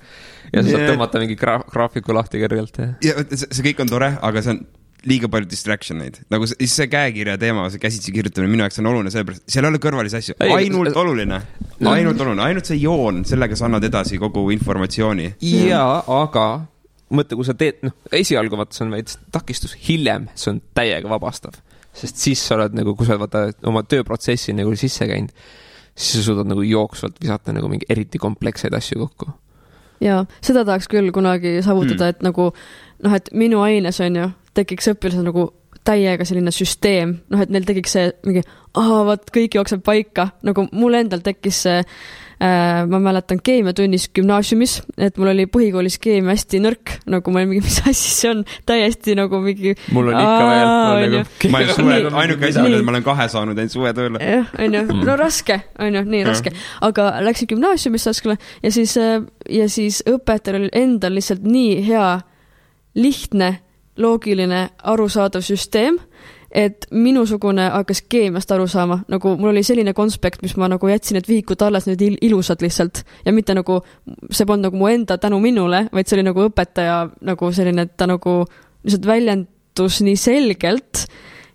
Ja sa saad tõmmata mingi graafiku lahti kõrgelt. Ja see kõik on tore, aga see on liiga palju distractioneid. Nagu see käekirja teema, see käsitsi kirjutamine minu jaoks on oluline, sellepärast seal ei ole kõrvalisi asju. Ainult oluline. Ainult see joon, sellega sa annad edasi kogu informatsiooni. Jaa, aga mõtle, kui sa teed, esialgu vaata, see on veits takistus, hiljem see on täiega vabastav. Sest siis sa oled nagu, kui sa vaata oma tööprotsessi nagu sisse käinud, siis sa suudad nagu jooksvalt visata nagu mingi eriti komplekseid asju kokku. Jaa, seda tahaks küll kunagi saavutada, et nagu, et minu aines on ju, tekiks õpilased nagu täiega selline süsteem, et neil tekiks see mingi, vaat kõik jookseb paika, nagu mul endal tekkis see, ma mäletan keemiatunnis gümnaasiumis, et mul oli põhikoolis keemia hästi nõrk, nagu ma olin mingi, mis asja see on, täiesti nagu mingi... Mul on ikka veel. Ma olen suve, ainuke asja on, et ma olen 2 saanud ainult suve tööle. Jah, on ju, no raske, on ju, nii raske. Aga läksin gümnaasiumisse ja siis õpetajal oli endal lihtsalt nii hea, lihtne, loogiline, arusaadav süsteem, et minusugune hakkas keemiast aru saama. Nagu mul oli selline konspekt, mis ma nagu jätsin, et vihikud alles need ilusad lihtsalt. Ja mitte nagu, see polnud nagu mu enda tänu minule, vaid see oli nagu õpetaja nagu selline, et ta nagu lihtsalt väljendus nii selgelt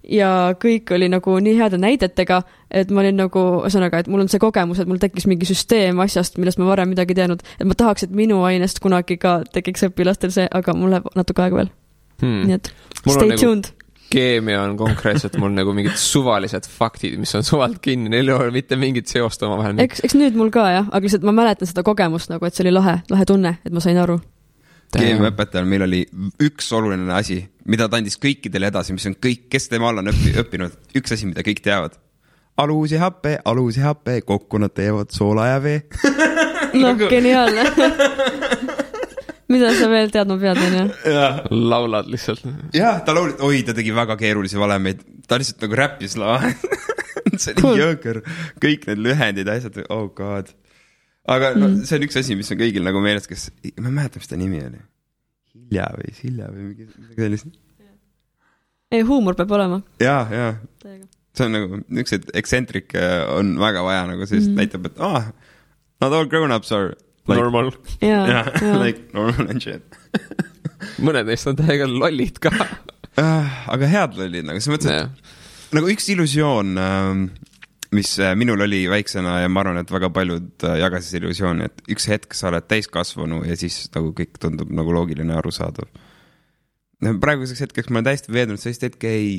ja kõik oli nagu nii heade näidetega, et ma olin nagu, ühesõnaga, et mul on see kogemus, et mul tekkis mingi süsteem asjast, millest ma varem midagi teadnud, et ma tahaks, et minu ainest kunagi ka tekiks õpilastel see, aga mul läheb natuke aega veel. Nii et stay tuned. Keemia on konkreetselt mul nagu mingid suvalised faktid, mis on suvalt kinni, neil ei ole mitte mingit seost oma vahel. Eks nüüd mul ka, jah, aga lihtsalt ma mäletan seda kogemust nagu, et see oli lahe tunne, et ma sain aru. Keemiaõpetajal meil oli üks oluline asi, mida ta andis kõikidele edasi, mis on kõik, kes tema all on õppinud, üks asi, mida kõik teavad. Alus ja happe, kokku nad teevad soola ja vee. Geniaalne. Mida sa veel teadma pead, on ju? Laulad lihtsalt. Jah, ta tegi väga keerulisi valemeid. Ta lihtsalt nagu räppis see oli jõõker. Kõik need lühendid, asjad, oh god. Aga see on üks asi, mis on kõigil nagu meeles, kes, ma mäletan, mis ta nimi oli. Hilja või midagi sellist. Ei, huumor peab olema. Jaa. See on nagu, üks eksentrik on väga vaja, nagu sellist näitab, et not all grown-ups are like, normal. Yeah. Like normal and shit. Mõned neist on täiega lollid ka. Aga head lollid, nagu see mõttes, nagu üks illusioon, mis minul oli väiksena ja ma arvan, et väga paljud jagasid illusiooni, et üks hetk sa oled täiskasvanu ja siis nagu kõik tundub nagu loogiline arusaadav. Praeguseks hetkeks ma olen täiesti veednud, sellist hetke ei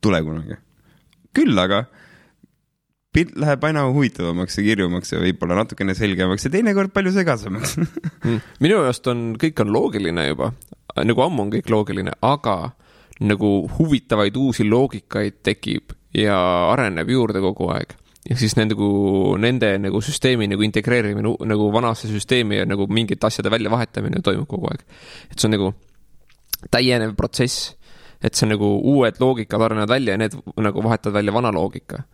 tule kunagi. Küll aga pilt läheb aina huvitavamaks ja kirjumaks ja võib-olla natukene selgemaks ja teinekord palju segasemaks. Minu jaost kõik on loogiline juba, nagu ammu on kõik loogiline, aga nagu huvitavaid uusi loogikaid tekib ja areneb juurde kogu aeg. Ja siis nende nagu süsteemi nagu integreerimine nagu vanasse süsteemi ja nagu mingite asjade välja vahetamine toimub kogu aeg. Et see on nagu täienev protsess, et see nagu uued loogikad arenevad välja ja need nagu vahetavad välja vana loogika.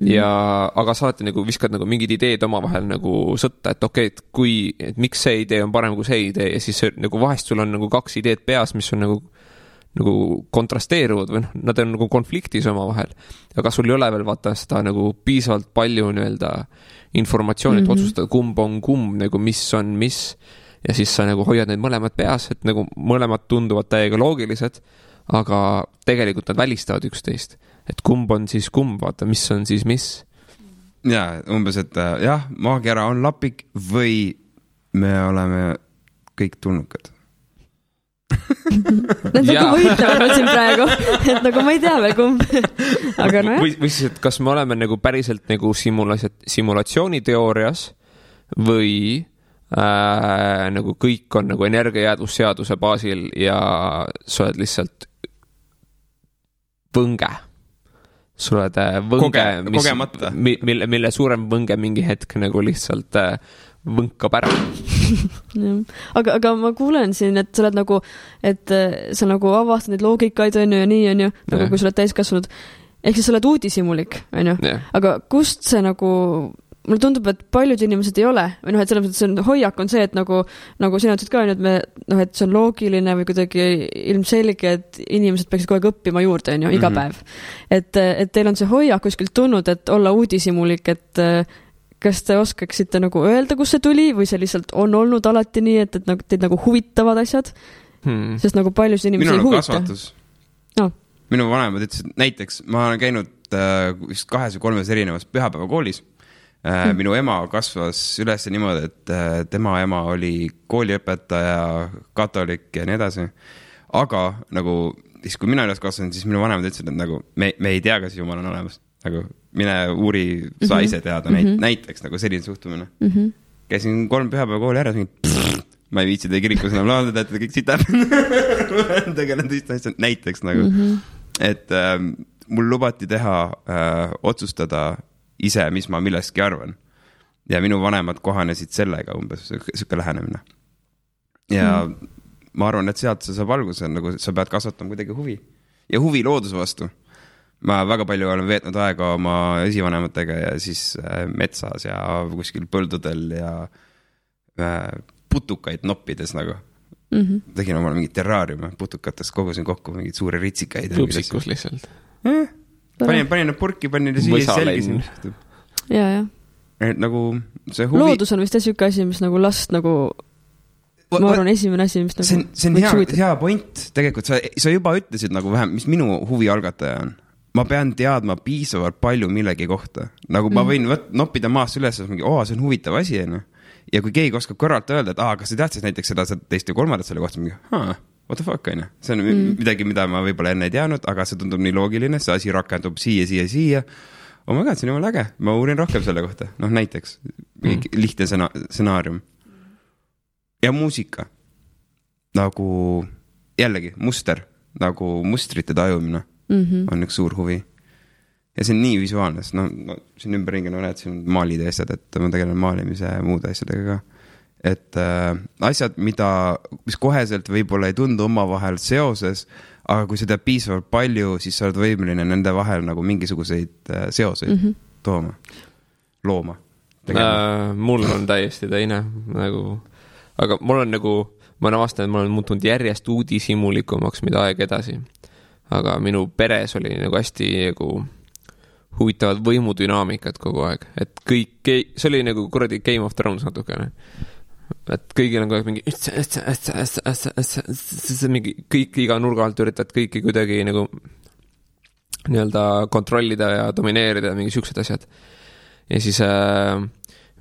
Ja, aga sa alati nagu viskad nagu mingid ideed oma vahel nagu sõtta, et okei, et miks see idee on parem kui see idee ja siis nagu vahest sul on nagu 2 ideed peas, mis on nagu kontrasteeruvad või nad on nagu konfliktis oma vahel, aga sul ei ole veel vaata seda nagu piisavalt palju nii-öelda informatsiooni, et otsustada kumb on kumb, nagu mis on mis ja siis sa nagu hoiad neid mõlemad peas, et nagu mõlemad tunduvad täiega loogilised, aga tegelikult nad välistavad üksteist. Et kumb on siis kumb, vaata, mis on siis mis. Ja, umbes, et jah, maagiara on lapik või me oleme kõik tulnukad. Need nagu võitlevad siin praegu, et nagu ma ei tea veel kumb. Aga no jah. Või siis, et kas me oleme nagu päriselt nagu simulatsiooniteoorias või nagu kõik on nagu energiajäädvusseaduse baasil ja sa oled lihtsalt võnge. Sa oled võnge, mille suurem võnge mingi hetk nagu lihtsalt võnkab ära. aga ma kuulen siin, et sa oled nagu, et sa nagu avastad neid loogikaid on ju ja nii on ju, nagu kui sa oled täiskasvanud. Ehk siis sa oled uudishimulik, on ju. Aga kust see nagu, mulle tundub, et paljud inimesed ei ole, või noh, et selles mõttes see hoiak on see, et nagu sina ütlesid ka, et me, noh, et see on loogiline või kuidagi ilmselge, et inimesed peaksid kogu aeg õppima juurde, on ju, iga päev. Et teil on see hoiak kuskilt tulnud, et olla uudishimulik, et kas te oskaksite nagu öelda, kus see tuli või see lihtsalt on olnud alati nii, et teid nagu huvitavad asjad? Sest nagu paljus inimesi ei huvita. No. Minu vanemad ütlesid, näiteks ma olen käinud vist 2 või 3 erinevas pühapäevakoolis. Minu ema kasvas üles niimoodi, et tema ema oli kooliõpetaja, katolik ja nii edasi. Aga nagu, siis kui mina üles kasvasin, siis minu vanemad ütlesid, et nagu me ei tea, kas Jumal on olemas. Nagu mine uuri, sa ise teada näiteks nagu selline suhtumine. Käisin 3 pühapäevakooli ära, ma ei viitsi teie kirikus enam laadada, et kõik sitab. Tegelen tõesti asjad näiteks nagu. Et mul lubati teha, otsustada ise, mis ma millestki arvan. Ja minu vanemad kohanesid sellega umbes, selline lähenemine. Ja ma arvan, et sealt saab alguse, nagu sa pead kasvatama kuidagi huvi. Ja huvi looduse vastu. Ma väga palju olen veetnud aega oma esivanematega ja siis metsas ja kuskil põldudel ja putukaid noppides nagu. Tegin omal mingid terraariume putukatest, kogusin kokku mingid suuri ritsikaid. Tupsikus lihtsalt. Panin need purki, panin ja siia selgisin. Ja. Et nagu see huvi... Loodus on vist selline asi, mis nagu last nagu... Ma arvan, esimene asi, mis nagu... See on hea point. Tegelikult sa juba ütlesid nagu vähem, mis minu huvi algataja on. Ma pean teadma piisavalt palju millegi kohta. Nagu ma võin noppida maast üles, see on huvitav asi. Ja kui keegi oskab kõrvalt öelda, et kas sa teadsid näiteks seda teist ja kolmandat selle kohta, what the fuck, on ju. See on midagi, mida ma võib-olla enne ei teadnud, aga see tundub nii loogiline, see asi rakendub siia. Oh my god, see on jumal äge. Ma uurin rohkem selle kohta. Noh, näiteks lihtne stsenaarium. Ja muusika. Nagu jällegi muster, nagu mustrite tajumine on üks suur huvi. Ja see on nii visuaalne, sest siin ümberringi näed, siin maalid ja asjad, et ma tegelen maalimise ja muude asjadega ka. Et asjad, mis koheselt võib-olla ei tundu omavahel seoses, aga kui sa tead piisavalt palju, siis sa oled võimeline nende vahel nagu mingisuguseid seoseid looma. Mul on täiesti teine nagu, aga mul on nagu, ma olen avastanud, et ma olen muutunud järjest uudishimulikumaks, mida aeg edasi. Aga minu peres oli nagu hästi nagu huvitavad võimudünaamikad kogu aeg. Et kõik, see oli nagu kuradi Game of Thrones natukene. Et kõigil on kogu aeg mingi kõik iga nurga alt üritad kõiki kuidagi nagu nii-öelda kontrollida ja domineerida mingi siuksed asjad. Ja siis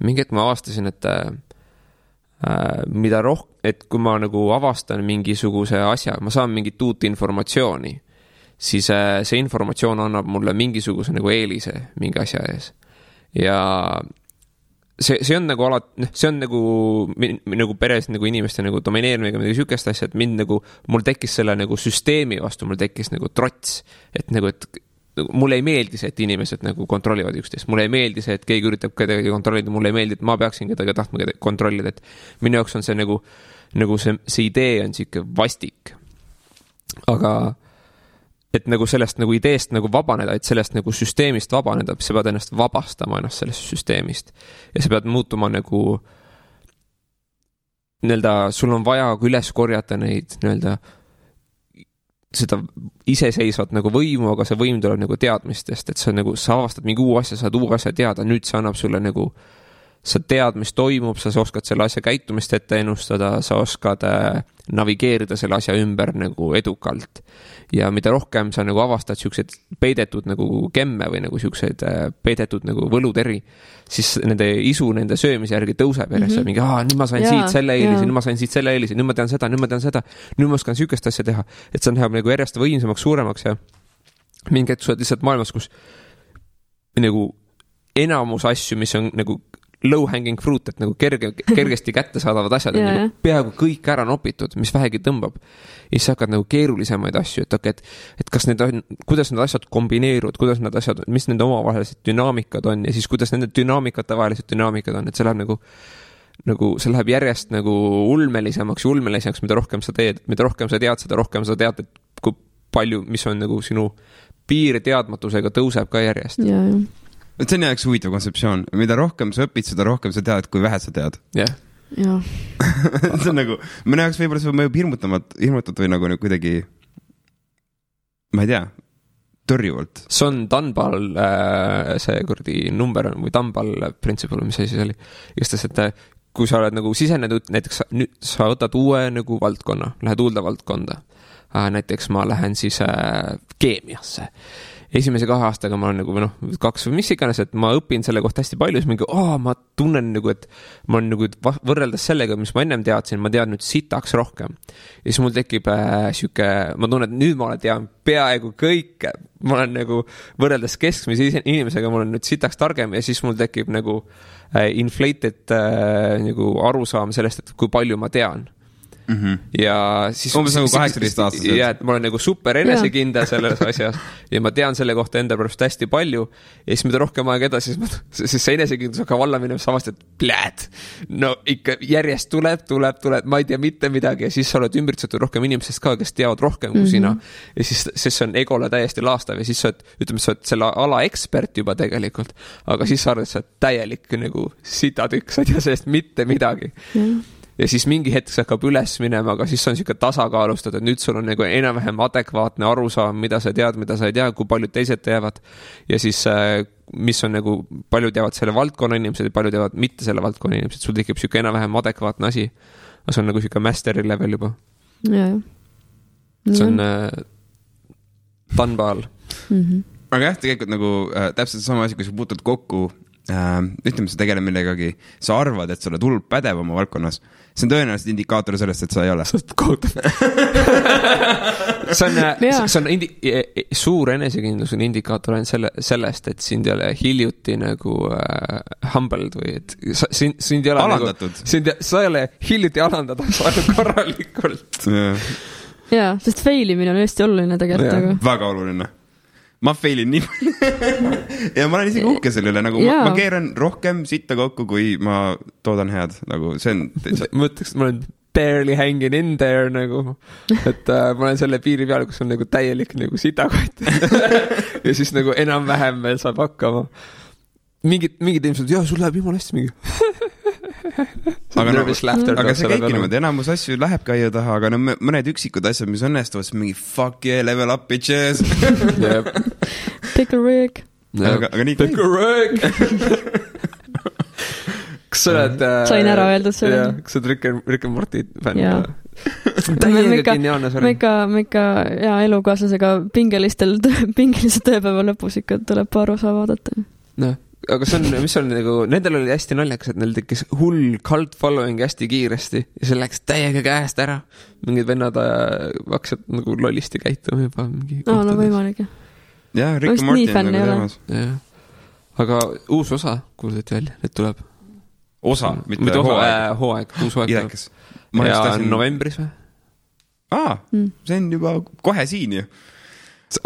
mingi hetk ma avastasin, et et kui ma nagu avastan mingisuguse asja, ma saan mingit uut informatsiooni, siis see informatsioon annab mulle mingisuguse nagu eelise mingi asja ees. Ja see on nagu see on nagu peres nagu inimeste nagu domineerimine midagi sükest asja, et mul tekkis selle nagu süsteemi vastu, mul tekkis nagu trots, et mulle ei meeldi see, et inimesed nagu kontrollivad üksteist, mulle ei meeldi see, et keegi üritab kedagi kontrollida, mulle ei meeldi, et ma peaksin kedagi tahtma kontrollida, et minu jaoks on see nagu see idee on siuke vastik. Aga et nagu sellest nagu ideest nagu vabaneda, et sellest nagu süsteemist vabaneda, sa pead ennast vabastama ennast sellest süsteemist. Ja sa pead muutuma nagu sul on vaja üles korjata neid seda iseseisvat nagu võimu, aga see võim tuleb nagu teadmistest, et sa avastad mingi uu asja, saad uu asja teada, nüüd see annab sulle nagu sa tead, mis toimub, sa oskad selle asja käitumist ette ennustada, sa oskad navigeerida selle asja ümber nagu edukalt. Ja mida rohkem sa nagu avastad siukseid peidetud nagu gemme või nagu siukseid peidetud nagu võluteri, siis nende isu, nende söömise järgi tõuseb järjest. Mingi, nüüd ma sain siit selle eelise, nüüd ma sain siit selle eelise, nüüd ma tean seda, nüüd ma oskan siukest asja teha. Et see läheb nagu järjest võimsamaks, suuremaks ja mingi hetk sa oled lihtsalt maailmas, kus nagu enamus asju, mis on nagu low hanging fruit, et nagu kergesti kätte saadavad asjad, nagu peaaegu kõik ära nopitud, mis vähegi tõmbab. Ja siis hakkad nagu keerulisemaid asju, et kas need on, kuidas need asjad kombineeruvad, kuidas need asjad, mis nende omavahelised dünaamikad on ja siis kuidas nende dünaamikate vahelised dünaamikad on, et see läheb nagu see läheb järjest nagu ulmelisemaks, mida rohkem sa teed, mida rohkem sa tead, seda rohkem sa tead, et kui palju, mis on nagu sinu piir teadmatusega tõuseb ka järjest. See on jaoks huvitav kontseptsioon. Mida rohkem sa õpid, seda rohkem sa tead, kui vähe sa tead. Jah. See on nagu, mõne jaoks võib-olla see mõjub hirmutatud või nagu kuidagi, ma ei tea, tõrjuvalt. See on Dunball, see kurdi number või Dunball principle, mis asi see oli. Just, et kui sa oled nagu sisenenud, näiteks sa võtad uue nagu valdkonna, lähed uude valdkonda. Näiteks ma lähen siis keemiasse. Esimese 2 aastaga ma olen nagu 2 või mis iganes, et ma õpin selle kohta hästi palju, siis mingi, ma tunnen nagu, et ma olen nagu võrreldes sellega, mis ma ennem teadsin, ma tean nüüd sitaks rohkem. Ja siis mul tekib siuke, ma tunnen, et nüüd ma tean peaaegu kõike. Ma olen nagu võrreldes keskmise inimesega, ma olen nüüd sitaks targem ja siis mul tekib nagu inflated nagu arusaam sellest, et kui palju ma tean. Ja siis umbes nagu 18 aastased. Ja, et ma olen nagu super enesekindel selles asjas ja ma tean selle kohta enda pärast hästi palju ja siis mida rohkem aeg edasi, siis see enesekindlus hakkab alla minema samast, et pläät, no ikka järjest tuleb, ma ei tea mitte midagi ja siis sa oled ümbritsetud rohkem inimesest ka, kes teavad rohkem kui sina ja siis see on egole täiesti laastav ja siis sa oled selle ala ekspert juba tegelikult, aga siis sa arvad, et sa oled täielik nagu sitatükk, sa ei tea sellest mitte midagi. Ja siis mingi hetk see hakkab üles minema, aga siis on siuke tasakaalustada, et nüüd sul on nagu enam-vähem adekvaatne arusaam, mida sa tead, mida sa ei tea, kui paljud teised teavad. Ja siis, mis on nagu, paljud teavad selle valdkonna inimesed ja paljud teavad mitte selle valdkonna inimesed. Sul tekib siuke enam-vähem adekvaatne asi. See on nagu siuke masteri level juba. See on Dunball. Aga jah, tegelikult nagu täpselt sama asi, kui sa puutud kokku ütleme, sa tegeled millegagi, sa arvad, et sa oled hullult pädev oma valdkonnas. See on tõenäoliselt indikaator sellest, et sa ei ole. See on suur enesekindlus on indikaator sellest, et sind ei ole hiljuti nagu humbled või et sind ei ole alandatud. Sa ei ole hiljuti alandada, sa oled korralikult. Jaa, sest failimine on hästi oluline tegelikult. Väga oluline. Ma failin nii palju ja ma olen isegi uhke selle üle, nagu ma keeran rohkem sitta kokku, kui ma toodan head, nagu see on ma ütleks, ma olen barely hanging in there nagu, et ma olen selle piiri peal, kus on nagu täielik nagu sitakott ja siis nagu enam-vähem veel saab hakkama mingid inimesed, sul läheb jumala hästi mingi aga see käibki niimoodi, enamus asju läheb käia taha, aga mõned üksikud asjad, mis õnnestuvad, mingi fuck yeah, level up bitches Pickle Rick aga nii Pickle Rick kas sa oled sain ära öeldud selle kas sa oled Rick and Morty fänn täiega geniaalne me ikka elukaaslasega pingelise tööpäeva lõpus ikka tuleb paar osa vaadata aga see on, mis on nagu, nendel oli hästi naljakas, et neil tekkis hull cult following hästi kiiresti ja see läks täiega käest ära. Mingid vennad hakkasid nagu lollisti käituma juba mingi kohtades. No võimalik, jah. Rick and Morty on nagu teemas. Aga uus osa kuuldati välja, et tuleb. Osa, mitte hooaeg. Hooaeg, uus hooaeg. Idekas. Ja novembris või? See on juba kohe siin ju. See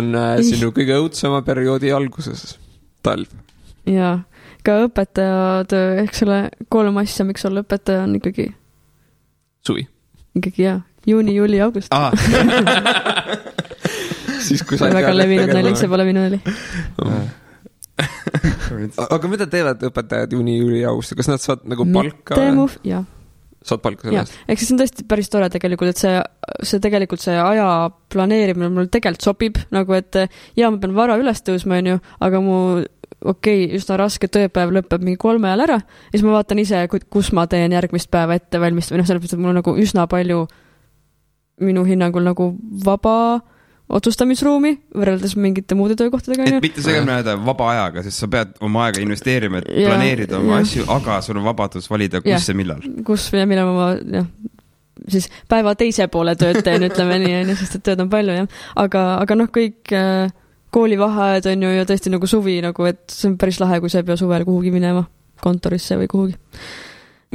on sinu kõige õudsema perioodi alguses. Talv. Jaa, ka õpetaja töö, ehk selle 3 asja, miks olla õpetaja on ikkagi suvi. Ikkagi juuni, juuli, august. Siis kui sa väga levinud nalik, see pole minu nali. Aga mida teevad õpetajad juuni, juuli, august? Kas nad saad nagu palka? Jah. Saad palka sellest? Ehk see on tõesti päris tore tegelikult, et see tegelikult see aja planeerimine mul tegelikult sobib, nagu et ma pean vara üles tõusma, aga mu üsna raske tööpäev lõpeb mingi 3 ajal ära ja siis ma vaatan ise, kus ma teen järgmist päeva ette valmist või sellepärast, et mul on nagu üsna palju minu hinnangul nagu vaba otsustamisruumi võrreldes mingite muude töökohtadega. Et mitte segama jääda vaba ajaga, sest sa pead oma aega investeerima, et planeerida oma asju, aga sul on vabadus valida, kus ja millal. Kus ja millal ma siis päeva teise poole tööd teen, ütleme nii, sest et tööd on palju, jah. Aga kõik koolivaheajad on ju ja tõesti nagu suvi, nagu, et see on päris lahe, kui sa ei pea suvel kuhugi minema kontorisse või kuhugi.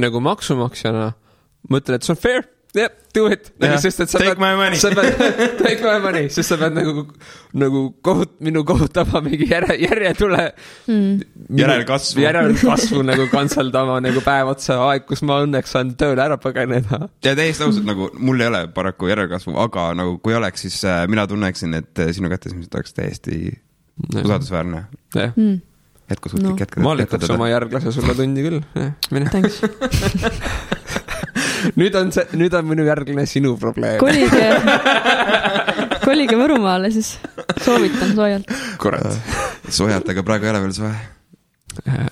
Nagu maksumaksjana mõtlen, et see on fair. Yeah, do it. Sest, et take my money. Take my money, sest sa pead nagu minu kohutama mingi järjetule järelkasvu nagu kantsaldama nagu päev otsa aeg, kus ma õnneks saan tööle ära pageneda. Ja täiesti ausalt, nagu mul ei ole paraku järelkasvu, aga nagu kui oleks, siis mina tunneksin, et sinu kätesmised oleks täiesti usaldusväärne. Jätkusuutlik jätkada. Ma lükkaks oma järglase sulle tundi küll. Mine. Thanks. Nüüd on minu järglane sinu probleem. Kolige Võrumaale, siis soovitan soojalt. Kurat. Soojalt, aga praegu ei ole veel soe.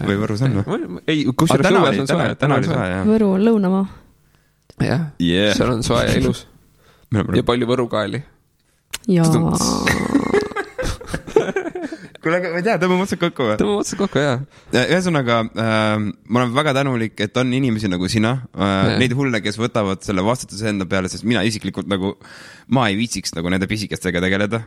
Või Võrus on või? Ei, kus see suves on soe? Täna oli soe, jah. Võru on lõunamaa. Jah, seal on soe ja ilus. Ja palju võrukaeli. Jaa. Kuule, ma ei tea, tõmbame otsad kokku või? Tõmbame otsad kokku, jah. Ühesõnaga, ma olen väga tänulik, et on inimesi nagu sina, neid hulle, kes võtavad selle vastutuse enda peale, sest mina isiklikult nagu, ma ei viitsiks nagu nende pisikestega tegeleda.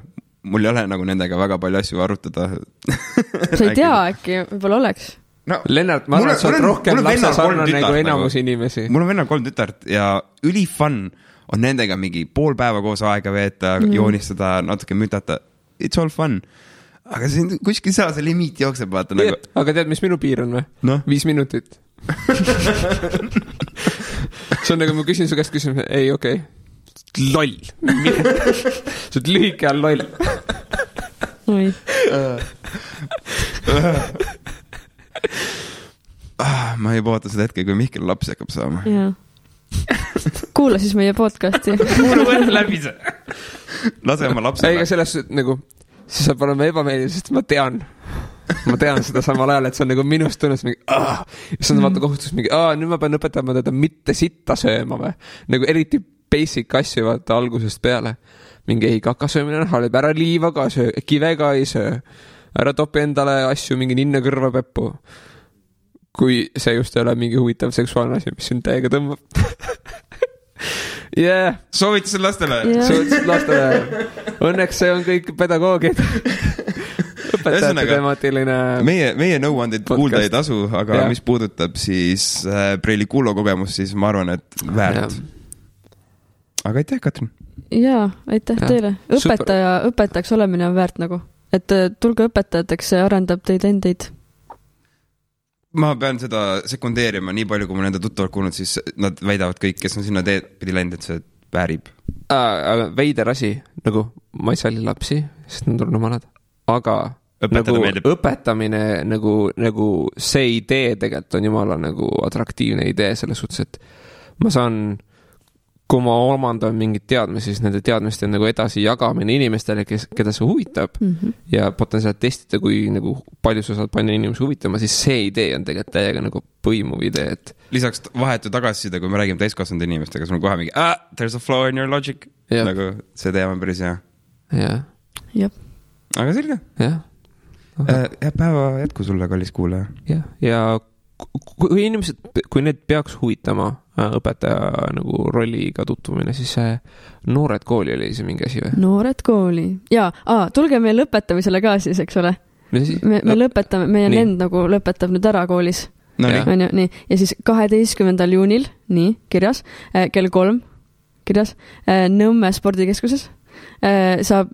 Mul ei ole nagu nendega väga palju asju arutada. Sa ei tea, äkki võib-olla oleks? No, Lennart, ma arvan, et sa oled rohkem lapsesarnane nagu enamus inimesi. Mul on vennal 3 tütart ja ülifun on nendega mingi pool päeva koos aega veeta, joonistada, natuke mütata. It's all fun. Aga kuskil saa see limiit jookseb, vaata nagu. Aga tead, mis minu piir on või? No? 5 minutit. See on nagu, ma küsin su käest küsimuse, ei, okei. Loll. See on lühike all loll. Oi. Ma ei poota seda hetke, kui Mihkel lapsi hakkab saama. Jaa. Kuula siis meie podcasti. Kuula võtta läbi see. Lase oma lapsele. Ega selles nagu siis saab olema ebameeldiv, sest ma tean seda samal ajal, et see on nagu minust tunnes mingi, siis on vaata kohustus mingi, nüüd ma pean õpetama teda mitte sitta sööma või, nagu eriti basic asju vaata algusest peale, mingi ei kakasöömine on halb, ära liiva ka söö, kive ka ei söö, ära topi endale asju mingi ninna kõrva peppu, kui see just ei ole mingi huvitav seksuaalne asi, mis sind täiega tõmbab. Yeah. Soovitused lastele. Soovitused lastele. Õnneks see on kõik pedagoogid. Õpetajate temaatiline meie nõuandid kuulda ei tasu, aga mis puudutab siis Preili Kuulo kogemust, siis ma arvan, et väärt. Aga aitäh, Katrin. Jaa, aitäh teile. Õpetajaks olemine on väärt nagu. Et tulge õpetajateks, see arendab teid endeid. Ma pean seda sekundeerima nii palju, kui ma nende tuttavad kuulnud, siis nad väidavad kõik, kes on sinna teed pidi läinud, et see väärib. Aga veider asi, nagu ma ei salli lapsi, sest nad on rumalad, aga nagu õpetamine, nagu see idee tegelikult on jumala nagu atraktiivne idee selles suhtes, et ma saan, kui ma omandan mingid teadmisi, siis nende teadmiste nagu edasi jagamine inimestele, keda see huvitab ja potentsiaalselt testida, kui nagu palju sa saad panna inimesi huvitama, siis see idee on tegelikult täiega nagu põimuv idee, et lisaks vahetu tagasisida, kui me räägime täiskasvanud inimestega, sul on kohe mingi, there's a flaw in your logic. Nagu see teema on päris hea. Jah. Aga selge. Jah. Päeva jätku sulle, kallis kuulaja. Ja kui inimesed, kui need peaks huvitama õpetaja nagu rolliga tutvumine, siis Noored kooli oli see mingi asi või? Noored kooli. Jaa, tulge meil lõpetamisele ka siis, eks ole? Me lõpetame, meie nend nagu lõpetab nüüd ära koolis. No, nii. Ja siis 12. juunil, nii, kirjas, kell 3, kirjas, Nõmme spordikeskuses, saab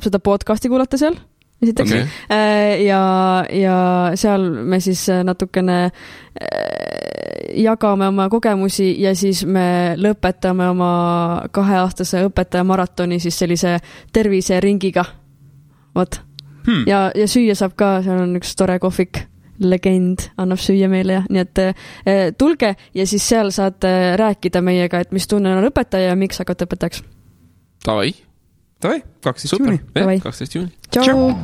seda podcasti kuulata seal, esiteks. Ja seal me siis natukene jagame oma kogemusi ja siis me lõpetame oma 2-aastase õpetaja maratoni siis sellise terviseringiga. Vot. Ja süüa saab ka, seal on üks tore kohvik, legend, annab süüa meile ja nii et tulge ja siis seal saate rääkida meiega, et mis tunne on õpetaja ja miks hakkate õpetajaks. Davai, 12. juuni. 12. juuni. Tšau!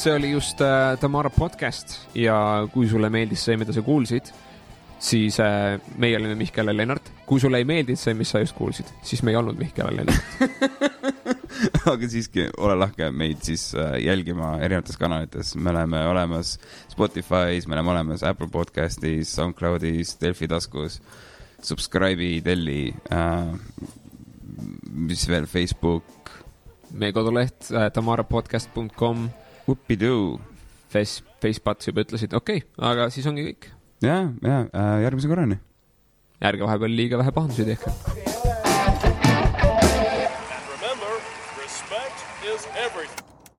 see oli just Tamara podcast ja kui sulle meeldis see, mida sa kuulsid, siis meie olime Mihkel ja Lennart. Kui sulle ei meeldinud see, mis sa just kuulsid, siis me ei olnud Mihkel ja Lennart. Aga siiski, ole lahke meid siis jälgima erinevates kanalites. Me oleme olemas Spotify's, me oleme olemas Apple Podcastis, SoundCloudis, Delfi taskus, subscribe'i, telli, mis veel, Facebook. Meie koduleht tamarapodcast.com. Upidoo. Facepats juba ütlesid, okei, aga siis ongi kõik. Ja, järgmise korrani. Ärge vahepeal liiga vähe pahandusi tehke.